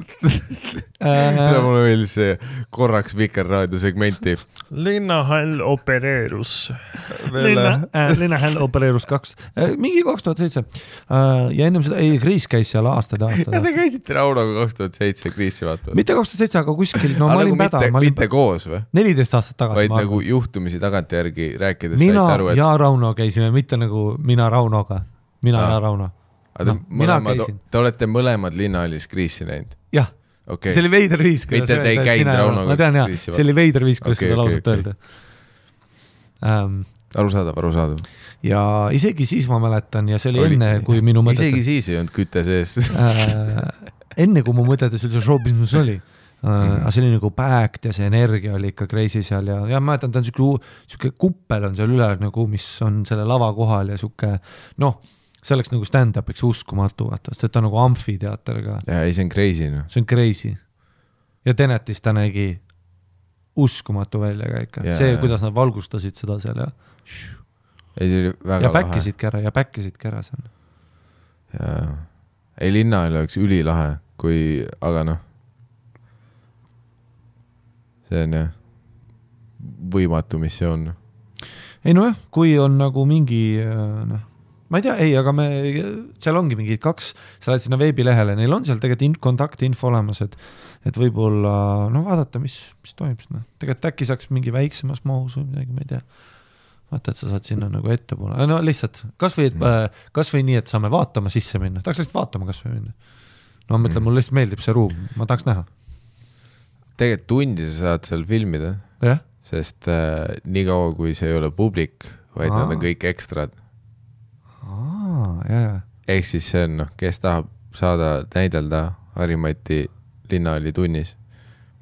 Mulle meeldis see korraks Vikerraadio segmenti.
Linnahall opereerus.
Linnahall opereerus 2. Mingi 2007. Ja ennem seda, Kriis käis seal aastad.
Ja te käisite Raunoga 2007 Kriisi vaatavad.
Mitte 2007, aga kuskil, ma olin päda.
Mitte koos või?
14 aastat tagasi.
Vaid nagu juhtumisi tagantjärgi rääkides.
Mina ja Rauno käisime, mitte nagu mina Raunoga. Mina ja Rauno.
Te olete mõlemad linnahallis Kriisi näinud?
Jah, see oli veider viis.
Mitte te ei käinud Raunoga
ma tean, jah, see oli veider viis, kuidas seda lausut öelda.
Arusaadav.
Ja isegi siis ma mäletan ja see oli enne, kui minu mõtetes...
Isegi siis ei olnud kütte sees.
Enne, kui mu mõtetes üldse show business oli. Aga see oli nagu backed ja see energia oli ikka crazy seal ja mäletan, ta on siuke kuppel on seal üle, nagu, mis on selle lava kohal ja siuke, see oleks nagu stand-upiks uskumatu, vaata, sest ta on nagu amfiteater ka.
Ja ei, see on crazy. No.
See on crazy. Ja Tenetis ta nägi uskumatu välja ka ikka. See, kuidas nad valgustasid seda seal ja...
Ei, see oli väga
ja päkkisidki ära seal.
Ja ei, linnahall oleks ülilahe, aga see on jah võimatu missioon.
Ei jah, kui on nagu mingi... Ma ei tea, aga seal ongi mingid 2, sa lähed sinna veebilehele, neil on seal tegelikult kontaktinfo olemas, et võib-olla, vaadata, mis toimub sinna. Tegelikult äkki saaks mingi väiksemas mahus või midagi, ma ei tea. Vaata, et sa saad sinna nagu ette poole. Lihtsalt, kas või nii, et saame vaatama sisse minna. Tahaks lihtsalt vaatama kas või minna. Ma mõtlen, mul lihtsalt meeldib see ruum, ma tahaks näha.
Tegelikult tundi sa saad seal filmida, sest nii kaua, kui see ei ole publik, vaid nad on kõik ekstrad. Ehk siis see on, kes tahab saada näidelda Harimati linnahalli tunnis,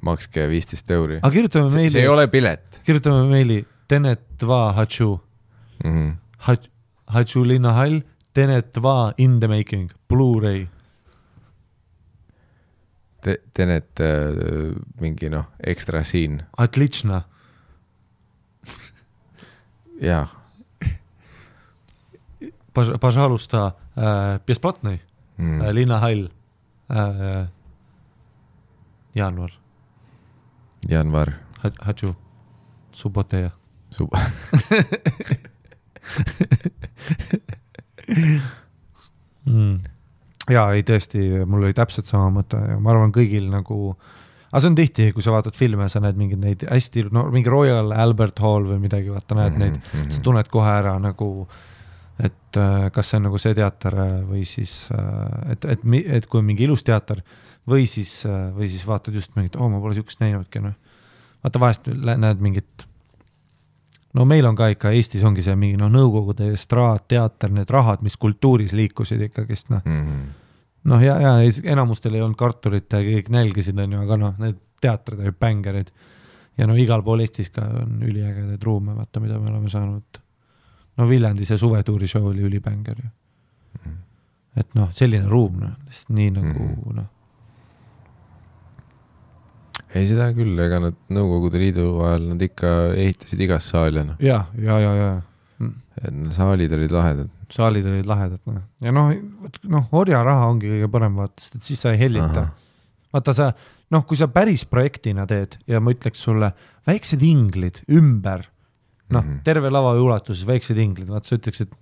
makske 15 €.
Aga kirjutame meili.
See ei ole pilet.
Kirjutame meili Tenet va Hachu. Hachu linnahall, Tenet va in the making, Blu-ray.
Tenet mingi ekstra siin.
Atlična.
Jaa.
Пожалуйста, бесплатный Linnahall Januar. Хочу. Suboteja. jaa, ei tõesti, mul oli täpselt sama mõte ja ma arvan kõigil nagu, aga see on tihti, kui sa vaatad filme, sa näed mingeid neid hästi, no mingi Royal Albert Hall või midagi, vaata näed neid, sa tunned kohe ära nagu, et kas see on nagu see teater või siis, et kui on mingi ilus teater või siis vaatad just mingit, ma pole siukest näinudki, noh. Vaata vahest näed mingit, no meil on ka ikka, Eestis ongi see mingi, nõukogude estraad, teater, need rahad, mis kultuuris liikusid ikkagist, noh. Noh, ja enamustel ei olnud kartulit ja kõik nälgisid, aga need teatrid olid bängerid. Ja igal pool Eestis ka on üliägedaid ruume, vaata, mida me oleme saanud. No Viljandi see suvetuuri show oli ülibänger. Et selline ruum, nii nagu,
Ei seda küll, ega nad Nõukogude Liidu ajal nad ikka ehitasid igas saali.
Ja.
Saalid olid lahedad.
Saalid olid lahedad. Ja orja raha ongi kõige parem vaatast, et siis sa ei hellita. Vaata sa, kui sa päris projektina teed ja ma ütleks sulle väiksed inglid ümber, terve lava ulatuses väiksed inglid, vaata sa ütleks, et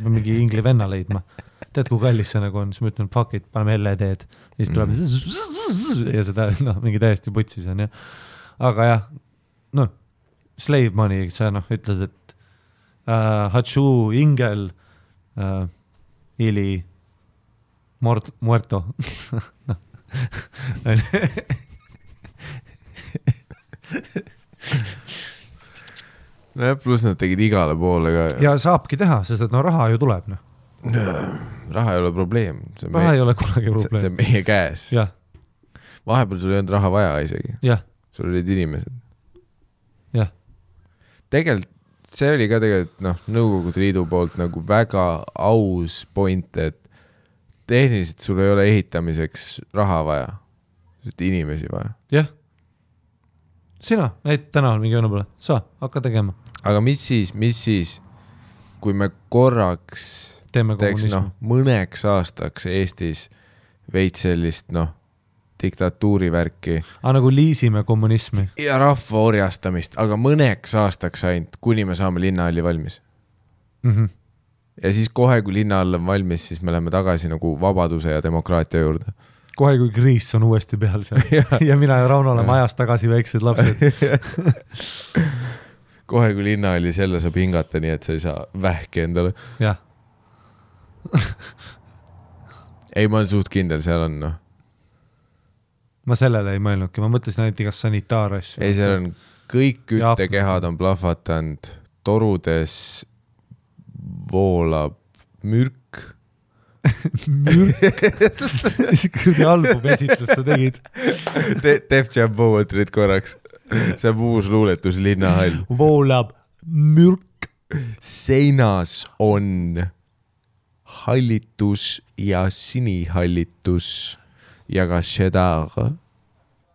mingi ingli venna leidma. Tead, kui kallis see nagu on, siis ma ütlen, fuck it, paneme LED-d ja siis tuleb ja seda mingi täiesti putsis on, ja. Aga jah, slave money, sa ütled, et Hachu ingel ili muerto.
Pluss nad tegid igale poole ka.
Ja saabki teha, sest et raha ju tuleb,
Raha ei ole probleem.
Raha ei ole kunagi probleem.
See on meie käes.
Ja.
Vahepeal sul ei olnud raha vaja isegi.
Ja.
Sul olid inimesed.
Ja.
Tegelikult see oli ka Nõukogude Liidu poolt nagu väga aus point, et tehniliselt sul ei ole ehitamiseks raha vaja. Sest inimesi vaja.
Jah. Sina näid täna mingi õnne pole. Sa, hakka tegema.
Aga mis siis, kui me korraks teeks mõneks aastaks Eestis veits sellist diktatuurivärki.
Nagu liisime kommunismi.
Ja rahva orjastamist, aga mõneks aastaks ainult, kuni me saame linnahalli valmis. Ja siis kohe, kui linnahall on valmis, siis me läheme tagasi nagu vabaduse ja demokraatia juurde.
Kohe, kui kriis on uuesti peal seal. ja mina ja Rauno oleme ajas tagasi väiksed lapsed.
Kohe, kui linnahallis jälle saab hingata, nii et sa ei saa vähki endale.
Jah.
Ei, ma olen suht kindel, seal on
Ma sellele ei mõelnudki, ma mõtlesin ainult igas sanitaarasju.
Ei, seal on kõik küttekehad on plahvatanud, torudes voolab mürk.
Mürk? Kõrdi album esitlus sa tegid.
Def Jam Poetry't korraks. See on uus luuletus linnahall.
Voolab mürk.
Seinas on hallitus ja sinihallitus ja ka šedar.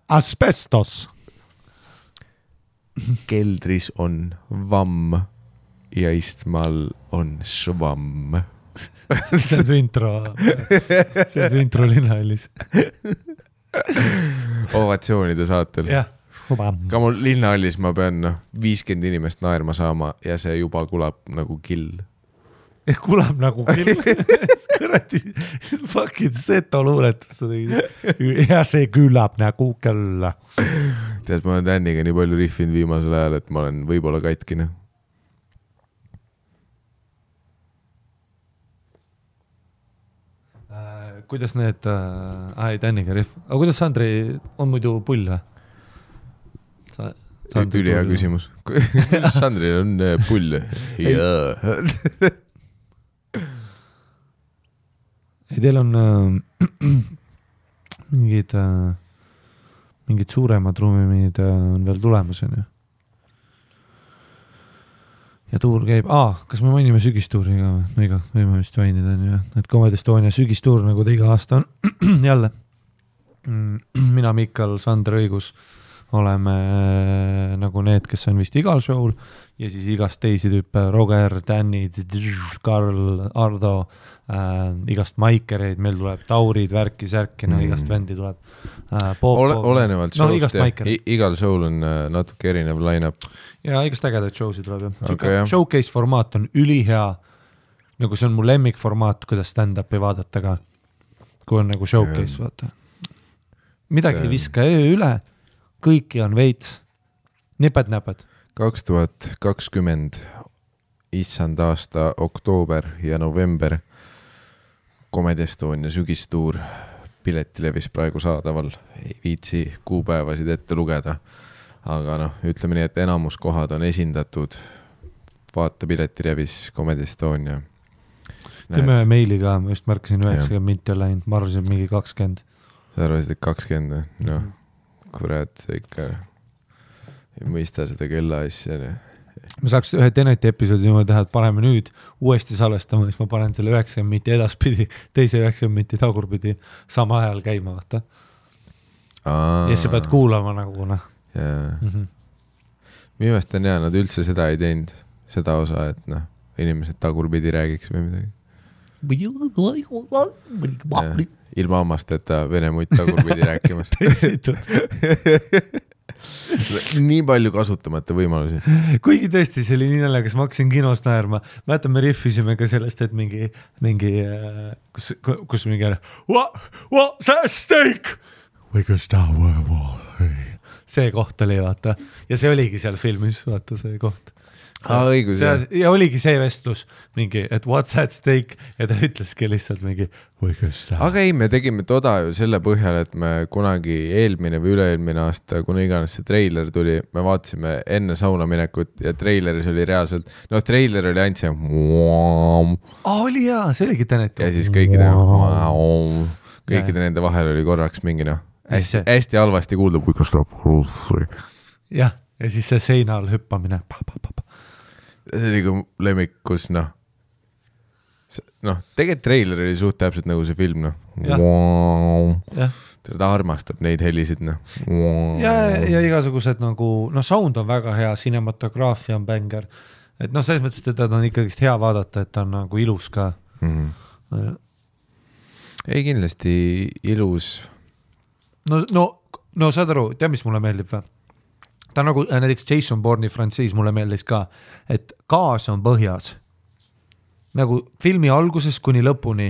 Asbestos.
Keldris on vamm ja istmal on švamm.
See on su intro. See on su intro linnahallis.
Ovatsioonide saatel.
Jah.
Ka mul linnahallis ma pean 50 inimest naerma saama ja see juba kulab nagu kill.
Kulab nagu kill. Kõrati, fucking seto luuletus. Ja see külab nagu kell.
Tead, ma olen Danniga nii palju riffinud viimasel ajal, et ma olen võib-olla katkine.
Kuidas need, Danniga riff. Aga kuidas Sandri on muidu pull või?
Ülihea küsimus. Sandril on pull. Jaa.
Ei, teil on mingid suuremad ruumid on veel tulemas, on ju? Ja tuur käib, kas me mainime sügistuuri ka? No iga, võime vist mainida, on ju. Et Comedy Estonia sügistuur, nagu ta iga aasta on jälle. Mina, Mikal, Sander Õigus oleme nagu need, kes on vist igal show'l ja siis igast teisi tüüpe, Roger, Danny, Karl, Ardo, igast maikereid, meil tuleb Taurid, värki, särkina, igast vendi tuleb.
Olenevalt show'st igal show'l on natuke erinev line-up.
Ja igast ägedaid show'si tuleb.
Okay,
showcase formaat on ülihea, nagu see on mu lemmik formaat, kuidas stand-upi vaadata ka. kui on nagu showcase, vaata. Midagi ei viska üle, kõiki on veits, niped-näped.
2020 issand aasta oktoober ja november Comedy Estonia sügistuur piletilevis praegu saadaval. Ei viitsi kuupäevasid ette lugeda, aga noh, ütleme nii, et enamus kohad on esindatud. Vaata piletilevis Comedy Estonia.
Teeme meili ka, ma just märkasin 90 minti on läinud, ma arvasin mingi 20.
Sa arvasid, et 20, noh, kurat, see ikka ei mõista seda kella asja.
Ma saaks ühe Teneti episoodi niimoodi teha, et paneme nüüd uuesti salvestama, siis ma panen selle 90 minti edaspidi, teise 90 minti tagurpidi sama ajal käima, vaata. Ja sa pead kuulama nagu, noh.
Minu meelest on hea, nad üldse seda ei teinud, seda osa, et noh, inimesed tagurpidi räägiks või midagi. Ilma hammasteta vene muid tagurpidi rääkimas. Nii palju kasutamata võimalusi.
Kuigi tõesti, see oli nii naljakas, ma hakkasin kinos naerma. Mäletan, me riffisime ka sellest, et mingi kus mingi what's that steak? See koht oli, vaata. Ja see oligi seal filmis, vaata see koht.
Õigus,
ja oligi see vestlus mingi, et what's that steak ja ta ütleski lihtsalt mingi
aga ei, me tegime toda ju selle põhjal, et me kunagi eelmine või üle-eelmine aasta, kuna iganes see treiler tuli, me vaatasime enne sauna minekut ja treileris oli reaalselt, no treiler oli ainult see
oli hea, see oligi Tenet
ja siis kõikide nende vahel oli korraks mingi noh, hästi halvasti kuulda
jah, ja siis see seina all hüppamine
see oli kui lemmikus, noh, tegelikult treiler oli suht täpselt nagu see film, ta armastab neid helisid,
ja igasugused nagu, sound on väga hea, cinematograafia on bänger, et selles mõttes, et ta on ikkagist hea vaadata, et ta on nagu ilus ka.
Ei, kindlasti ilus.
No saad aru, tea, mis mulle meeldib või? Ta on nagu näiteks Jason Bourne'i frantsiis mulle meeldis ka, et gaas on põhjas. Nagu filmi alguses kuni lõpuni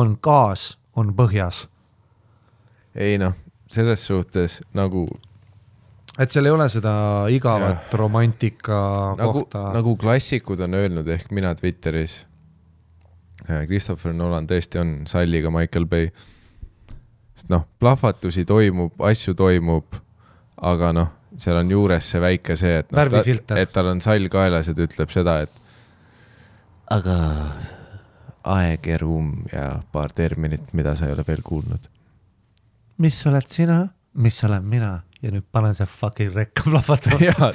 on gaas, on põhjas.
Ei selles suhtes nagu...
Et seal ei ole seda igavat romantika kohta.
Nagu klassikud on öelnud, ehk mina Twitteris. Christopher Nolan tõesti on salliga Michael Bay. Sest plahvatusi toimub, asju toimub, aga seal on juures see väike see, et tal on sall kaelas ja ta ütleb seda, et aga aeg ja ruum ja paar terminit, mida sa ei ole veel kuulnud.
Mis oled sina? Mis olen mina? Ja nüüd panen see fucking rekka plahvatama.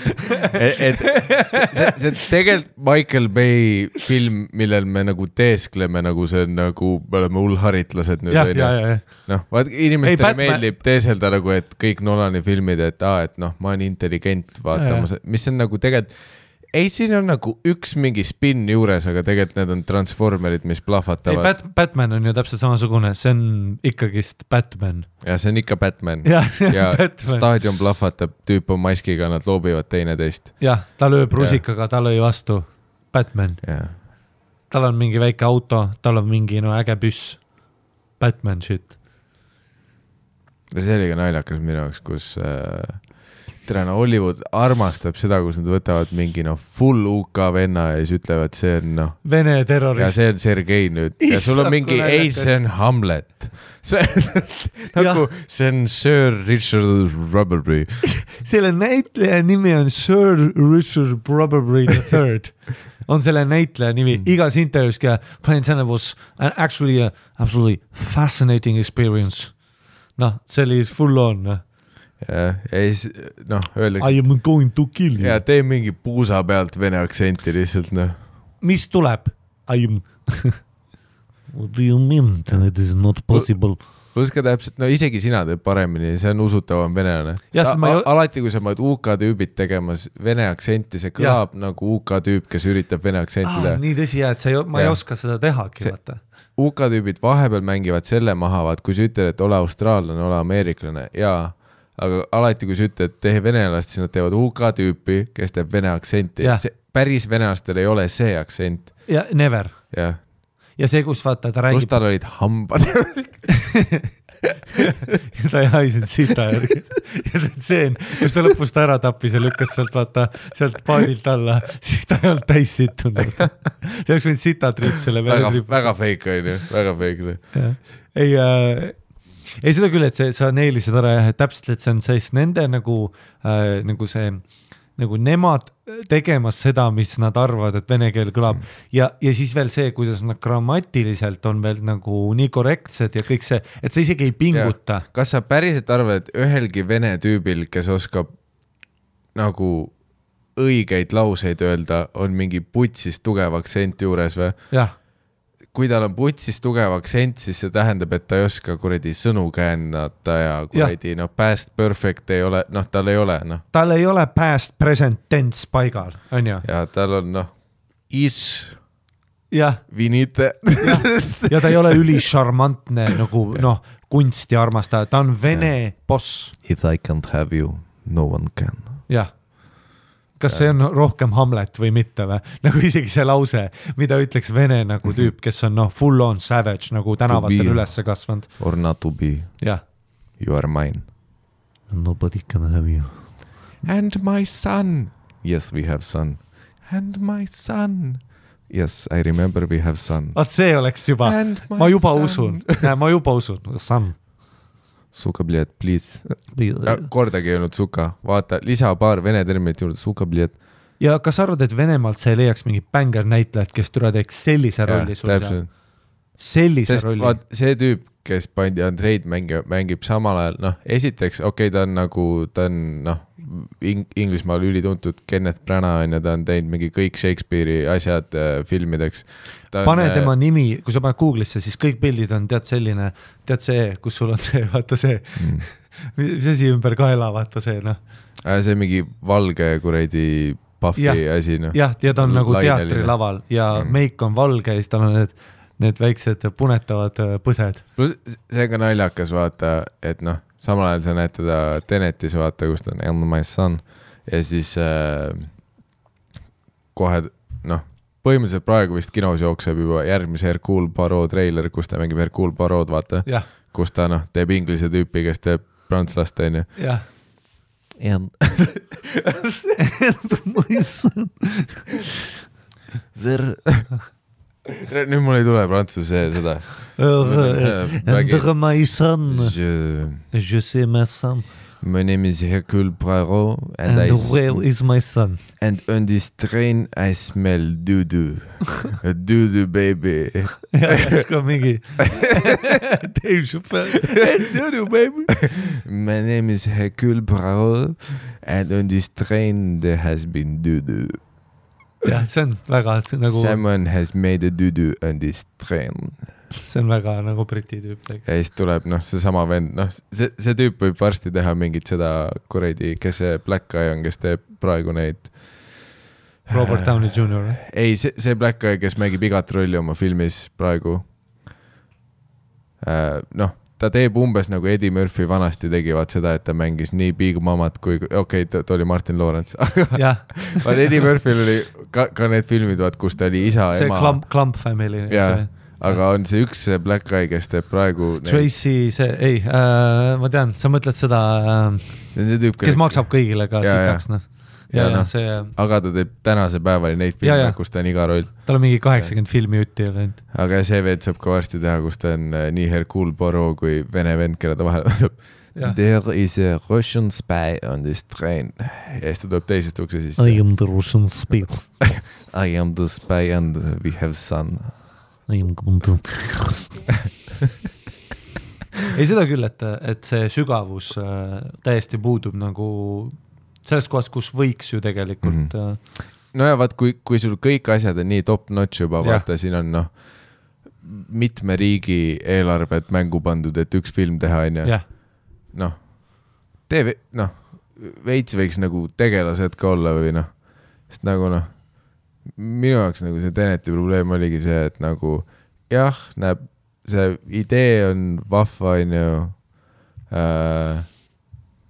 see tegelikult Michael Bay film, millel me nagu teeskleme, nagu see nagu me oleme hullharitlased nüüd. Vaat inimestele meeldib teeselda nagu, et kõik Nolani filmid, et ma olen intelligent vaatama, mis on nagu tegelikult ei, siin on nagu üks mingi spin juures, aga tegelikult need on transformerid, mis plahvatavad.
Batman on ju täpselt samasugune, see on ikkagist Batman.
Ja see on ikka Batman.
Ja
Batman. Staadion plahvatab, tüüp on maskiga, nad loobivad teine teist.
Jah, ta lööb rusikaga, ta lõi vastu. Batman. Tal on mingi väike auto, tal on mingi äge püss. Batman shit.
See oli ka naljakas minu jaoks, kus... Hollywood armastab seda, kus nad võtavad mingi full UK venna ja siis ütlevad, see on
Vene terrorist.
Ja see on Sergei nüüd. Ja sul on mingi, ei, see on Hamlet. See on Sir Richard Rubberbury.
Selle näitleja nimi on Sir Richard Rubberbury III. On selle näitleja nimi. Igas intervjuus ka Plain Santa was actually a absolutely fascinating experience. See oli full on.
Ja siis, öeldakse...
I am going to kill you.
Ja tee mingi puusa pealt vene aktsenti lihtsalt,
Mis tuleb? I am... What do you mean? It is not possible.
Pluska täpselt, isegi sina teed paremini, see on usutavam venelane. Alati, kui sa maad UK tüübid tegemas vene aktsenti, see kõlab nagu UK tüüp, kes üritab vene aktsenti teha.
Nii tõsi, et ma ei oska seda tehagi, vaata.
UK tüübid vahepeal mängivad selle maha, kui sa ütled, et ole austraallane, ole ameeriklane, aga alati, kui sa ütled, et tee venelast, siis nad teevad UK tüüpi, kes teeb vene aktsenti. Päris venelastel ei ole see aktsent.
Ja never.
Jah.
ja see, kus vaata, ta räägib.
Kus tal olid hambad.
ja ta ei haisinud sita järgi. ja see tseen, kus ta lõpus ta ära tappis ja lükkas sealt vaata, sealt paadilt alla, siis ta ei olnud täis sittunud. see oleks võinud sitatriip selle
väga fake on ju, väga fake.
Ei seda küll, et sa neelisid ära jah, et täpselt, et see on siis nende nagu see, nagu nemad tegemas seda, mis nad arvavad, et vene keel kõlab ja siis veel see, kuidas nad grammatiliselt on veel nagu nii korrektsed ja kõik see, et sa isegi ei pinguta.
Ja. Kas sa päriselt arvad, et ühelgi vene tüübil, kes oskab nagu õigeid lauseid öelda, on mingi putsist tugev aktsent juures või?
Jah.
Kui tal on putsis tugev aktsent, siis see tähendab, et ta ei oska kuradi sõnu käännata ja kuradi past perfect ei ole, tal ei ole.
Tal ei ole past present tense paigal, on ju?
Ja tal on is vinite.
ja ta ei ole ülisharmantne nagu kunsti armastaja, ta on vene boss.
If I can't have you, no one can.
Jah. Kas see on rohkem Hamlet või mitte või? Nagu isegi see lause, mida ütleks vene nagu tüüp, kes on full on savage nagu tänavatel ülesse kasvanud.
Or not to be.
Yeah.
You are mine.
Nobody can have you.
And my son. Yes, we have son. And my son. Yes, I remember we have son.
See oleks juba. Ma juba usun. Son.
Suka, bled, please. Kordagi ei olnud suka. Vaata, lisa paar vene terminit juurde. Suka, bled.
Ja kas arvad, et Venemaalt sa ei leiaks mingi bängar näitlejad, kes türa teeks sellise rolli sul seal? Sellise rolli.
Vaat, see tüüp, kes pandi Andreid mängib samal ajal, esiteks, ta on nagu, ta on, Inglismaal ülituntud Kenneth Branagh ja ta on teinud mingi kõik Shakespeare'i asjad filmideks.
Pane tema nimi, kui sa paned Google'isse, siis kõik pildid on tead selline, tead see, kus sul on see, vaata see, mis asi ümber kaela, vaata see,
See mingi valge kuradi Puffy asi,
Jah, ja ta on nagu teatrilaval ja meik on valge ja siis tal on need väiksed punetavad põsed.
See on ka naljakas, vaata, et samal ajal sa näed teda Tenetis, vaata, kus ta on And my son ja siis kohe, põhimõtteliselt praegu vist kinos jookseb juba järgmise Hercule Poirot treiler, kus ta mängib Hercule Poirot, vaata, kus ta teeb inglise tüüpi, kes teeb prantslast, on ju.
Jah.
And my son. Nüüd mul ei tule prantsuse seda.
And my son. Je sais my son.
My name is Hercule Poirot.
And where is my son?
And on this train I smell doo-doo. A doo-doo baby.
Ja, ka mingi. Dave Chappelle. It's doo-doo baby.
My name is Hercule Poirot. And on this train there has been doo-doo.
Ja, see on väga nagu...
Someone has made a doo-doo on this train.
See on väga nagu briti tüüp.
Ja siis tuleb see sama vend, see tüüp võib varsti teha mingit seda kuradi, kes see Black Guy on, kes teeb praegu neid
Robert Downey Jr.
Ei, see Black Guy, kes mängib igat rolli oma filmis praegu. Ta teeb umbes nagu Eddie Murphy vanasti tegivad seda, et ta mängis nii Big Mamat kui, ta oli Martin Lawrence. Vaat Eddie Murphyl oli ka need filmid, kus ta oli isa,
see
ema.
See Clump Family.
Aga on see üks Black Guy, kes teeb praegu...
Tracy, ma tean, sa mõtled seda, kes maksab kõigile ka sitaks.
Aga ta teeb tänase päevali neid filme, kus ta on iga roll.
Tal on mingi 80 filmi jutti.
Aga see veed saab ka varsti teha, kus ta on nii Hercule Poirot kui vene vend, kelle ta vahel võtab. There is a Russian spy on this train. Ja siis ta tuleb teisest ukse sisse.
I am the Russian spy.
I am the spy and we have son.
I am kundu. Ei seda küll, et see sügavus täiesti puudub nagu selles kohas, kus võiks ju tegelikult.
No ja vaat, kui sul kõik asjad on nii top notch juba, vaata, siin on mitme riigi eelarvet mängu pandud, et üks film teha, on ju. Veits võiks nagu tegelased ka olla või sest nagu minu jaoks nagu see Teneti probleem oligi see, et nagu näeb, see idee on vahva, on ju,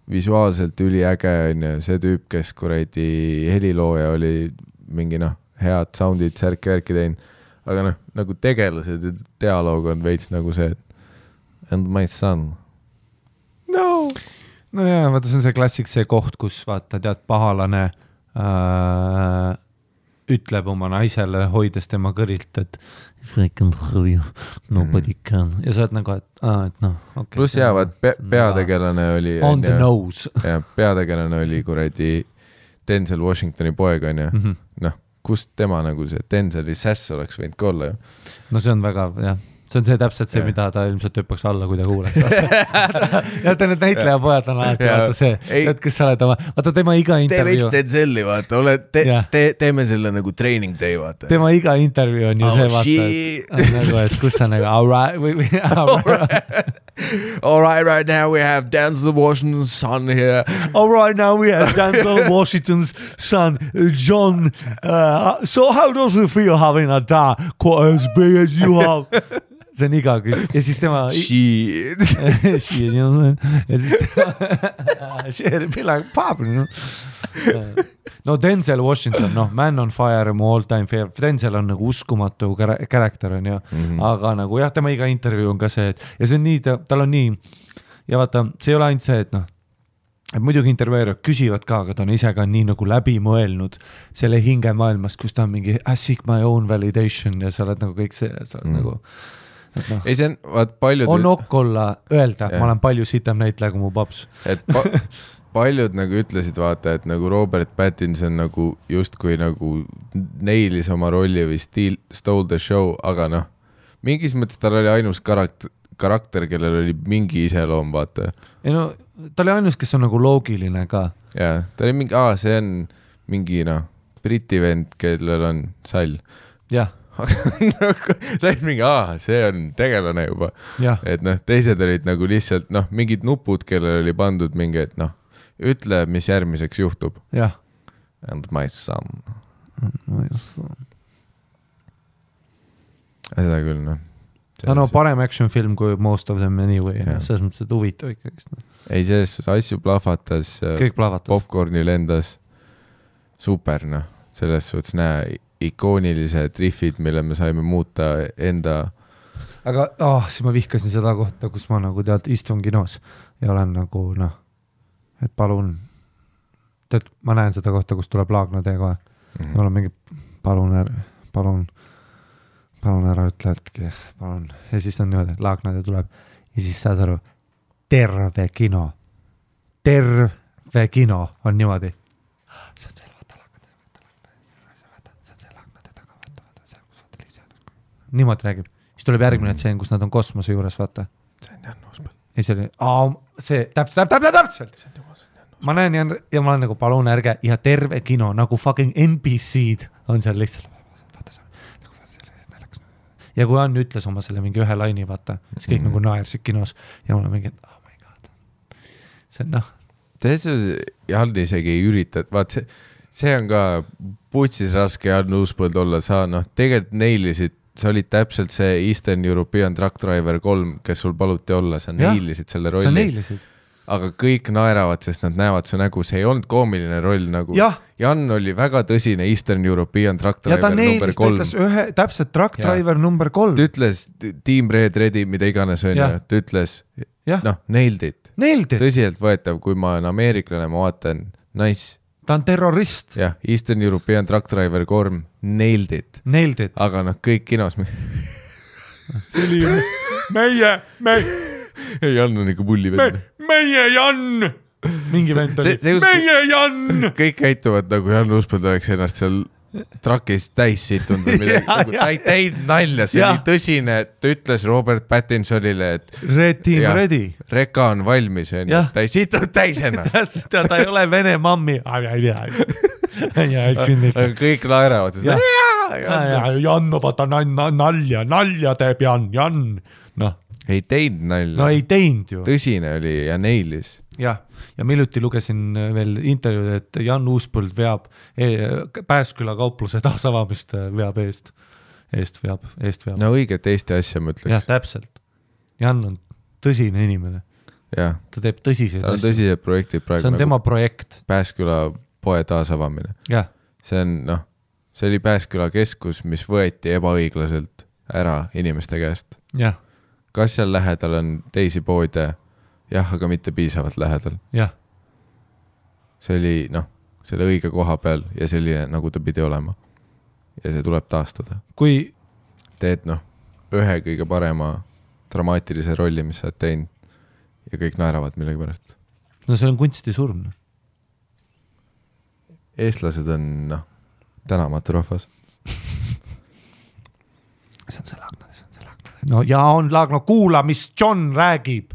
visuaalselt üliäge, on ju, see tüüp, kes kuradi helilooja oli mingi head soundid särki tein, aga noh, nagu tegelased ja dialoog on veits nagu see, et and my son. No
jaa, vaata, see on see klassik, see koht, kus vaata, tead, pahalane ütleb oma naisele, hoides tema kõrilt, et if I can hurry you, nobody can. Ja sa oled nagu, et noh, okay.
Plus jäävad, peategelane oli
on the nose.
Ja peategelane oli kuradi Denzel Washingtoni poeg on ju. Noh, kust tema nagu see Denzeli sass oleks võinud ka olla ju.
No see on väga, jah. See on see täpselt see, mida ta ilmselt hüppaks alla, kui ta kuuleks. Ja ta need näitlejapojad on alati, vaata see, et kes sa oled oma, vaata tema iga intervjuu.
Tee veits Denzeli, vaata, teeme selle nagu training day, vaata.
Tema iga intervjuu on ju see, vaata, nagu, et kus sa nagu,
all right now we have Denzel Washington's son here.
All right now we have Denzel Washington's son, John. So how does it feel having a dad quite as big as you have? See on iga küs. Ja siis tema...
Shit.
Shit, ja siis tema... Shit, be like pop, you know? No Denzel Washington, noh, Man on Fire, mu all time favorite. Denzel on nagu uskumatu karakter on ju, aga nagu jah, tema iga intervjuu on ka see, et ja see on nii, tal on nii ja vaata, see ei ole ainult see, et noh, et muidugi intervjueerijad küsivad ka, aga ta on ise ka nii nagu läbi mõelnud selle hingemaailmast, kus ta on mingi I seek my own validation ja sa oled nagu kõik see, sa oled nagu no,
ei, see on, vaat paljud...
On okk olla öelda, ma olen palju sitem näitleja kui mu paps.
Et paljud nagu ütlesid, vaata, et nagu Robert Pattinson nagu justkui nagu neilis oma rolli või stole the show, aga noh, mingis mõttes tal oli ainus karakter, kellel oli mingi iseloom, vaata.
Ei no, ta oli ainus, kes on nagu loogiline ka.
Jaa, ta oli mingi, see on mingi noh, briti vend, kellel on sall.
Jah.
sa olid mingi, see on tegelane juba. Ja. Et noh, teised olid nagu lihtsalt noh, mingid nupud, kellel oli pandud mingi, et noh, ütle, mis järgmiseks juhtub.
Jah.
And my son.
My son.
Seda küll, noh.
No, parem action film kui most of them anyway. Selles mõttes, et huvitav ikkagist. No.
Ei, selles asju plahvatas.
Kõik plahvatas.
Popcorni lendas. Super, noh. Selles suhtes näe ikoonilised riffid, mille me saime muuta enda...
Aga siis ma vihkasin seda kohta, kus ma nagu tead istun kinos ja olen nagu noh, et palun, tead, ma näen seda kohta, kus tuleb Laagna tee kohe. Ja ma olen mingi, palun ära ütle, et palun. Ja siis on niimoodi, Laagna tee tuleb ja siis saad aru, terve kino on niimoodi. Niimoodi räägib. Siis tuleb järgmine tseen, kus nad on kosmose juures, vaata.
See on Jan Uuspõld.
Ei, see oli, see täpselt. Ma näen ja ma olen nagu palun ärge ja terve kino, nagu fucking NBC-d on seal lihtsalt. Ja kui Ann ütles oma selle mingi ühe laini, vaata, siis kõik nagu naersid kinos ja mul on mingi, oh my god. See on noh.
Jan isegi ei ürita, vaat see on ka putsis raske Jan Uuspõld olla, sa noh, tegelikult neilisid, sa olid täpselt see Eastern European Truck Driver 3, kes sul paluti olla, sa neilisid selle rolli.
Sa neilisid.
Aga kõik naeravad, sest nad näevad su nägu, see ei olnud koomiline roll nagu. Jan oli väga tõsine Eastern European Truck Driver number 3. Ja ta
neilist ütles täpselt Truck Driver number 3.
Ta ütles Team Red Ready, mida iganes on ja ta ütles, noh, nailed it. Tõsiselt võetav, kui ma olen ameeriklane, ma vaatan, nice.
Ta on terrorist.
Jah, Eastern European Truck Driver 3, nailed it. Aga noh, kõik kinos.
See oli meie.
Jan on ikka pulli vend.
Meie Jan!
Mingi vend oli.
Meie Jan!
Kõik käituvad nagu Jan Uuspõld oleks ennast seal trakis täis situnud või midagi. Ta ei teinud nalja, see oli tõsine, ta ütles Robert Pattinsonile, et
Red Team Ready.
Reka on valmis, ta ei situnud täis ennast.
Ta ei ole vene mammi.
Aga kõik naeravad.
Jan, vaata nalja teeb Jan.
Ei teinud nalja.
No ei teinud ju.
Tõsine oli ja neilis.
Jah, ja miljuti lugesin veel intervjuud, et Jan Uuspõld veab Pääsküla kaupluse taasavamist veab eest veab.
No õiget Eesti asja ma ütleks.
Jah, täpselt. Jan on tõsine inimene.
Jah.
Ta teeb tõsiseid
asju. Ta on tõsised projektid praegu.
See on tema projekt.
Pääsküla poe taasavamine.
Jah.
See on, noh, see oli Pääsküla keskus, mis võeti ebaõiglaselt ära inimeste käest.
jah,
Kas seal lähedal on teisi poode? Jah, aga mitte piisavalt lähedal.
jah.
See oli, selle õige koha peal ja selline, nagu ta pidi olema. Ja see tuleb taastada.
Kui
Teed, ühe kõige parema dramaatilise rolli, mis sa oled teinud ja kõik naeravad millegi pärast.
no see on kunstisurm.
Eestlased on, tänamatu rahvas.
See on see Laagna. No ja on Laagna, kuula, mis John räägib.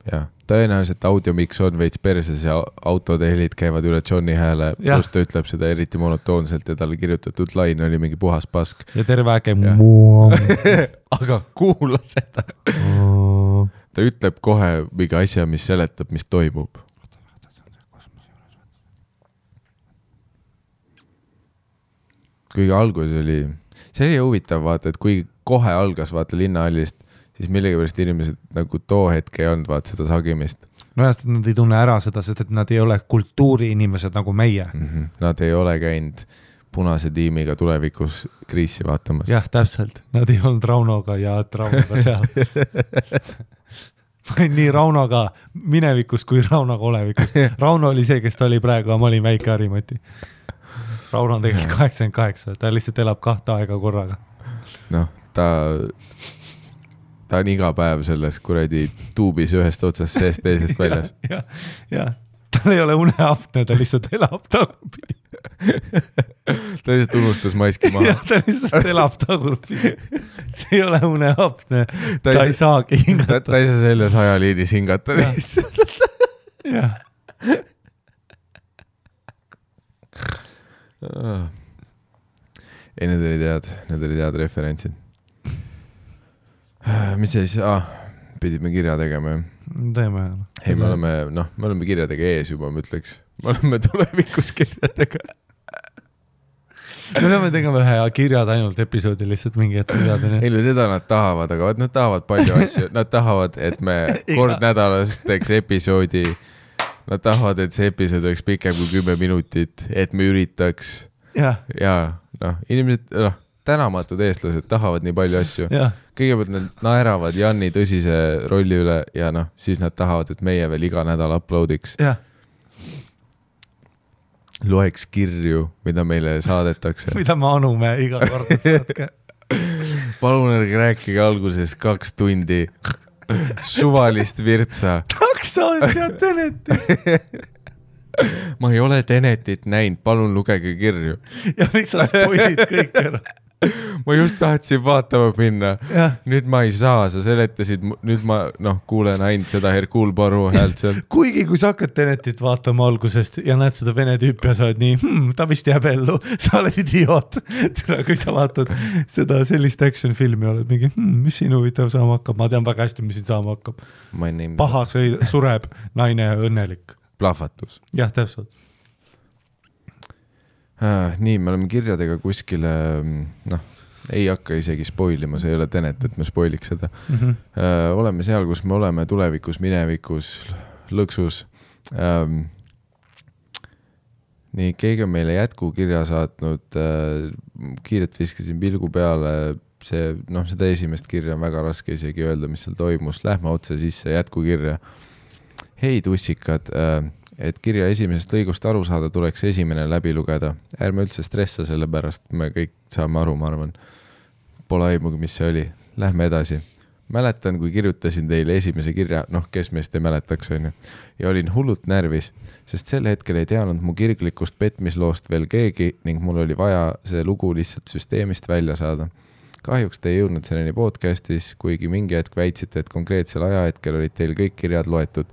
Ja, tõenäoliselt audiomix on veits perses ja autode helid käivad üle Johni hääle, plus ta ütleb seda eriti monotoonselt ja talle kirjutatud lain oli mingi puhas pask.
Ja terve äge
aga kuula seda. Ta ütleb kohe mingi asja, mis seletab, mis toimub. Kuigi algus oli, see oli huvitav vaata, et kui kohe algas vaata linnahallist, siis millegipärast inimesed nagu too hetke ei olnud vaata seda sagimist.
no jast, et nad ei tunne ära seda, sest et nad ei ole kultuuriinimesed nagu meie.
Nad ei ole käinud punase tiimiga tulevikus kriisi vaatamas.
jah, täpselt. Nad ei olnud Raunoga ja Raunoga seal. Ma olin nii Raunoga minevikus kui Raunoga olevikus. Rauno oli see, kes ta oli praegu, aga ma olin väike Harimati. Rauno on tegelikult 88, ta lihtsalt elab 2 aega korraga.
Ta on iga päev selles kuradi tuubis ühest otsast seest teisest väljas.
ja, tal ei ole uneapne, ta lihtsalt elab tagurpidi.
Ta lihtsalt unustas maski maha.
Ta lihtsalt elab tagurpidi. See ei ole uneapne, ta ei saagi hingata.
Ta ei saa selles ajaliinis hingata lihtsalt.
Jah.
Ei, need olid head referentsid. Mis siis? Pidime kirja tegema.
Teeme.
Ei, me oleme kirjadega ees juba, ma ütleks. Me oleme tulevikus kirjadega.
Me peame tegema ühe kirjad ainult episoodi lihtsalt mingi hetk kirjadeni.
Ei, seda nad tahavad, aga nad tahavad palju asju. Nad tahavad, et me kord nädalas teeks episoodi. Nad tahavad, et see episood oleks pikem kui 10 minutit, et me üritaks. Ja inimesed, tänamatud eestlased tahavad nii palju asju. Kõigepealt nad naeravad Janni tõsise rolli üle ja siis nad tahavad, et meie veel iga nädal uploadiks. Loeks kirju, mida meile saadetakse.
Mida me anume iga kord saatke.
Palun ärge rääkige alguses 2 tundi suvalist virtsa.
Taksost ja Tenetit.
Ma ei ole Tenetit näinud, palun lugege kirju.
Ja miks sa spoilid kõik ära?
Ma just tahtsin vaatama minna. Nüüd ma ei saa, sa seletasid, nüüd ma kuulen ainult seda Hercule Poirot häält seal.
Kuigi kui sa hakkad Tenetit vaatama algusest ja näed seda vene tüüpi ja sa oled nii, ta vist jääb ellu, sa oled idioot. Kui sa vaatad seda sellist action filmi, oled mingi, mis siin huvitav saama hakkab, ma tean väga hästi, mis siin saama hakkab. Paha sureb, naine õnnelik.
Plahvatus.
Jah, täpselt.
Nii, me oleme kirjadega kuskile, ei hakka isegi spoilima, see ei ole Tenet, et me spoiliks seda. Oleme seal, kus me oleme tulevikus, minevikus, lõksus. Nii, keegi on meile jätkukirja saatnud, kiiret viskasin pilgu peale, seda esimest kirja on väga raske isegi öelda, mis seal toimus. Lähme otse sisse jätkukirja. Hei tussikad, et kirja esimesest lõigust aru saada, tuleks esimene läbi lugeda. Ärme üldse stressa selle pärast, me kõik saame aru, ma arvan. Pole aimugi, mis see oli. Lähme edasi. Mäletan, kui kirjutasin teile esimese kirja, kes meist ei mäletaks, on ju. Ja olin hullult närvis, sest sel hetkel ei teadnud mu kirglikust petmisloost veel keegi ning mul oli vaja see lugu lihtsalt süsteemist välja saada. Kahjuks te ei jõudnud selleni podcastis, kuigi mingi hetk väitsite, et konkreetsel ajahetkel olid teil kõik kirjad loetud.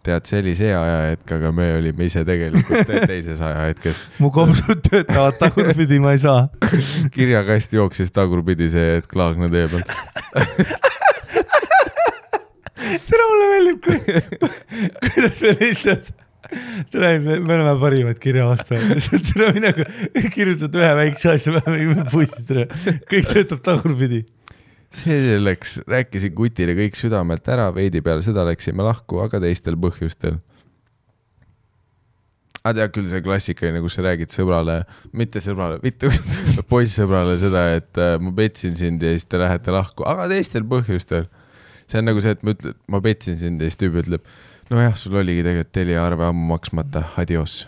Tead, see oli see ajahetk, aga me olime ise tegelikult teises ajahetkes.
Mu kopsud töötavad tagurpidi, ma ei saa.
Kirjakast jooksis tagurpidi see, et Klaagna teeb.
Tere, mulle meeldib, kuidas see lihtsalt... me oleme parimad kirjavastajad. Kirjutad ühe väikse asja, me pussid. Kõik töötab tagurpidi.
See selleks, rääkisin Kutile kõik südamelt ära, veidi peale seda läksime lahku, aga teistel põhjustel. tead küll see klassikaline, kus sa räägid sõbrale, mitte poissõbrale seda, et ma petsin sind ja siis te lähete lahku, aga teistel põhjustel. See on nagu see, et ma petsin sind ja siis tüübi ütleb, nojah, sul oligi tegelikult teliarve ammu maksmata, adios.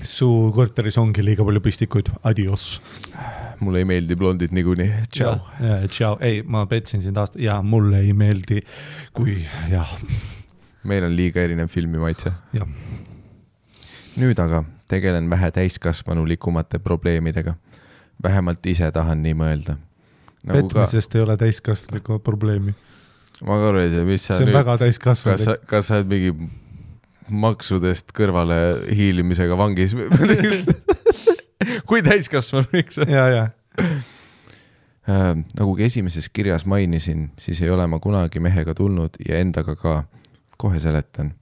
Su korteris ongi liiga palju pistikuid, adios.
Mulle ei meeldi blondid niikuinii, tšau.
Tšau, ei, ma petsin sind aasta ja mulle ei meeldi, kui jah.
Meil on liiga erinev filmi maitse.
Jah.
Nüüd aga tegelen vähe täiskasvanulikumate probleemidega. Vähemalt ise tahan nii mõelda. Nagu
petmisest ei ole täiskasvanulikku probleemi.
Ma ka ei tea, mis sa
see on nüüd, väga täiskasvanulik.
Kas sa oled mingi maksudest kõrvale hiilimisega vangis? Kui täiskasvanulik sa?
Ja.
Nagu esimeses kirjas mainisin, siis ei ole ma kunagi mehega tulnud ja endaga ka. Kohe seletan.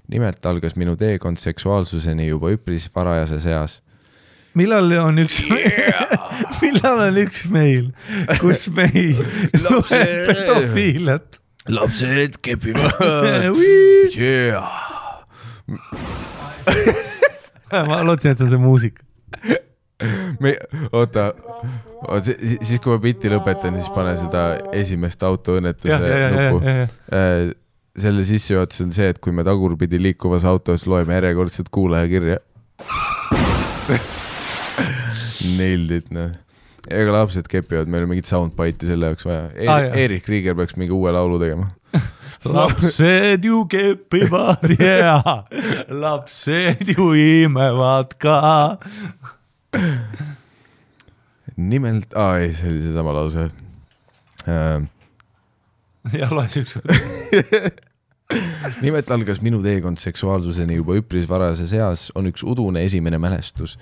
Nimelt algas minu teekond seksuaalsuseni juba üpris varajases eas.
Millal on üks meil, kus me ei loe pedofiilet?
Lapsed kepivad.
Ma lootsin, et see on see muusik.
Oota, siis kui ma bitti lõpetan, siis pane seda esimest autoõnnetuse nupu. Selle sissejuhatus on see, et kui me tagurpidi liikuvas autos loeme järjekordselt kuulajakirja. Nailed, noh. Ega lapsed kepivad, meil on mingit soundbite'i selle jaoks vaja. Erik Krieger peaks mingi uue laulu tegema.
Lapsed ju kepivad, lapsed ju imevad ka.
Nimelt, ei, see oli see sama lause.
Ja loe üks.
Nimelt algas minu teekond seksuaalsuseni juba üpris varajases eas on üks udune esimene mälestus,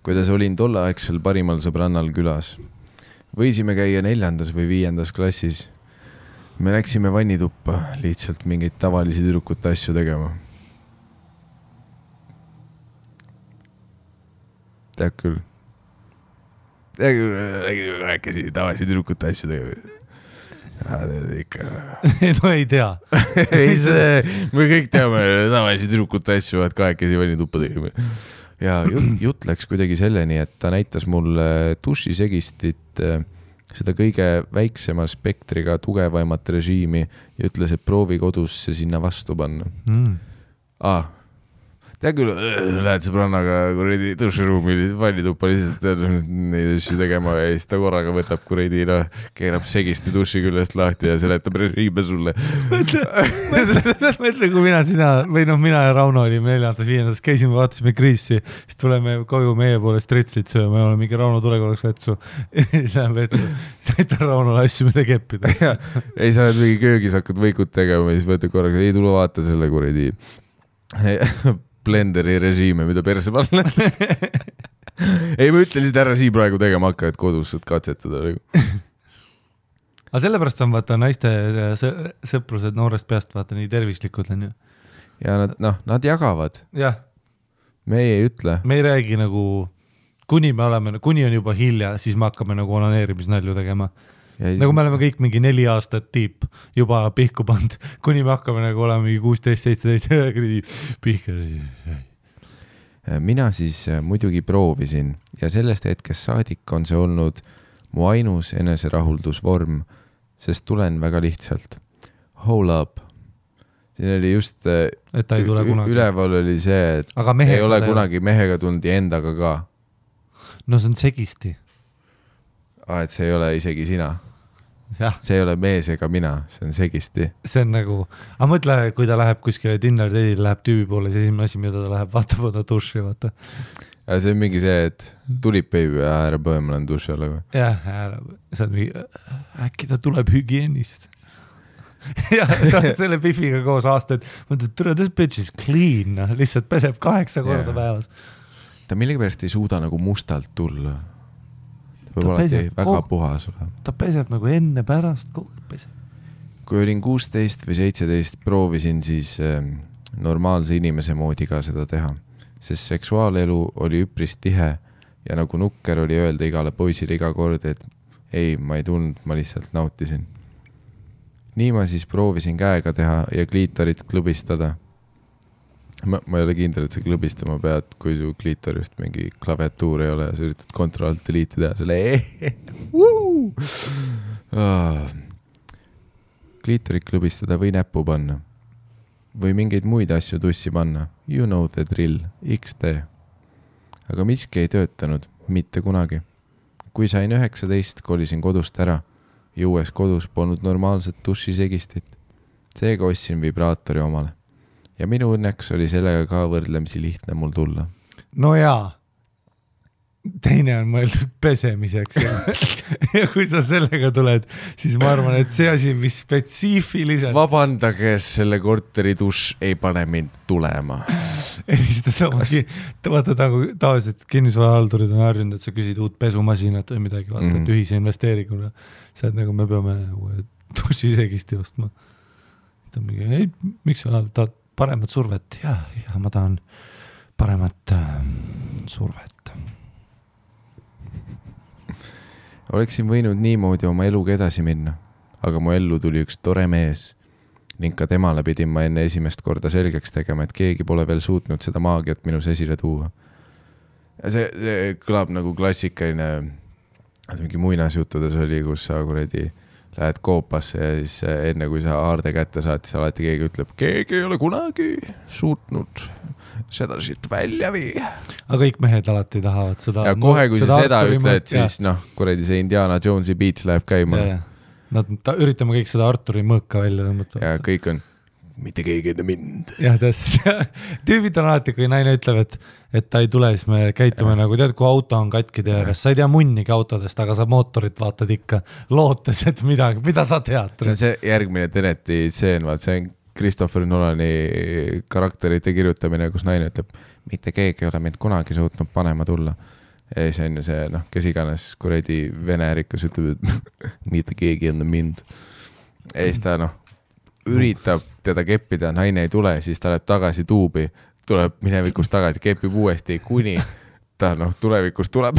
kuidas olin tolleaegsel parimal sõbrannal külas. Võisime käia 4. või 5. klassis. Me läksime vannituppa lihtsalt mingeid tavalisi tüdrukute asju tegema. Tead küll. Rääkisi tavalisi tüdrukute asju tegema. Ikka.
No ei tea.
Me kõik teame tavalisi tüdrukute asju, et kahekesi vannituppa tegime. Ja jutt läks kuidagi selleni, et ta näitas mulle dušisegistit, seda kõige väiksema spektriga tugevaimat režiimi ja ütles, et proovi kodus see sinna vastu panna. Tea küll, lähed sõbrannaga kuredi duširuumi vannituppa lihtsalt neid asju tegema ja siis ta korraga võtab kuredi, keerab segisti duši küljest lahti ja seletab režiime sulle.
Mõtle, kui mina ja Rauno olime 4. 5. käisime, vaatasime Kriisi, siis tuleme koju meie poole stretslit sööma ja oleme mingi Rauno tule korraks vetsu. Siis läheb vetsu, näitan Raunole asju, mida keppida.
Ei, sa oled mingi köögis hakkad võikut tegema ja siis võtad korraga, ei tule vaata selle kuredi blenderi režiime, mida perse panna. Ei, ma ütlen lihtsalt ära siin praegu tegema hakka, et kodus saad katsetada.
Aga sellepärast on vaata naiste sõprused noorest peast vaata nii tervislikud on ju.
Ja nad jagavad.
Jah.
Me ei ütle.
Me ei räägi nagu, kuni on juba hilja, siis me hakkame nagu onaneerimisnalju tegema. Nagu me oleme kõik mingi 4 aastat tiip juba pihku pand, kuni me hakkame nagu olema mingi 16-17 pihka.
Mina siis muidugi proovisin ja sellest hetkest saadik on see olnud mu ainus eneserahuldusvorm, sest tulen väga lihtsalt. Hold up. Siin oli just,
et ei tule kunagi.
Üleval oli see, et ei ole kunagi mehega tulnud ja endaga ka.
No see on segisti.
Et see ei ole isegi sina.
Ja.
See ei ole mees ega mina, see on segisti.
See on nagu, aga mõtle, kui ta läheb kuskile dinner date'ile, läheb tüübi poole, see esimene asi, mida ta läheb, vaatab ta duši, vaata.
Ja see on mingi see, et tulib baby ja ära põe, ma olen duši alla.
Jah, see on mingi, äkki ta tuleb hügienist. Ja sa oled selle pifiga koos aastaid, mõtled, tere, this bitch is clean, lihtsalt peseb 8 korda päevas.
Ta millegipärast ei suuda nagu mustalt tulla. Peab alati väga puhas olema.
Ta peseb nagu enne pärast, peseb.
Kui olin 16 või 17, proovisin siis normaalse inimese moodi ka seda teha, sest seksuaalelu oli üpris tihe ja nagu nukker oli öelda igale poisile iga kord, et ei, ma ei tulnud, ma lihtsalt nautisin. Nii ma siis proovisin käega teha ja kliitorit klubistada. ma ei ole kindel, et sa klõbistama pead, kui su kliitorist mingi klaviatuur ei ole ja sa üritad Ctrl-Alt-Delete teha selle kliitorit klõbistada või näppu panna või mingeid muid asju tussi panna. You know the drill, XD. Aga miski ei töötanud, mitte kunagi. Kui sain 19, kolisin kodust ära ja uues kodus polnud normaalset dušisegistit. Seega ostsin vibraatori omale. Ja minu õnneks oli sellega ka võrdlemisi lihtne mul tulla.
No jaa, teine on mõeldud pesemiseks ja kui sa sellega tuled, siis ma arvan, et see asi, mis spetsiifiliselt
Vabandage, selle korteri duš ei pane mind tulema.
Vaata, tavaliselt kinnisvarahaldurid on harjunud, et sa küsid uut pesumasinat või midagi, vaata, et ühise investeeringuna. See on nagu, me peame dušisegisti ostma. Ei, miks sa tahad paremat survet? Ja ma tahan paremat survet.
Oleksin võinud niimoodi oma eluga edasi minna, aga mu ellu tuli üks tore mees ning ka temale pidin ma enne esimest korda selgeks tegema, et keegi pole veel suutnud seda maagiat minus esile tuua. Ja see kõlab nagu klassikaline, mingi muinasjuttudes oli, kus sa kuradi lähed koopasse ja siis enne kui sa aarde kätte saad, siis alati keegi ütleb, keegi ei ole kunagi suutnud seda siit välja vii.
Aga kõik mehed alati tahavad seda.
Ja kohe, kui sa seda ütled, siis kuradi see Indiana Jonesi beats läheb käima.
Nad üritame kõik seda Arturi mõõka välja tõmmata.
Ja kõik on, mitte keegi enne mind.
Ja tüübid on alati, kui naine ütleb, et ta ei tule, siis me käitume nagu, tead, kui auto on katki teeres, sa ei tea munnigi autodest, aga sa mootorit vaatad ikka lootes, et midagi, mida sa tead.
See on see järgmine Teneti stseen, see on Christopher Nolani karakterite kirjutamine, kus naine ütleb, mitte keegi ei ole mind kunagi suutnud panema tulla. Ja see on see, kes iganes kuradi vene rikas ütleb, et mitte keegi enne mind. Ja siis ta üritab teda keppida, naine ei tule, siis ta läheb tagasi tuubi, tuleb minevikust tagasi, kepib uuesti, kuni ta tulevikust tuleb.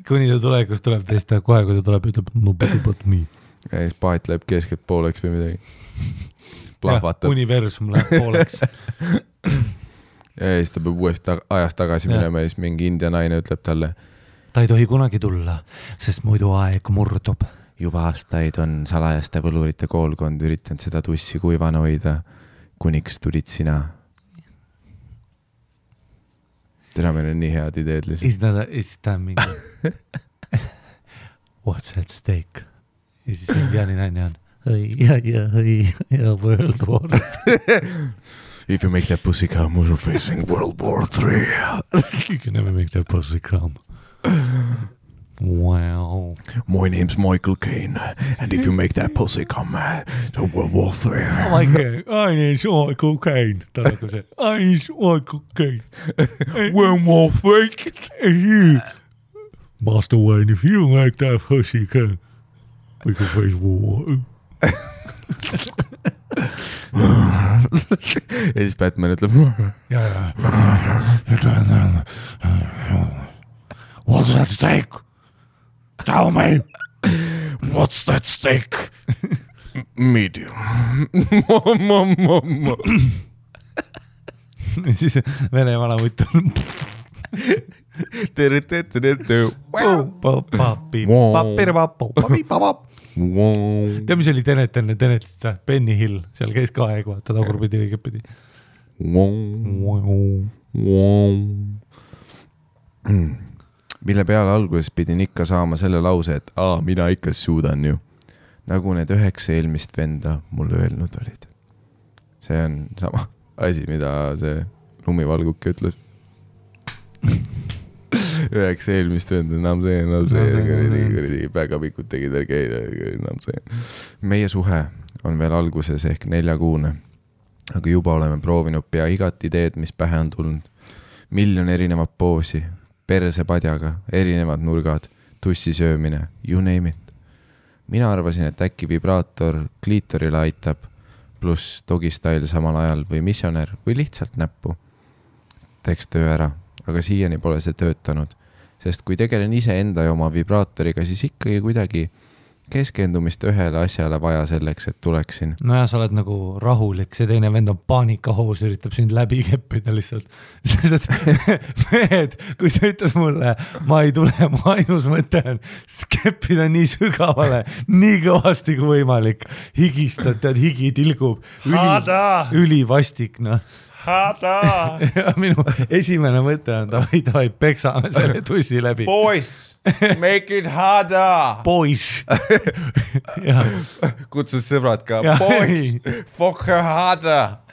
Kuni ta tulevikust tuleb, siis ta kohe, kui ta tuleb, ütleb, no but me.
Ja siis paat läheb keskelt pooleks või midagi.
Plahvatab. Universum läheb pooleks.
Ja siis ta peab uuesti ajast tagasi minema ja siis mingi india naine ütleb talle.
Ta ei tohi kunagi tulla, sest muidu aeg murdub.
Juba aastaid on salajaste võlurite koolkond üritanud seda tussi kuivana hoida, kuniks tulid sina. Tere, meil on nii head ideed lihtsalt.
Is ta mingi What's at stake? Ja siis indiani naine on ja World War.
If you make that pussy come, we're facing World War 3.
You can never make that pussy come. Wow.
My name's Michael Caine, and if you make that pussy come, to World War 3.
My name's Michael Caine. Ta nagu see, name's Michael Caine.
World War 3.
You, Master Wayne, if you make that pussy come, we can face war.
Ja siis Batman ütleb
What's that stake? Tell me.
What's that stake? Medium.
Ja siis vene vana mutt on Tea, mis oli Tenet enne Tenetit? Benny Hill, seal käis ka aeg, vaata tagurpidi õigepidi.
Mille peale alguses pidin ikka saama selle lause, et mina ikka suudan ju. Nagu need 9 eelmist venda mulle öelnud olid. See on sama asi, mida see lumivalguke ütles. 9 eelmist venda, enam see, päegapikud tegid enam see. Meie suhe on veel alguses ehk 4-kuune, aga juba oleme proovinud pea igat ideed, mis pähe on tulnud. 1 000 000 erinevat poosi, persepadjaga, erinevad nurgad, tussisöömine, you name it. Mina arvasin, et äkki vibraator kliitorile aitab, pluss dogistyle samal ajal või missioner või lihtsalt näppu. Teeks töö ära, aga siiani pole see töötanud, sest kui tegelen ise enda ja oma vibraatoriga, siis ikkagi kuidagi keskendumist ühele asjale vaja selleks, et tuleksin.
No ja sa oled nagu rahulik, see teine vend on paanikahoos, üritab sind läbi keppida lihtsalt. Sest et mehed, kui sa ütled mulle, ma ei tule, mu ainus mõte on keppida nii sügavale, nii kõvasti kui võimalik. Higistad, tead, higi tilgub. Ülivastik, noh. Ja minu esimene mõte on, davai, peksame selle tussi läbi.
Boys, make it harder.
Boys.
Kutsud sõbrad ka. Boys, fuck her harder.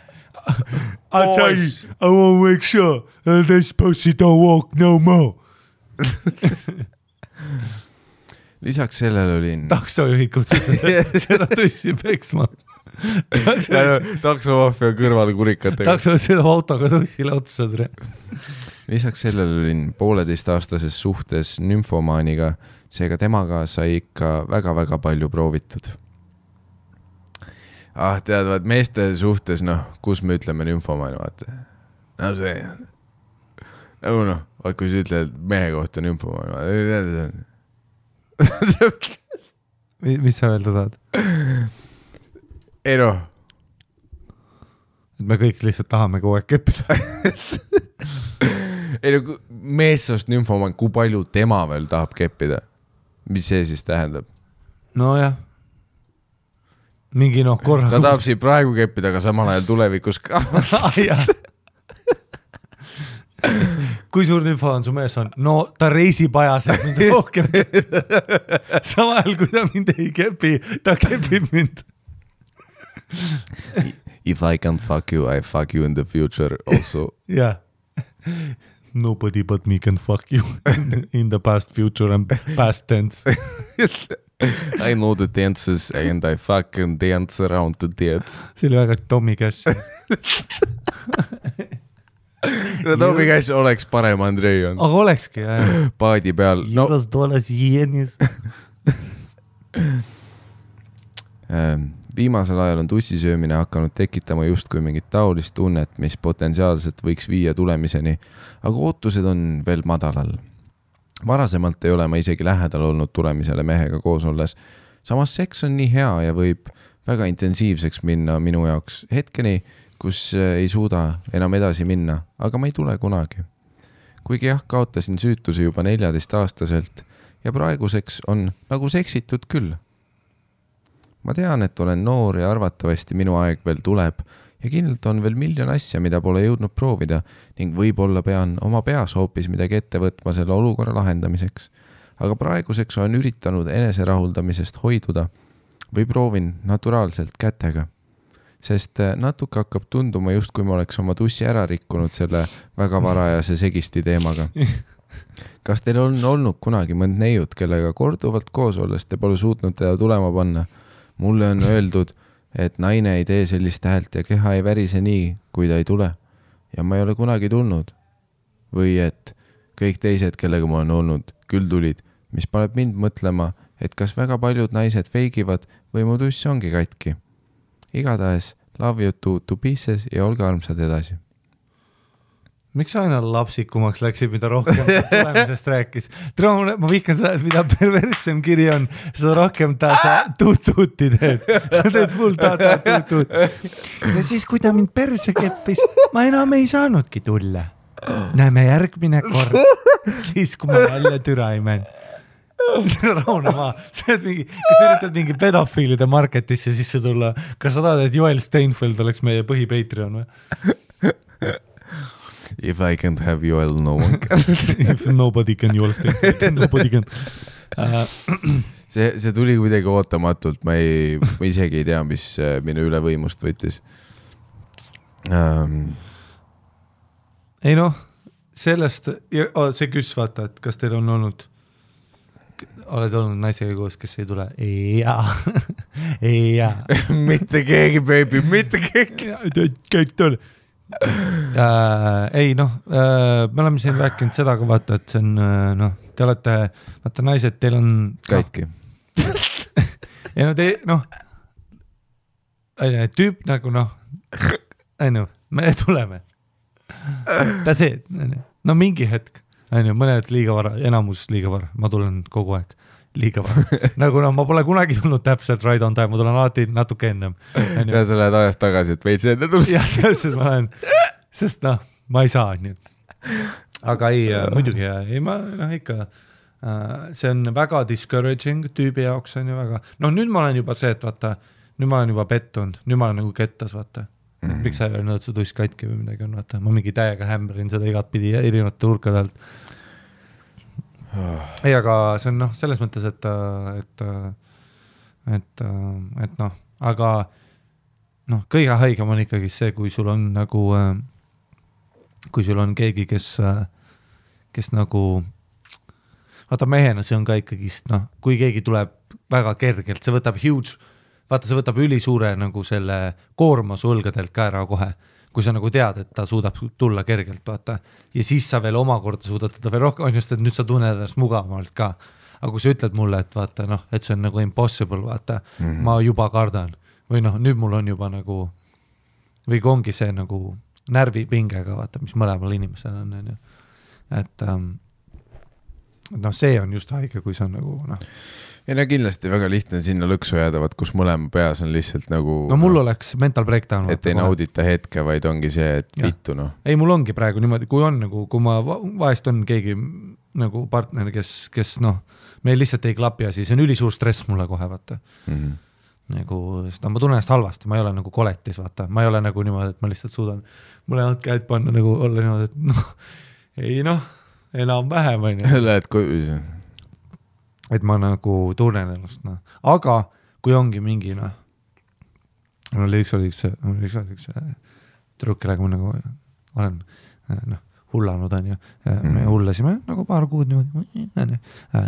I'll tell you, I won't make sure this pussy don't walk no more.
Lisaks sellele olin...
Taksojuhid kutsusid seda tussi peksma.
Taksomaafia kõrval kurikatega.
Taksojuhid sõidab autoga tussile otsad.
Lisaks sellele olin 1,5-aastases suhtes nümfomaaniga, seega temaga sai ikka väga-väga palju proovitud. Teadvad, meeste suhtes, kus me ütleme nümfomaani, vaata. No see, nagu kui sa ütled mehe kohta nümfomaani,
Mis sa öelda tahad?
Ei
et me kõik lihtsalt tahame kogu aeg keppida.
meessoost nümfomaan, kui palju tema veel tahab keppida? Mis see siis tähendab?
No jah. Mingi korra.
Ta tahab siin praegu keppida, aga samal ajal tulevikus ka.
Kui suur info on su mees on? No ta reisib ajas, et mind rohkem. Samal ajal, kui ta mind ei kepi, ta kepib mind.
If I can fuck you, I fuck you in the future also.
Yeah. Nobody but me can fuck you in the past, future and past tense.
I know the dances and I fucking dance around the dance.
See oli väga Tommy Cash.
No Tommy Cash oleks parem Andrei on.
Aga olekski, jah.
Paadi peal.
$2 jeenis.
Viimasel ajal on tussisöömine hakanud tekitama justkui mingit taolist tunnet, mis potentsiaalselt võiks viia tulemiseni, aga ootused on veel madalal. Varasemalt ei ole ma isegi lähedal olnud tulemisele mehega koos olles. Samas seks on nii hea ja võib väga intensiivseks minna minu jaoks hetkeni, kus ei suuda enam edasi minna, aga ma ei tule kunagi. Kuigi jah, kaotasin süütuse juba 14-aastaselt ja praeguseks on nagu seksitud küll. Ma tean, et olen noor ja arvatavasti minu aeg veel tuleb ja kindlalt on veel miljon asja, mida pole jõudnud proovida ning võib-olla pean oma peas hoopis midagi ette võtma selle olukorra lahendamiseks. Aga praeguseks olen üritanud eneserahuldamisest hoiduda või proovin naturaalselt kätega, sest natuke hakkab tunduma just kui ma oleks oma tussi ära rikkunud selle väga varajase segisti teemaga. Kas teil on olnud kunagi mõnd neiut, kellega korduvalt koos olles te pole suutnud teda tulema panna? Mulle on öeldud, et naine ei tee sellist häält ja keha ei värise nii, kui ta ei tule. Ja ma ei ole kunagi tulnud. Või et kõik teised, kellega ma olen olnud, küll tulid, mis paneb mind mõtlema, et kas väga paljud naised feigivad või mu tuss ongi katki. Igatahes, love you to pieces ja olge armsad edasi.
Miks aina lapsikumaks läksid, mida rohkem tulemisest rääkis? Ma vihkan seda, et mida perverssem kiri on, seda rohkem ta sa tuutuuti teed. Sa teed full tuut. Ja siis, kui ta mind perse keppis, ma enam ei saanudki tulla. Näeme järgmine kord, siis kui ma välja türaimen. Rahune maa. Kas üritad mingi pedofiilide marketisse sisse tulla? Kas sa tahad, et Joel Steinfeld oleks meie põhi-Patreon või?
If I can't have Joel, no one can.
If nobody can, Joel Steinfeld, nobody can.
See tuli kuidagi ootamatult, ma isegi ei tea, mis minu üle võimust võttis.
Ei sellest, see küs vaata, et kas teil on olnud, oled olnud naisega koos, kes ei tule? Jaa.
Mitte keegi, baby, mitte keegi.
Kõik tule. Ei, me oleme siin rääkinud seda ka vaata, et see on, te olete, vaata naised, teil on
katki.
Ja tüüp nagu me tuleme. Ta see, mingi hetk, mõned liiga vara, enamus liiga vara, ma tulen kogu aeg. liiga vara. Nagu ma pole kunagi tulnud täpselt right on time, ma tulen alati natuke ennem.
Ja sa lähed ajast tagasi, et veits enne tulnud.
Jah, täpselt ma lähen, sest ma ei saa. Nii. Aga ei, muidugi, ei ma ikka, see on väga discouraging tüübi jaoks on ju väga. Nüüd ma olen juba see, et vaata, nüüd ma olen juba pettunud, nüüd ma olen nagu kettas, vaata. Miks sa ei öelnud, su tuss katki või midagi on, vaata. Ma mingi täiega hämberin seda igat pidi erinevate urkadelt. Ei, aga see on selles mõttes, et aga kõige haigem on ikkagi see, kui sul on nagu, kui sul on keegi, kes nagu, vaata mehena see on ka ikkagi, kui keegi tuleb väga kergelt, see võtab huge, vaata see võtab ülisuure nagu selle koorma su õlgadelt ka ära kohe, kui sa nagu tead, et ta suudab tulla kergelt, vaata. Ja siis sa veel omakorda suudad teda veel rohkem, on just, et nüüd sa tunned ennast mugavamalt ka. Aga kui sa ütled mulle, et vaata, et see on nagu impossible, vaata, ma juba kardan. Või nüüd mul on juba nagu, või ongi see nagu närvipingega, vaata, mis mõlemal inimesel on. Et see on just haige, kui see on nagu,
Ja kindlasti väga lihtne sinna lõksu jääda, kus mõlema peas on lihtsalt nagu...
mul oleks mental breakdown.
Et ei naudita hetke, vaid ongi see, et vittu,
Ei, mul ongi praegu niimoodi, kui on nagu, kui ma vahest on keegi nagu partner, kes meil lihtsalt ei klapi ja siis on ülisuur stress mulle kohe, vaata. Nagu, ma tunnen ennast halvasti, ma ei ole nagu koletis, vaata. Ma ei ole nagu niimoodi, et ma lihtsalt suudan mulle käed panna nagu olla niimoodi, et ei enam vähem on.
Lähed koju.
Et ma nagu tunnen ennast, Aga kui ongi mingi, mul oli üks trukk, kellega ma nagu olen hullanud, on ju. Me hullasime nagu paar kuud niimoodi.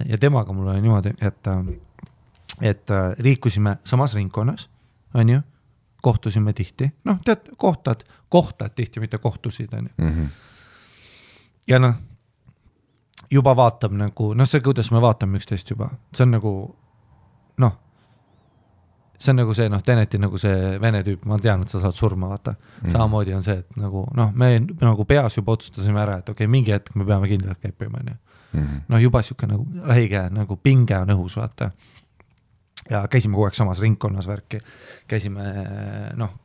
Ja temaga mul oli niimoodi, et liikusime samas ringkonnas, on ju, kohtusime tihti. Tead, kohtad tihti, mitte kohtusid, on ju. Ja juba vaatab nagu, see, kuidas me vaatame üksteist juba, see on nagu, see on nagu see, Teneti nagu see vene tüüp, ma tean, et sa saad surma, vaata. Samamoodi on see, et nagu, me nagu peas juba otsustasime ära, et okei, mingi hetk me peame kindlalt käipima, on ju. Juba siuke nagu räige, nagu pinge on õhus, vaata. Ja käisime kogu aeg samas ringkonnas värki, käisime,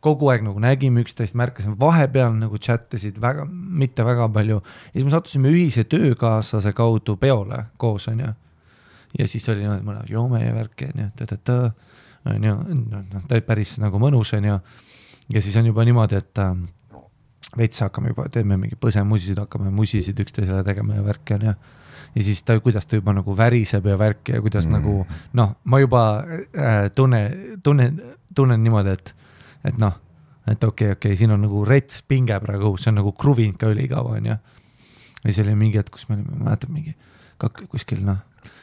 kogu aeg nagu nägime üksteist, märkasime vahepeal nagu chattasid mitte väga palju ja siis me sattusime ühise töökaaslase kaudu peole koos, on ju. Ja siis oli mõne joome ja värki, on ju, ta päris nagu mõnus, on ju. Ja siis on juba niimoodi, et veits hakkame juba, teeme mingi põsemusisid, hakkame musisid üksteisele tegema ja värki, on ju. Ja siis kuidas ta juba nagu väriseb ja värki ja kuidas nagu, ma juba tunnen niimoodi, et okei, siin on nagu rets pinge praegu, see on nagu kruvinud ka ülikaua, on ju. Ja see oli mingi hetk, kus me olime, mäletad mingi kuskil,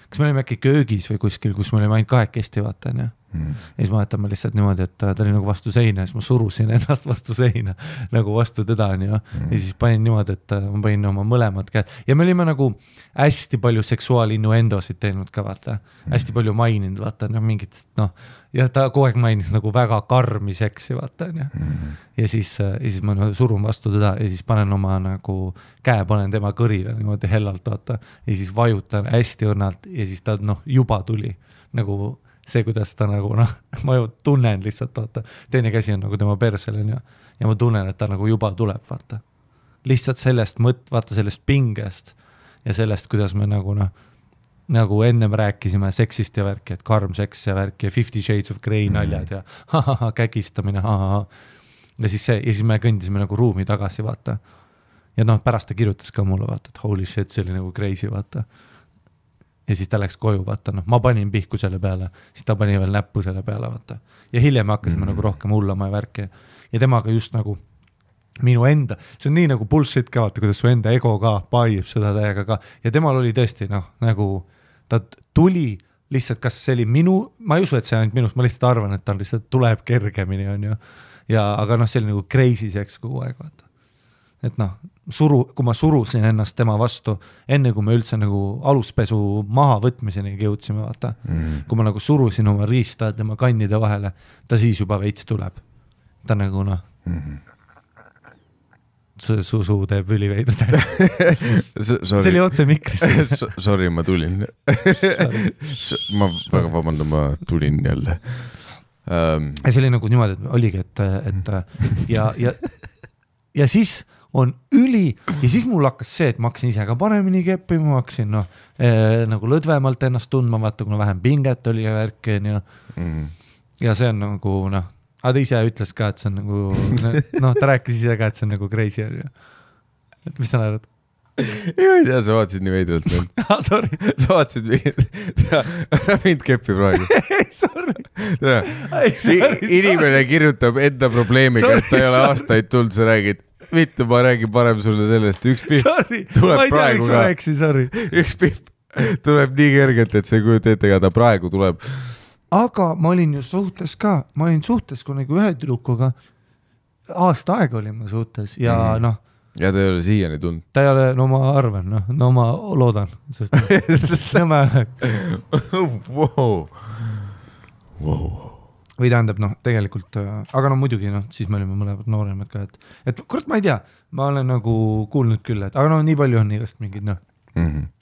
kas me olime äkki köögis või kuskil, kus me olime ainult kahekesti, vaata, on ju. Ja siis ma mäletan ma lihtsalt niimoodi, et ta oli nagu vastu seina ja siis ma surusin ennast vastu seina nagu vastu teda, on ju. Ja siis panin niimoodi, et ma panin oma mõlemad käed ja me olime nagu hästi palju seksuaalinnuendosid teinud ka, vaata. Hästi palju maininud, vaata, mingit, ja ta kogu aeg mainis nagu väga karmi seksi, vaata, on ju. Ja siis ma surun vastu teda ja siis panen oma nagu käe, panen tema kõrile niimoodi hellalt, vaata. Ja siis vajutan hästi õrnalt ja siis ta juba tuli nagu see, kuidas ta nagu, ma ju tunnen lihtsalt, vaata, teine käsi on nagu tema persel, on ju, ja ma tunnen, et ta nagu juba tuleb, vaata. Lihtsalt sellest vaata sellest pingest ja sellest, kuidas me nagu ennem rääkisime seksist ja värki, et karm seks ja värki ja 50 Shades of Grey naljad ja kägistamine, ja siis me kõndisime nagu ruumi tagasi, vaata. Ja pärast ta kirjutas ka mulle, vaata, et holy shit, see oli nagu crazy, vaata. Ja siis ta läks koju, vaata, ma panin pihku selle peale, siis ta pani veel näppu selle peale, vaata. Ja hiljem hakkasime nagu rohkem hullama ja värki. Ja temaga just nagu minu enda, see on nii nagu bullshit ka, vaata, kuidas su enda ego ka paib seda täiega ka. Ja temal oli tõesti, nagu ta tuli lihtsalt, kas see oli ma ei usu, et see ainult minust, ma lihtsalt arvan, et ta lihtsalt tuleb kergemini, on ju. Ja, aga see oli nagu crazy seks kogu aeg, vaata. Et kui ma surusin ennast tema vastu, enne kui me üldse nagu aluspesu maha võtmiseni jõudsime, vaata. Kui ma nagu surusin oma riista tema kannide vahele, ta siis juba veits tuleb. Ta nagu Su teeb üliveidrud. See oli otse mikris.
Sorry, ma tulin. Ma väga vabandan, ma tulin jälle.
See oli nagu niimoodi, et oligi, et ja siis on ja siis mul hakkas see, et ma hakkasin ise ka paremini keppima, ma hakkasin nagu lõdvemalt ennast tundma, vaata, kuna vähem pinget oli ja värki ja see on nagu aga ta ise ütles ka, et see on nagu ta rääkis ise ka, et see on nagu crazy et mis sa naerad?
Ei tea, sa vaatasid nii veidralt meil.
Sorry.
Sa vaatasid ära mind keppi praegu.
Ei, sorry.
Inimene kirjutab enda probleemiga, et ta ei ole aastaid tulnud, sa räägid, vittu, ma räägin parem sulle sellest, üks pihv tuleb praegu ka. Üks pihv tuleb nii kergelt, et see kujuta ette, ega ta praegu tuleb.
Aga ma olin ju suhtes ka, kui nagu ühe tüdrukuga aasta aega olin ma suhtes ja
ja ta ei ole siiani tulnud.
Ta ei ole, no ma arvan, no ma loodan, sest või tähendab, tegelikult, aga muidugi, siis me olime mõlemad nooremad ka, et kurat, ma ei tea, ma olen nagu kuulnud küll, et aga nii palju on igast mingid,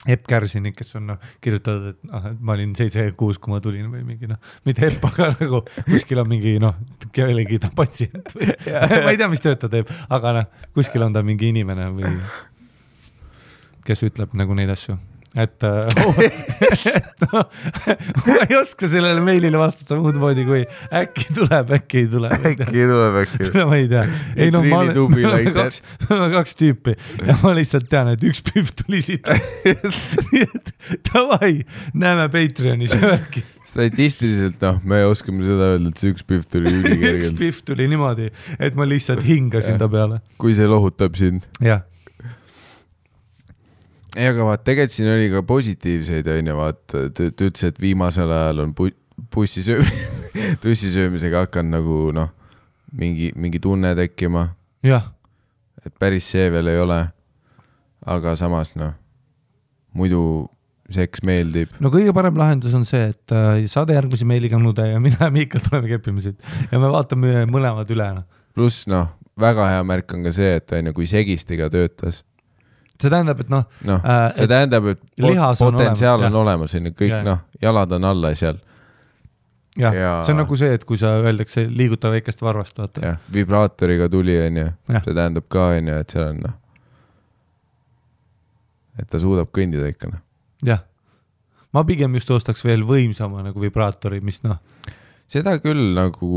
Epp Kärsini, kes on kirjutatud, et ma olin 7-6, kui ma tulin või mingi, mitte Epp, aga nagu kuskil on mingi, kellegi ta patsient või ma ei tea, mis tööd ta teeb, aga kuskil on ta mingi inimene või kes ütleb nagu neid asju. Et ma ei oska sellele meilile vastata muud moodi, kui äkki tuleb, äkki ei tule. Ma ei tea. Ei, ma olen kaks tüüpi ja ma lihtsalt tean, et üks püv tuli siit. Nii et tavai, näeme Patreonis äkki.
Statistiliselt, me oskame seda öelda, et see üks püv tuli ülikergelt.
Üks püv tuli niimoodi, et ma lihtsalt hingasin ta peale.
Kui see lohutab sind.
Jah.
Ei, aga vaat, tegelikult siin oli ka positiivseid, vaat, ta ütles, et viimasel ajal on tussisöömisega hakanud nagu, mingi tunne tekkima.
Jah.
Et päris see veel ei ole, aga samas, muidu seks meeldib.
No kõige parem lahendus on see, et saade järgmisi meiliga nude ja mina ja Miikal tuleme keppimisid ja me vaatame mõlemad üle.
Pluss, väga hea märk on ka see, et kui segistiga töötas.
See tähendab, et
see tähendab, et potentsiaal on olemas, kõik, jalad on alla seal.
Ja see on nagu see, et kui sa öeldakse liiguta väikest varvast, vaata.
Ja, vibraatoriga tuli, see tähendab ka, et seal on, et ta suudab kõndida ikka.
Jah, ma pigem just ostaks veel võimsama nagu vibraatori, mis
Seda küll nagu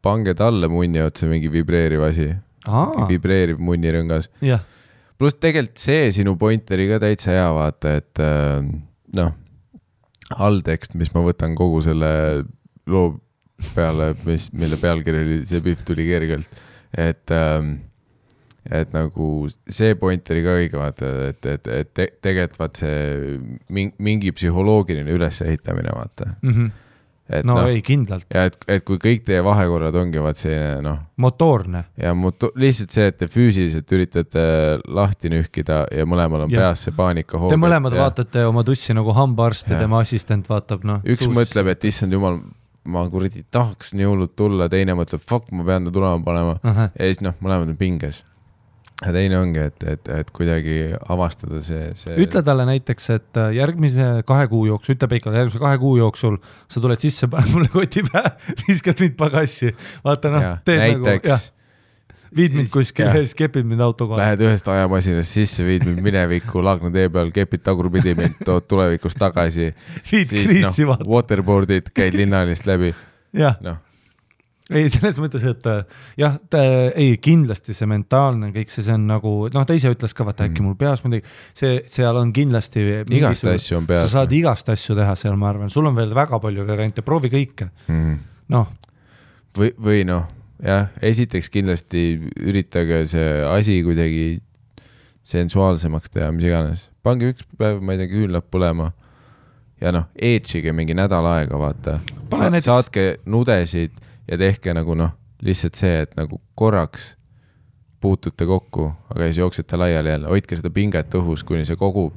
pange talle munni otsa mingi vibreeriv asi. Vibreeriv munirõngas.
Jah.
Plus tegelikult see sinu point oli ka täitsa hea vaata, et alltekst, mis ma võtan kogu selle loo peale, mille pealkiri oli, see pihv tuli kergelt, et nagu see point oli ka õige vaata, et tegelikult vaat see mingi psühholoogiline ülesehitamine vaata. Et
ei, kindlalt.
Ja et kui kõik teie vahekorrad ongi vaat selline,
motoorne.
Ja lihtsalt see, et te füüsiliselt üritate lahti nühkida ja mõlemal on peas see paanika hoog.
Te mõlemad vaatate oma tussi nagu hambaarst ja tema assistent vaatab,
Üks mõtleb, et issand jumal, ma kuradi tahaks nii hullult tulla, teine mõtleb, fuck, ma pean ta tulema panema. Ja siis mõlemad on pinges. Ja teine ongi, et kuidagi avastada see...
Ütle talle näiteks, et järgmise 2 kuu jooksul, ütle Peikale, järgmise 2 kuu jooksul sa tuled sisse, pane mulle koti pähe, viskad mind pagassi. Vaata, teed
näiteks,
nagu, viid mind kuskil, kepid mind auto kohal.
Lähed ühest ajamasinast sisse, viid mind minevikku, Laagna tee peal, kepid tagurpidi mind, tood tulevikust tagasi.
Viid kriisi vaata.
Waterboardid, käid linnalist läbi.
Jah. Ei, selles mõttes, et jah, kindlasti see mentaalne kõik see on nagu, ta ise ütles ka, vaata äkki mul peas midagi, seal on kindlasti
igast asju on peas.
Sa saad igast asju teha seal, ma arvan, sul on veel väga palju variante, proovi kõike.
Või jah, esiteks kindlasti üritage see asi kuidagi sensuaalsemaks teha, mis iganes. Pange üks päev, ma ei tea, küünlad põlema ja eetsige mingi nädal aega, vaata. Saatke nudesid ja tehke nagu lihtsalt see, et nagu korraks puutute kokku, aga siis jooksete laiali jälle, hoidke seda pinget õhus, kuni see kogub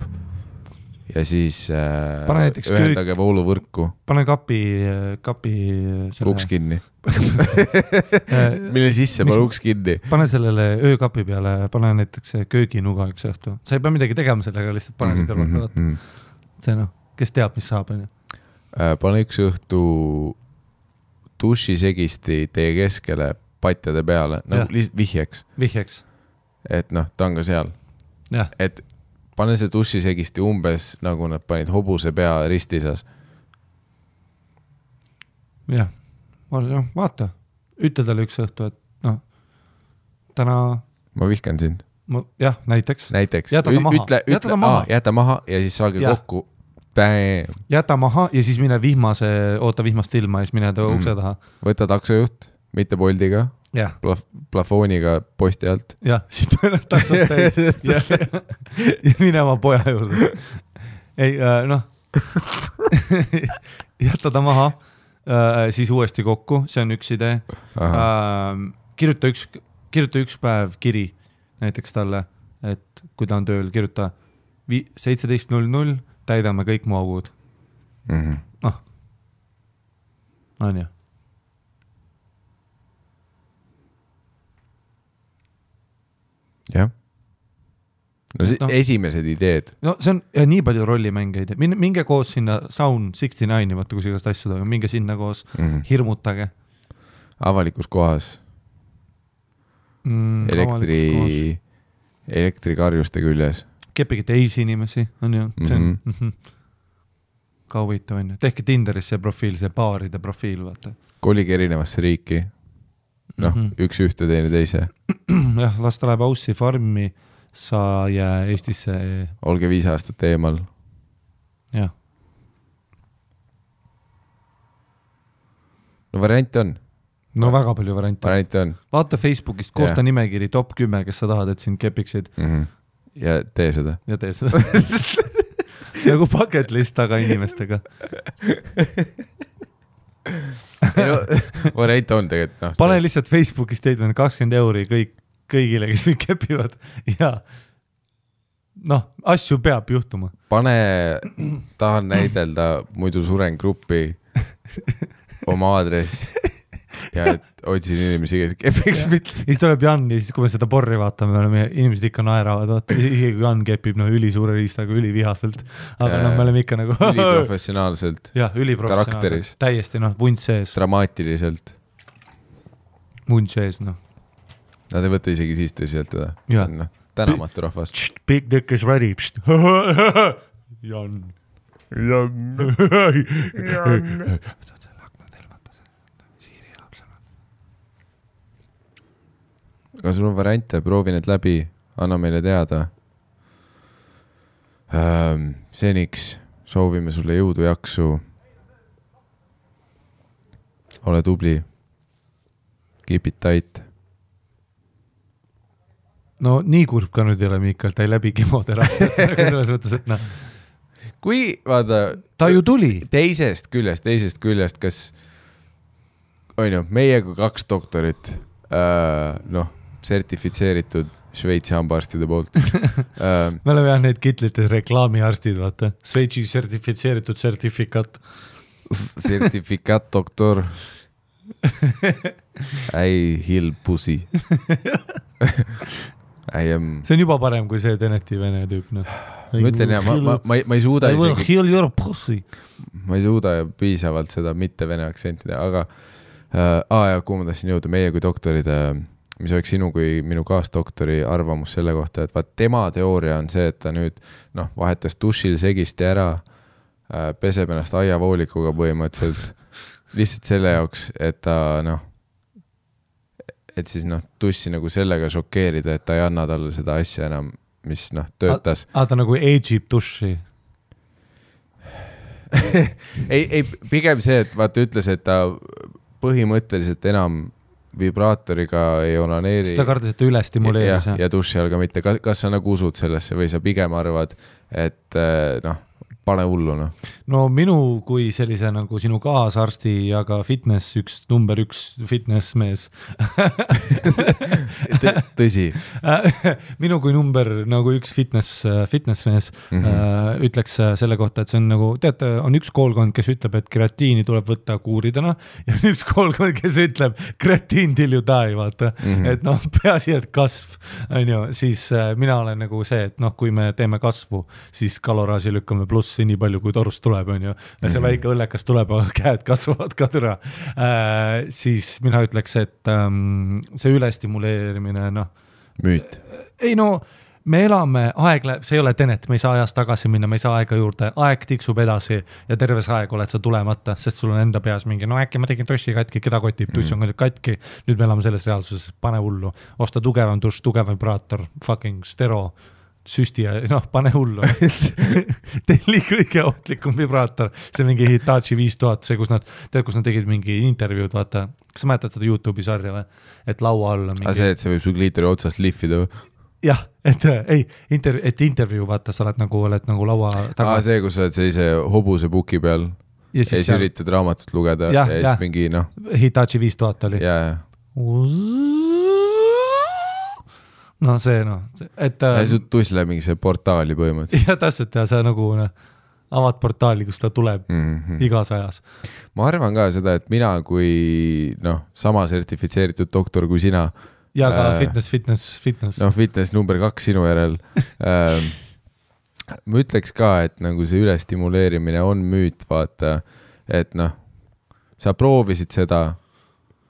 ja siis
Pane näiteks
ühendage vooluvõrku.
Pane kapi selle...
Uks kinni. Mille sisse pane uks kinni.
Pane sellele öökapi peale, pane näiteks kööginuga üks õhtu. Sa ei pea midagi tegema sellega, lihtsalt pane see kõrvalt. See kes teab, mis saab.
Pane üks õhtu dušisegisti teie keskele patjade peale, nagu lihtsalt vihjeks. Et ta on ka seal.
Ja.
Et pane see dušisegisti umbes nagu nad panid hobuse pea ristisas.
Jah, vaata. Ütle talle üks õhtu, et täna...
Ma vihkan sind.
Jah, näiteks.
Jäta maha ja siis saage kokku. Bam.
Jäta maha ja siis mine vihmast ilma ja siis mine ukse taha.
Võta taksojuht, mitte Boldiga. Plafooniga posti alt.
Jah, siit ennast taksost täis ja mine oma poja juurde. Ei, jäta ta maha, siis uuesti kokku, see on üks idee. Kirjuta üks päev kiri näiteks talle, et kui ta on tööl, kirjuta 17.00, täidame kõik mu augud. On ju.
Jah. Esimesed ideed.
See on nii palju rollimängeid. Minge koos sinna Sound 69, vaata kus igast asju toimub, minge sinna koos, hirmutage.
Avalikus kohas. Elektrikarjuste küljes.
Kepige teisi inimesi, on ju. See on ka huvitav, on ju. Tehke Tinderis see profiil, see baaride profiil, vaata.
Kolige erinevasse riiki. Üks ühte teine teise.
Jah, las ta läheb Aussi farmi, sa jää Eestisse.
Olge 5 aastat eemal.
Jah.
Variant on.
Väga palju variante
on.
Vaata Facebookist, koosta nimekiri top 10, kes sa tahad, et sind kepiksid.
Ja tee seda.
Nagu bucket list aga inimestega.
Variant on tegelikult.
Pane lihtsalt Facebooki statement 20 euri kõigile, kes mind kepivad. Ja asju peab juhtuma.
Tahan näidelda, muidu suren gruppi oma aadress ja otsin inimesi, kes kepiks mitte.
Siis tuleb Jan ja siis, kui me seda porri vaatame, inimesed ikka naeravad, vaata, isegi kui Jan kepib üli suure riistaga, üli vihaselt, aga me oleme ikka nagu
üliprofessionaalselt.
Jah, üliprofessionaalselt. Täiesti, vunt sees.
Dramaatiliselt.
Vunt sees,
Nad ei võta isegi siis tõsiselt teda. Tänamatu rahvas.
Big dick is ready. Jan.
Aga sul on variante, proovi need läbi, anna meile teada. Seniks soovime sulle jõudu jaksu. Ole tubli. Keep it tight.
Nii kurb ka nüüd ei ole Miikal, ta ei läbi kemoteraapia. Selles mõttes, et
Kui, vaata...
Ta ju tuli.
Teisest küljest, kas on ju, meie kui 2 doktorit, sertifitseeritud Šveitsi hambaarstide poolt.
Me oleme neid kitlites reklaamiarstid, vaata. Šveitsi sertifitseeritud sertifikaat.
Sertifikaat doktor. I heal pussy.
See on juba parem kui see Teneti vene tüüp.
Ma ütlen, ma ei suuda isegi...
Heal your pussy.
Ma ei suuda piisavalt seda mitte vene aktsentida, aga kuhu ma tahtsin jõuda, meie kui doktorid... mis oleks sinu kui minu kaasdoktori arvamus selle kohta, et tema teooria on see, et ta nüüd vahetas dušil segisti ära, peseb ennast aiavoolikuga põhimõtteliselt, lihtsalt selle jaoks, et ta et siis dussi nagu sellega šokeerida, et ta ei anna talle seda asja enam, mis töötas.
Ta nagu age'ib duši?
ei, pigem see, et vaata ütles, et ta põhimõtteliselt enam vibraatoriga ei onaneeri.
Seda kardas, et ta üle stimuleeris.
Ja duši all ka mitte. Kas sa nagu usud sellesse või sa pigem arvad, et pane hullu, noh.
No minu kui sellise nagu sinu kaasarsti ja ka üks number 1 fitness mees
Tõsi.
Minu kui number nagu 1 fitness mees ütleks selle kohta, et see on nagu, teate, on üks koolkond, kes ütleb, et kreatiini tuleb võtta kuuridena ja on üks koolkond, kes ütleb kreatiin till you die, vaata. Et noh, peaasi, et kasv, on ju, siis mina olen nagu see, et noh, kui me teeme kasvu, siis kaloraaži lükkame plussi nii palju, kui torust tuleb, on ju. Ja see väike õllekas tuleb, aga käed kasvavad ka türa. Siis mina ütleks, et see ülestimuleerimine, noh.
Müüt.
Ei no, me elame, aeg läheb, see ei ole Tenet, me ei saa ajas tagasi minna, me ei saa aega juurde, aeg tiksub edasi ja terves aeg oled sa tulemata, sest sul on enda peas mingi, no äkki ma tegin tussi katki, keda kotib, tuss on katki, nüüd me elame selles reaalsuses, pane hullu, osta tugevam tuss, tugev vibraator, fucking stero, süsti ja noh, pane hullu. Telli kõige ohtlikum vibraator, see mingi Hitachi 5000, see, kus nad tegid mingi intervjuud, vaata, kas sa mäletad seda YouTube'i sarja või? Et laua all on mingi...
see, et see võib su kliitori otsast lihvida või?
Jah, et intervjuu, vaata, sa oled nagu laua taga.
See, kus sa oled sellise hobuse puki peal ja siis üritad raamatut lugeda ja siis mingi, noh...
Hitachi 5000 oli.
Jaa.
No see, et...
Ja su tuss läheb mingi see portaali põhimõtteliselt.
Ja täpselt, ja sa nagu avad portaali, kus ta tuleb igas ajas.
Ma arvan ka seda, et mina kui sama sertifitseeritud doktor kui sina.
Ja ka fitness.
No fitness number 2 sinu järel. Ma ütleks ka, et nagu see ülestimuleerimine on müüt, vaata, et sa proovisid seda,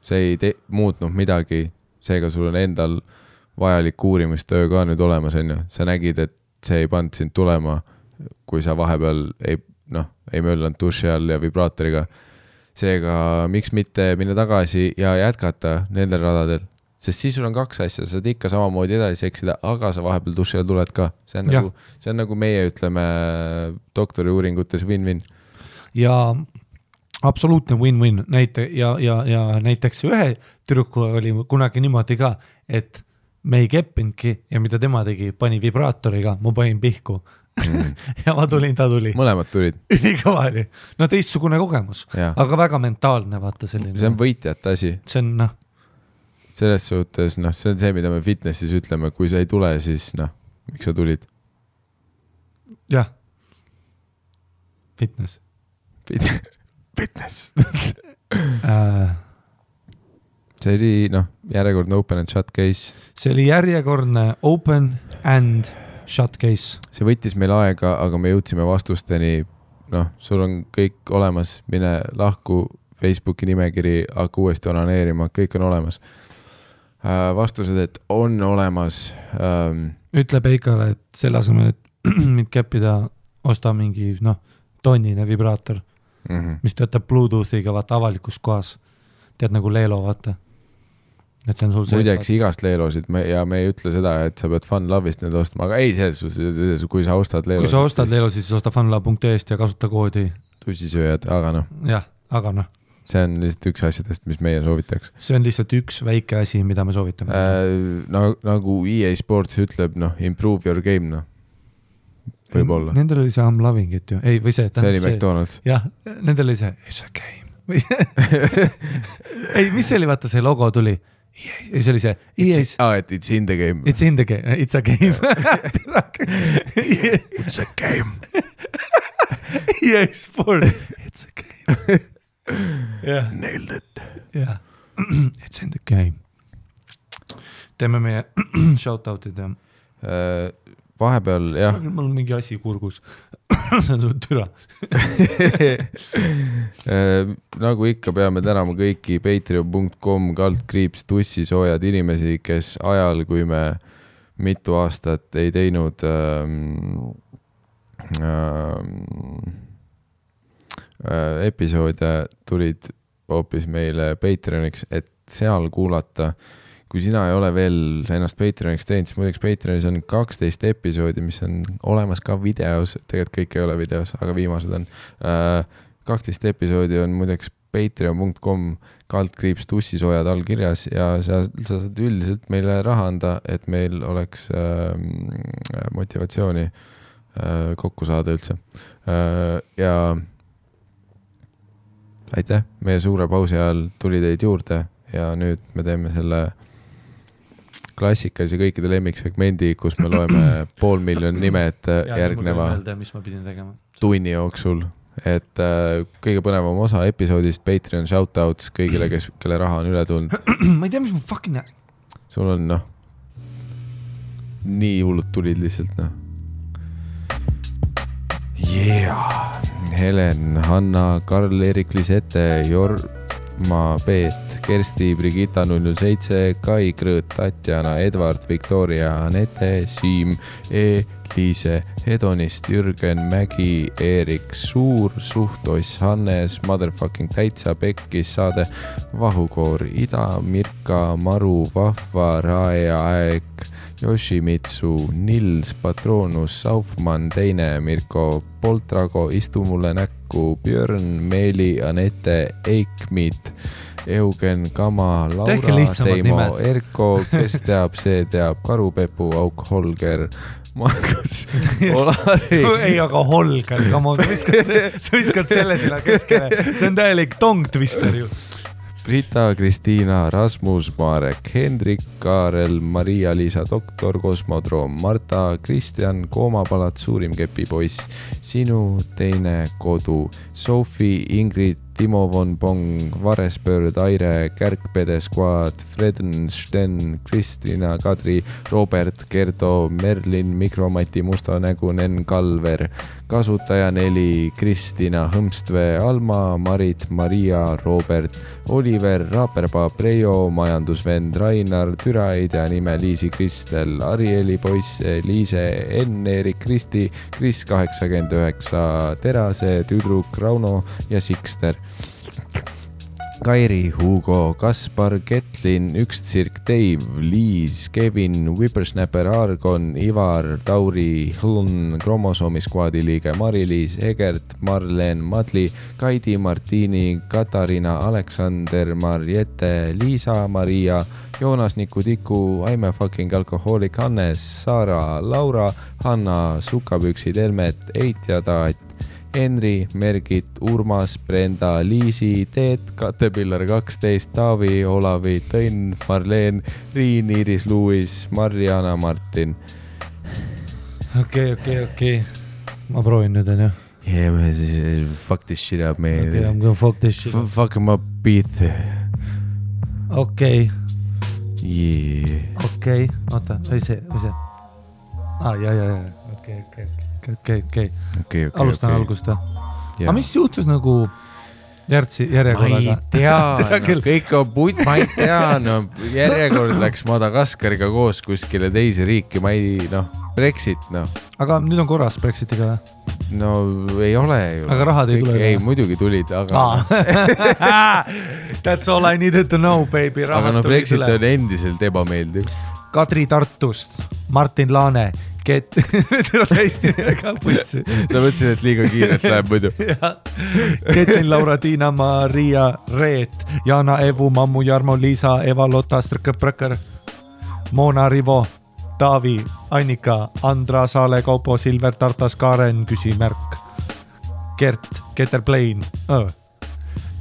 see ei muutnud midagi, seega sul on endal vajalik uurimistöö ka nüüd olemas, on ju. Sa nägid, et see ei pannud sind tulema, kui sa vahepeal ei möllanud duši all ja vibraatoriga. Seega, miks mitte minna tagasi ja jätkata nendel radadel? Sest siis sul on 2 asja, sa saad ikka samamoodi edasi seksida, aga sa vahepeal duši all tuled ka. See on nagu meie, ütleme, doktori uuringutes win-win.
Ja absoluutne win-win. Ja näiteks ühe tüdruku oli kunagi niimoodi ka, et me ei keppinudki ja mida tema tegi, pani vibraatoriga, ma panin pihku. Ja ma tulin, ta tuli.
Mõlemad tulid.
Ülikõva oli. No teistsugune kogemus, aga väga mentaalne, vaata selline.
See on võitjate asi.
See on,
selles suhtes, see on see, mida me fitnessis ütleme, kui sa ei tule, siis miks sa tulid?
Jah. Fitness.
See oli, järjekordne open and shut case.
See oli järjekordne open and shut case.
See võttis meil aega, aga me jõudsime vastusteni. Sul on kõik olemas, mine lahku, Facebooki nimekiri, hakka uuesti onaneerima, kõik on olemas. Vastused, et on olemas.
Ütle Peikale, et selle asemel, et mind keppida, osta mingi, tonnine vibraator, mis töötab Bluetoothiga, vaata avalikus kohas. Tead nagu Leelo, vaata. Et see on sul
muideks igast Leelosid ja me ei ütle seda, et sa pead FunLove'ist need ostma, aga ei selles, kui sa ostad Leelosid.
Kui sa ostad Leelosid, siis osta funlove.est ja kasuta koodi.
Tussisööjad, aga
Jah, aga
see on lihtsalt üks asjadest, mis meie soovitaks.
See on lihtsalt üks väike asi, mida me soovitame.
Nagu EA Sports ütleb, improve your game, võib-olla.
Nendel oli see I'm loving it ju. Ei, või see.
See oli McDonald's.
Jah, nendel oli see it's a game. Ei, mis see oli, vaata see logo tuli? Ja see oli see
it's in the game.
It's in the game, it's a game.
It's a game.
EA Sports. It's a game.
Yeah. Nailed it.
Yeah. It's in the game. Teeme meie shoutoutid ja
vahepeal, jah.
Mul on mingi asi kurgus. See on sul türa.
Nagu ikka peame tänama kõiki patreon.com/tussisoojad inimesi, kes ajal, kui me mitu aastat ei teinud episoode, tulid hoopis meile Patreoniks, et seal kuulata. Kui sina ei ole veel ennast Patreoniks teinud, siis muideks Patreonis on 12 episoodi, mis on olemas ka videos, tegelikult kõik ei ole videos, aga viimased on. 12 episoodi on muideks patreon.com/tussisoojad all kirjas ja sa saad üldiselt meile raha anda, et meil oleks motivatsiooni kokku saada üldse. Ja aitäh, meie suure pausi ajal tuli teid juurde ja nüüd me teeme selle klassikalise kõikide lemmiksegmendi, kus me loeme 500,000 nimed järgneva
mis ma pidin tegema.
Tunni jooksul. Et kõige põnevam osa episoodist, Patreon shoutouts kõigile, kelle raha on üle tulnud.
Ma ei tea, mis mu fucking...
Sul on nii hullud tulid lihtsalt Yeah! Helen, Hanna, Karl-Erik Lisette, Jorma Peet, Kersti, Brigitta 007, Kai Krõõt, Tatjana, Edvard, Victoria, Anette, Siim, Liise, Hedonist, Jürgen, Mägi, Eerik, Suur, Suhtoss, Hannes, Motherfucking Täitsa, Pekkis, Saade, Vahukoor, Ida, Mirka, Maru, Vahva, Raeja, Aeg, Yoshimitsu, Nils, Patronus, Saufmann, Teine, Mirko, Poltrago, Istu mulle näkku, Björn, Meeli, Anette, Eikmit, Eugen, Kama, Laura, Teimo, Erko, kes teab, see teab, Karupepu, Auk, Holger, Markus, Olari.
Ei, aga Holger, sa viskad selle sinna keskele. See on täielik tong-twister ju.
Rita, Kristiina, Rasmus, Marek, Hendrik, Kaarel, Maria-Liisa, Doktor, Kosmodroom, Marta, Kristjan, Koomapalat, Suurim kepipoiss, Sinu teine kodu, Sofi, Ingrid, Timo von Pong, Varespöörd, Aire, Kärkpede Squad, Freden, Sten, Kristina, Kadri, Robert, Gerdo, Merlin, Mikromati, Mustanägu, Nen, Kalver, Kasutaja 4, Kristina, Hõmstvee, Alma, Marit, Maria, Robert, Oliver, Raaperpaa, Preio, Majandusvend, Rainar, Türaidja nime Liisi Kristel, Arieli poiss, Liise, Enn, Erik, Kristi, Kris 89, Terase, Tüdruk, Rauno ja Sikster. Kairi, Hugo, Kaspar, Ketlin, Üktsirk, Dave, Liis, Kevin, Whippersnapper, Argon, Ivar, Tauri, Hlun, Kromosoomi skuadi liige Mari-Liis, Egert, Marlen, Madli, Kaidi, Martini, Katariina, Aleksander, Marjette, Liisa, Maria, Joonas, Niku, Tiku, I'm a fucking alcoholic, Hannes, Sara, Laura, Hanna, Sukapüksid, Helmet, Eit ja Taat, Henri, Mergit, Urmas, Brenda, Liisi, Teet, Katepillar 12, Taavi, Olavi, Tõnn, Marleen, Riin, Iiris, Luis, Marjana, Martin.
Okei. Ma proovin nüüd, on ju?
Yeah, man, fuck this shit up, man.
Okay, I'm gonna fuck this shit up.
Fuck him up, beat.
Okei.
Yeah.
Okei, oota, või see? Ja. Okei. Alustan algust või? Aga mis juhtus nagu järjekorraga?
Ma ei tea, kõik on putt, ma ei tea, järjekord läks Madagaskariga koos kuskile teise riiki, ma ei, Brexit,
Aga nüüd on korras Brexitiga või?
No ei ole ju.
Aga rahad ei tule?
Ei, muidugi tulid, aga...
That's all I needed to know, baby.
Aga Brexit on endiselt ebameeldiv.
Kadri Tartust, Martin Laane, hästi väga putsi.
Sa mõtlesid, et liiga kiirelt läheb muidu.
Ketlin, Laura, Tiina, Maria, Reet, Jana, Evu, Mammu, Jarmo, Liisa, Eva, Lotta, Strõkõprõkõr, Moona, Rivo, Taavi, Annika, Andra, Saale, Kaupo, Silver, Tartas, Karen, küsimärk, Gert, Keterplain,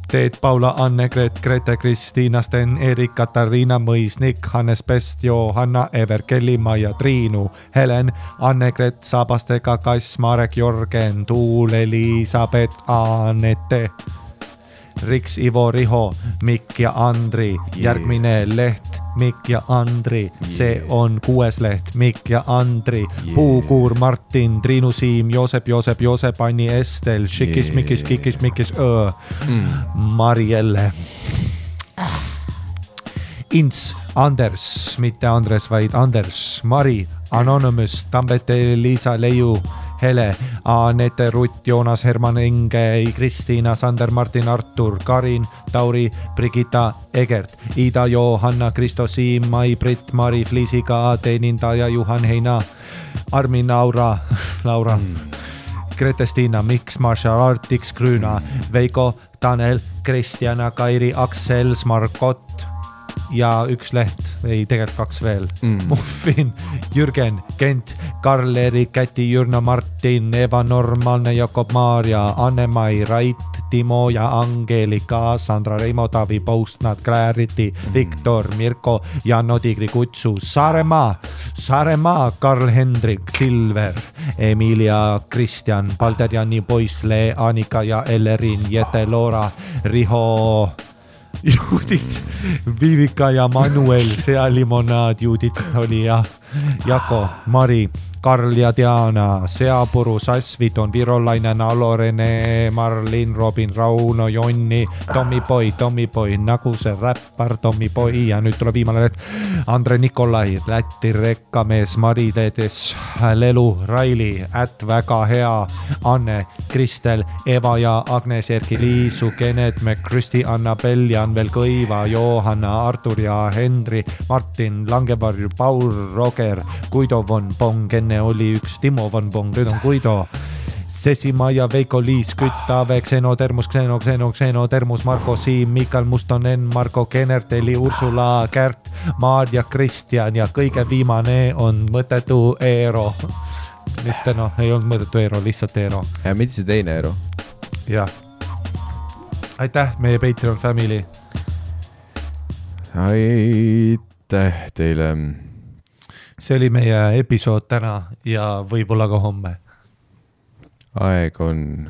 Teet, Paula, Anne, Grete, Kristiina, Sten, Erik, Katariina, Mõis, Nick, Hannes Pest, Johanna, Ever, Kelly, Maia, Triinu, Helen, Anne-Gret, Sabastega, Kass, Marek, Jorgen, Tuul, Elisabeth, Anette, Riks, Ivo, Riho, Mikk ja Andri, järgmine leht, Mikk ja Andri, see on 6. leht, Mikk ja Andri, Puukuur, Martin, Triinu, Siim, Joosep, Anni, Estel, Šikis, Mikis, Marielle, Ints, Anders, mitte Andres, vaid Anders, Mari, Anonymous, Tambete, Liisa, Leiu, Hele, Anette, Rutt, Joonas, Herman, Inge, Kristiina, Sander, Martin, Artur, Karin, Tauri, Brigitta, Egert, Ida, Johanna, Kristo, Siim, Mai, Britt, Mari, Fliisiga, teenindaja, Juhan, Heina, Armin, Laura, Grete-Stiina, Miks, Marshall, Artix, Grüna, Veiko, Tanel, Kristjana, Kairi, Aksel, Margot, ja üks leht, ei tegelikult 2 veel. Muffin, Jürgen, Kent, Karl-Erik, Käti, Jürna, Martin, Eva, Normaalne, Jakob, Maarja, Anne-Mai, Rait, Timo ja Angelika, Sandra, Reimo, Tavi, Postnat, Clarity, Viktor, Mirko, Janno, Tigri, Kutsu, Saaremaa, Karl-Hendrik, Silver, Emilia, Kristjan, Palder, Janni, Poisle, Annika ja Ellerin, Jete, Loora, Riho, Judit, Vivika ja Manuel, Sea Limonaad, Judit oli ja Jako, Mari, Karl ja Diana, Seapuru, Sasvidon, Virolainen, Alo, Rene, Marlin, Robin, Rauno, Jonni, Tommy Boy, nagu see räppar Tommy Boy ja nüüd tuleb viimane leht. Andre Nikolai, Läti rekkamees, Mari Teedes, Lelu, Raili, väga hea, Anne, Kristel, Eva ja Agnes, Erki, Liisu, Kened, Kristi, Annabel, Janvel, Kõiva, Johanna, Artur ja Henri, Martin, Langevarju, Paul, Roger, Guido von Pong, enne oli üks Timo von Pong, nüüd on Guido, Sesimaja, Veiko, Liis, Kütt, Ave, Xeno, Termus, Xeno, Termus, Marko, Siim, Mikal, Mustonen, Marko, Kenerteli, Ursula, Kärt, Maarja, Kristjan ja kõige viimane on mõttetu Eero. Mitte ei olnud mõttetu Eero, lihtsalt Eero.
Ja mitte see teine Eero.
Jah. Aitäh, meie Patreon family.
Aitäh teile.
See oli meie episood täna ja võib-olla ka homme.
Aeg on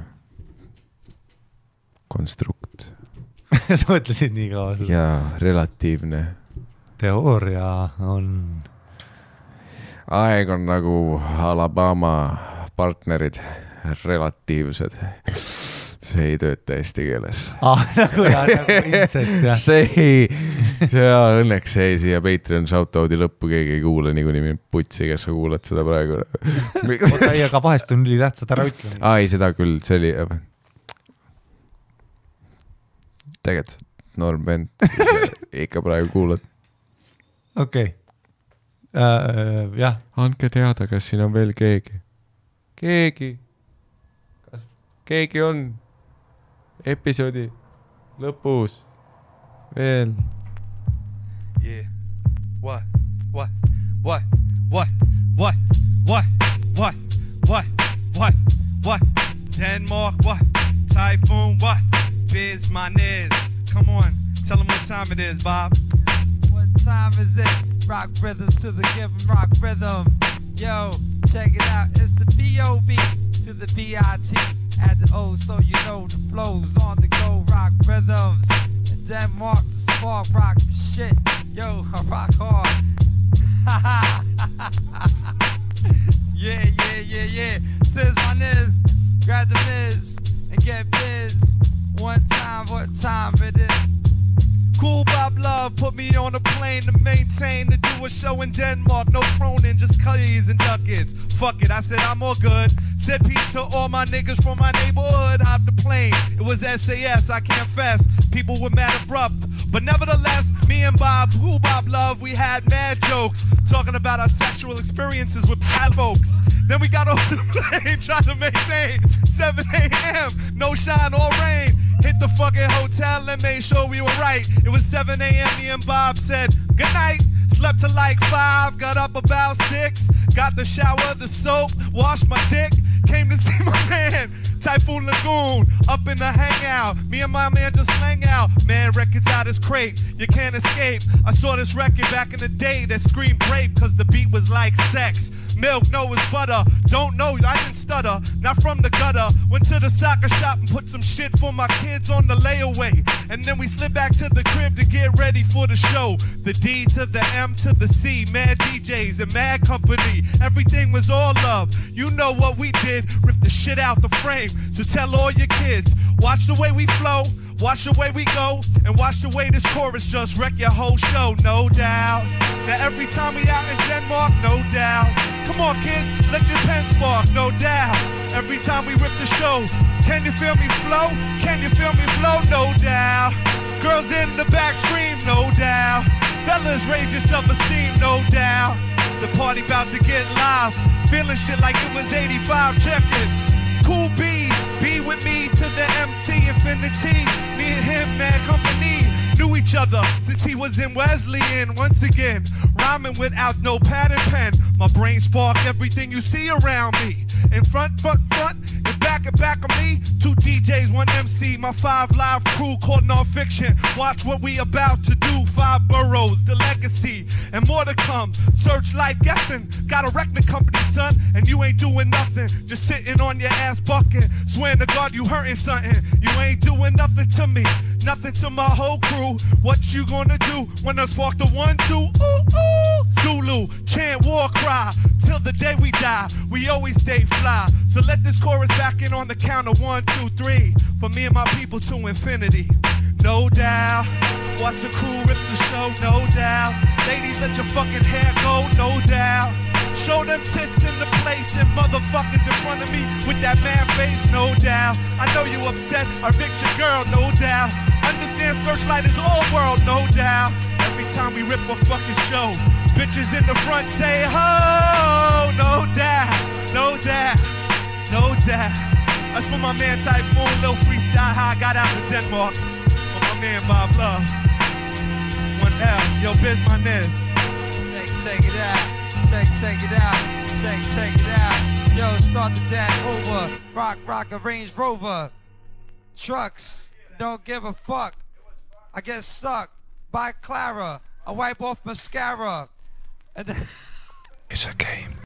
konstrukt.
Sa mõtlesid nii kaua?
Ja relatiivne.
Teooria on...
Aeg on nagu Alabama partnerid, relatiivsed. See ei tööta eesti keeles.
Nagu incest, jah.
Õnneks see siia Patreon shoutout'i lõppu keegi ei kuule, nii putsi, kes sa kuulad seda praegu.
Aga vahest on üli tähtsad, ära ütle.
Ei, seda küll, see oli... Tegelikult Norm Bent, ikka praegu kuulad.
Okei. Jah.
Andke teada, kas siin on veel keegi. Kas keegi on episoodi lõpus veel?
Yeah. What? Denmark, what? Typhoon, what? Biz, my niz. Come on, tell them what time it is, Bob.
What time is it? Rock rhythms to the given rock rhythm. Yo, check it out. It's the B.O.B. to the B.I.T. At the O, so you know the flow's on the go. Rock rhythms. And Denmark, the spark, rock the shit. Yo, I rock hard. Yeah. Says my niz. Grab the Miz and get biz. One time, what time it is?
Cool Bob Love put me on a plane to maintain to do a show in Denmark. No Cronin, just Cuddies and Duckets. Fuck it, I said I'm all good. Said peace to all my niggas from my neighborhood. Hopped the plane, it was SAS, I can't fess. People were mad abrupt, but nevertheless, me and Bob, Cool Bob Love, we had mad jokes talking about our sexual experiences with bad folks. Then we got off the plane trying to maintain 7 a.m. No shine or rain. Hit the fucking hotel and made sure we were right. It was 7 a.m. Me and Bob said good night. Slept till like 5, got up about 6. Got the shower, the soap, washed my dick. Came to see my man, Typhoon Lagoon, up in the hangout. Me and my man just hang out. Man, records out his crate, you can't escape. I saw this record back in the day that screamed rape, cause the beat was like sex. Milk, no, it's butter. Don't know, I didn't stutter. Not from the gutter. Went to the soccer shop and put some shit for my kids on the layaway. And then we slid back to the crib to get ready for the show. The D to the M to the C. Mad DJs and mad company. Everything was all love. You know what we did. Rip the shit out the frame. So tell all your kids. Watch the way we flow. Watch the way we go. And watch the way this chorus just wreck your whole show. No doubt. Now every time we out in Denmark, no doubt. Come on, kids, let your pen spark, no doubt. Every time we rip the show, can you feel me flow? Can you feel me flow? No doubt. Girls in the back scream, no doubt. Fellas, raise your self-esteem, no doubt. The party about to get live. Feeling shit like it was 85, check it. Cool B with me to the MT infinity. Me and him, man, company. Knew each each other since he was in Wesleyan. Once again, rhyming without no pad and pen. My brain spark everything you see around me. In front, and back of me. 2 DJs, 1 MC, my 5 live crew called non-fiction. Watch what we about to do. 5 boroughs, the legacy, and more to come. Searchlight guessing, got a record company, son, and you ain't doing nothing. Just sitting on your ass bucking. Swearing to God you hurting something. You ain't doing nothing to me, nothing to my whole crew. What you gonna do when I spark the 1, 2? Ooh, ooh. Zulu, chant war cry till the day we die. We always stay fly. So let this chorus back in on the count of 1, 2, 3. For me and my people to infinity. No doubt. Watch your crew rip the show, no doubt. Ladies, let your fucking hair go, no doubt. Show them tits in the place and motherfuckers in front of me with that man face, no doubt. I know you upset, I picked your girl, no doubt. Understand Searchlight is all world, no doubt. Every time we rip a fucking show, bitches in the front say ho, no doubt, no doubt, no doubt. That's for my man Typhoon, little freestyle how I got out of Denmark. For my man Bob Love. 1L, yo, biz my nez.
Check it out. Check it out. Check it out. Yo, start the dance over. Rock a Range Rover. Trucks, don't give a fuck. I get sucked by Clara. I wipe off mascara. And then
It's a game.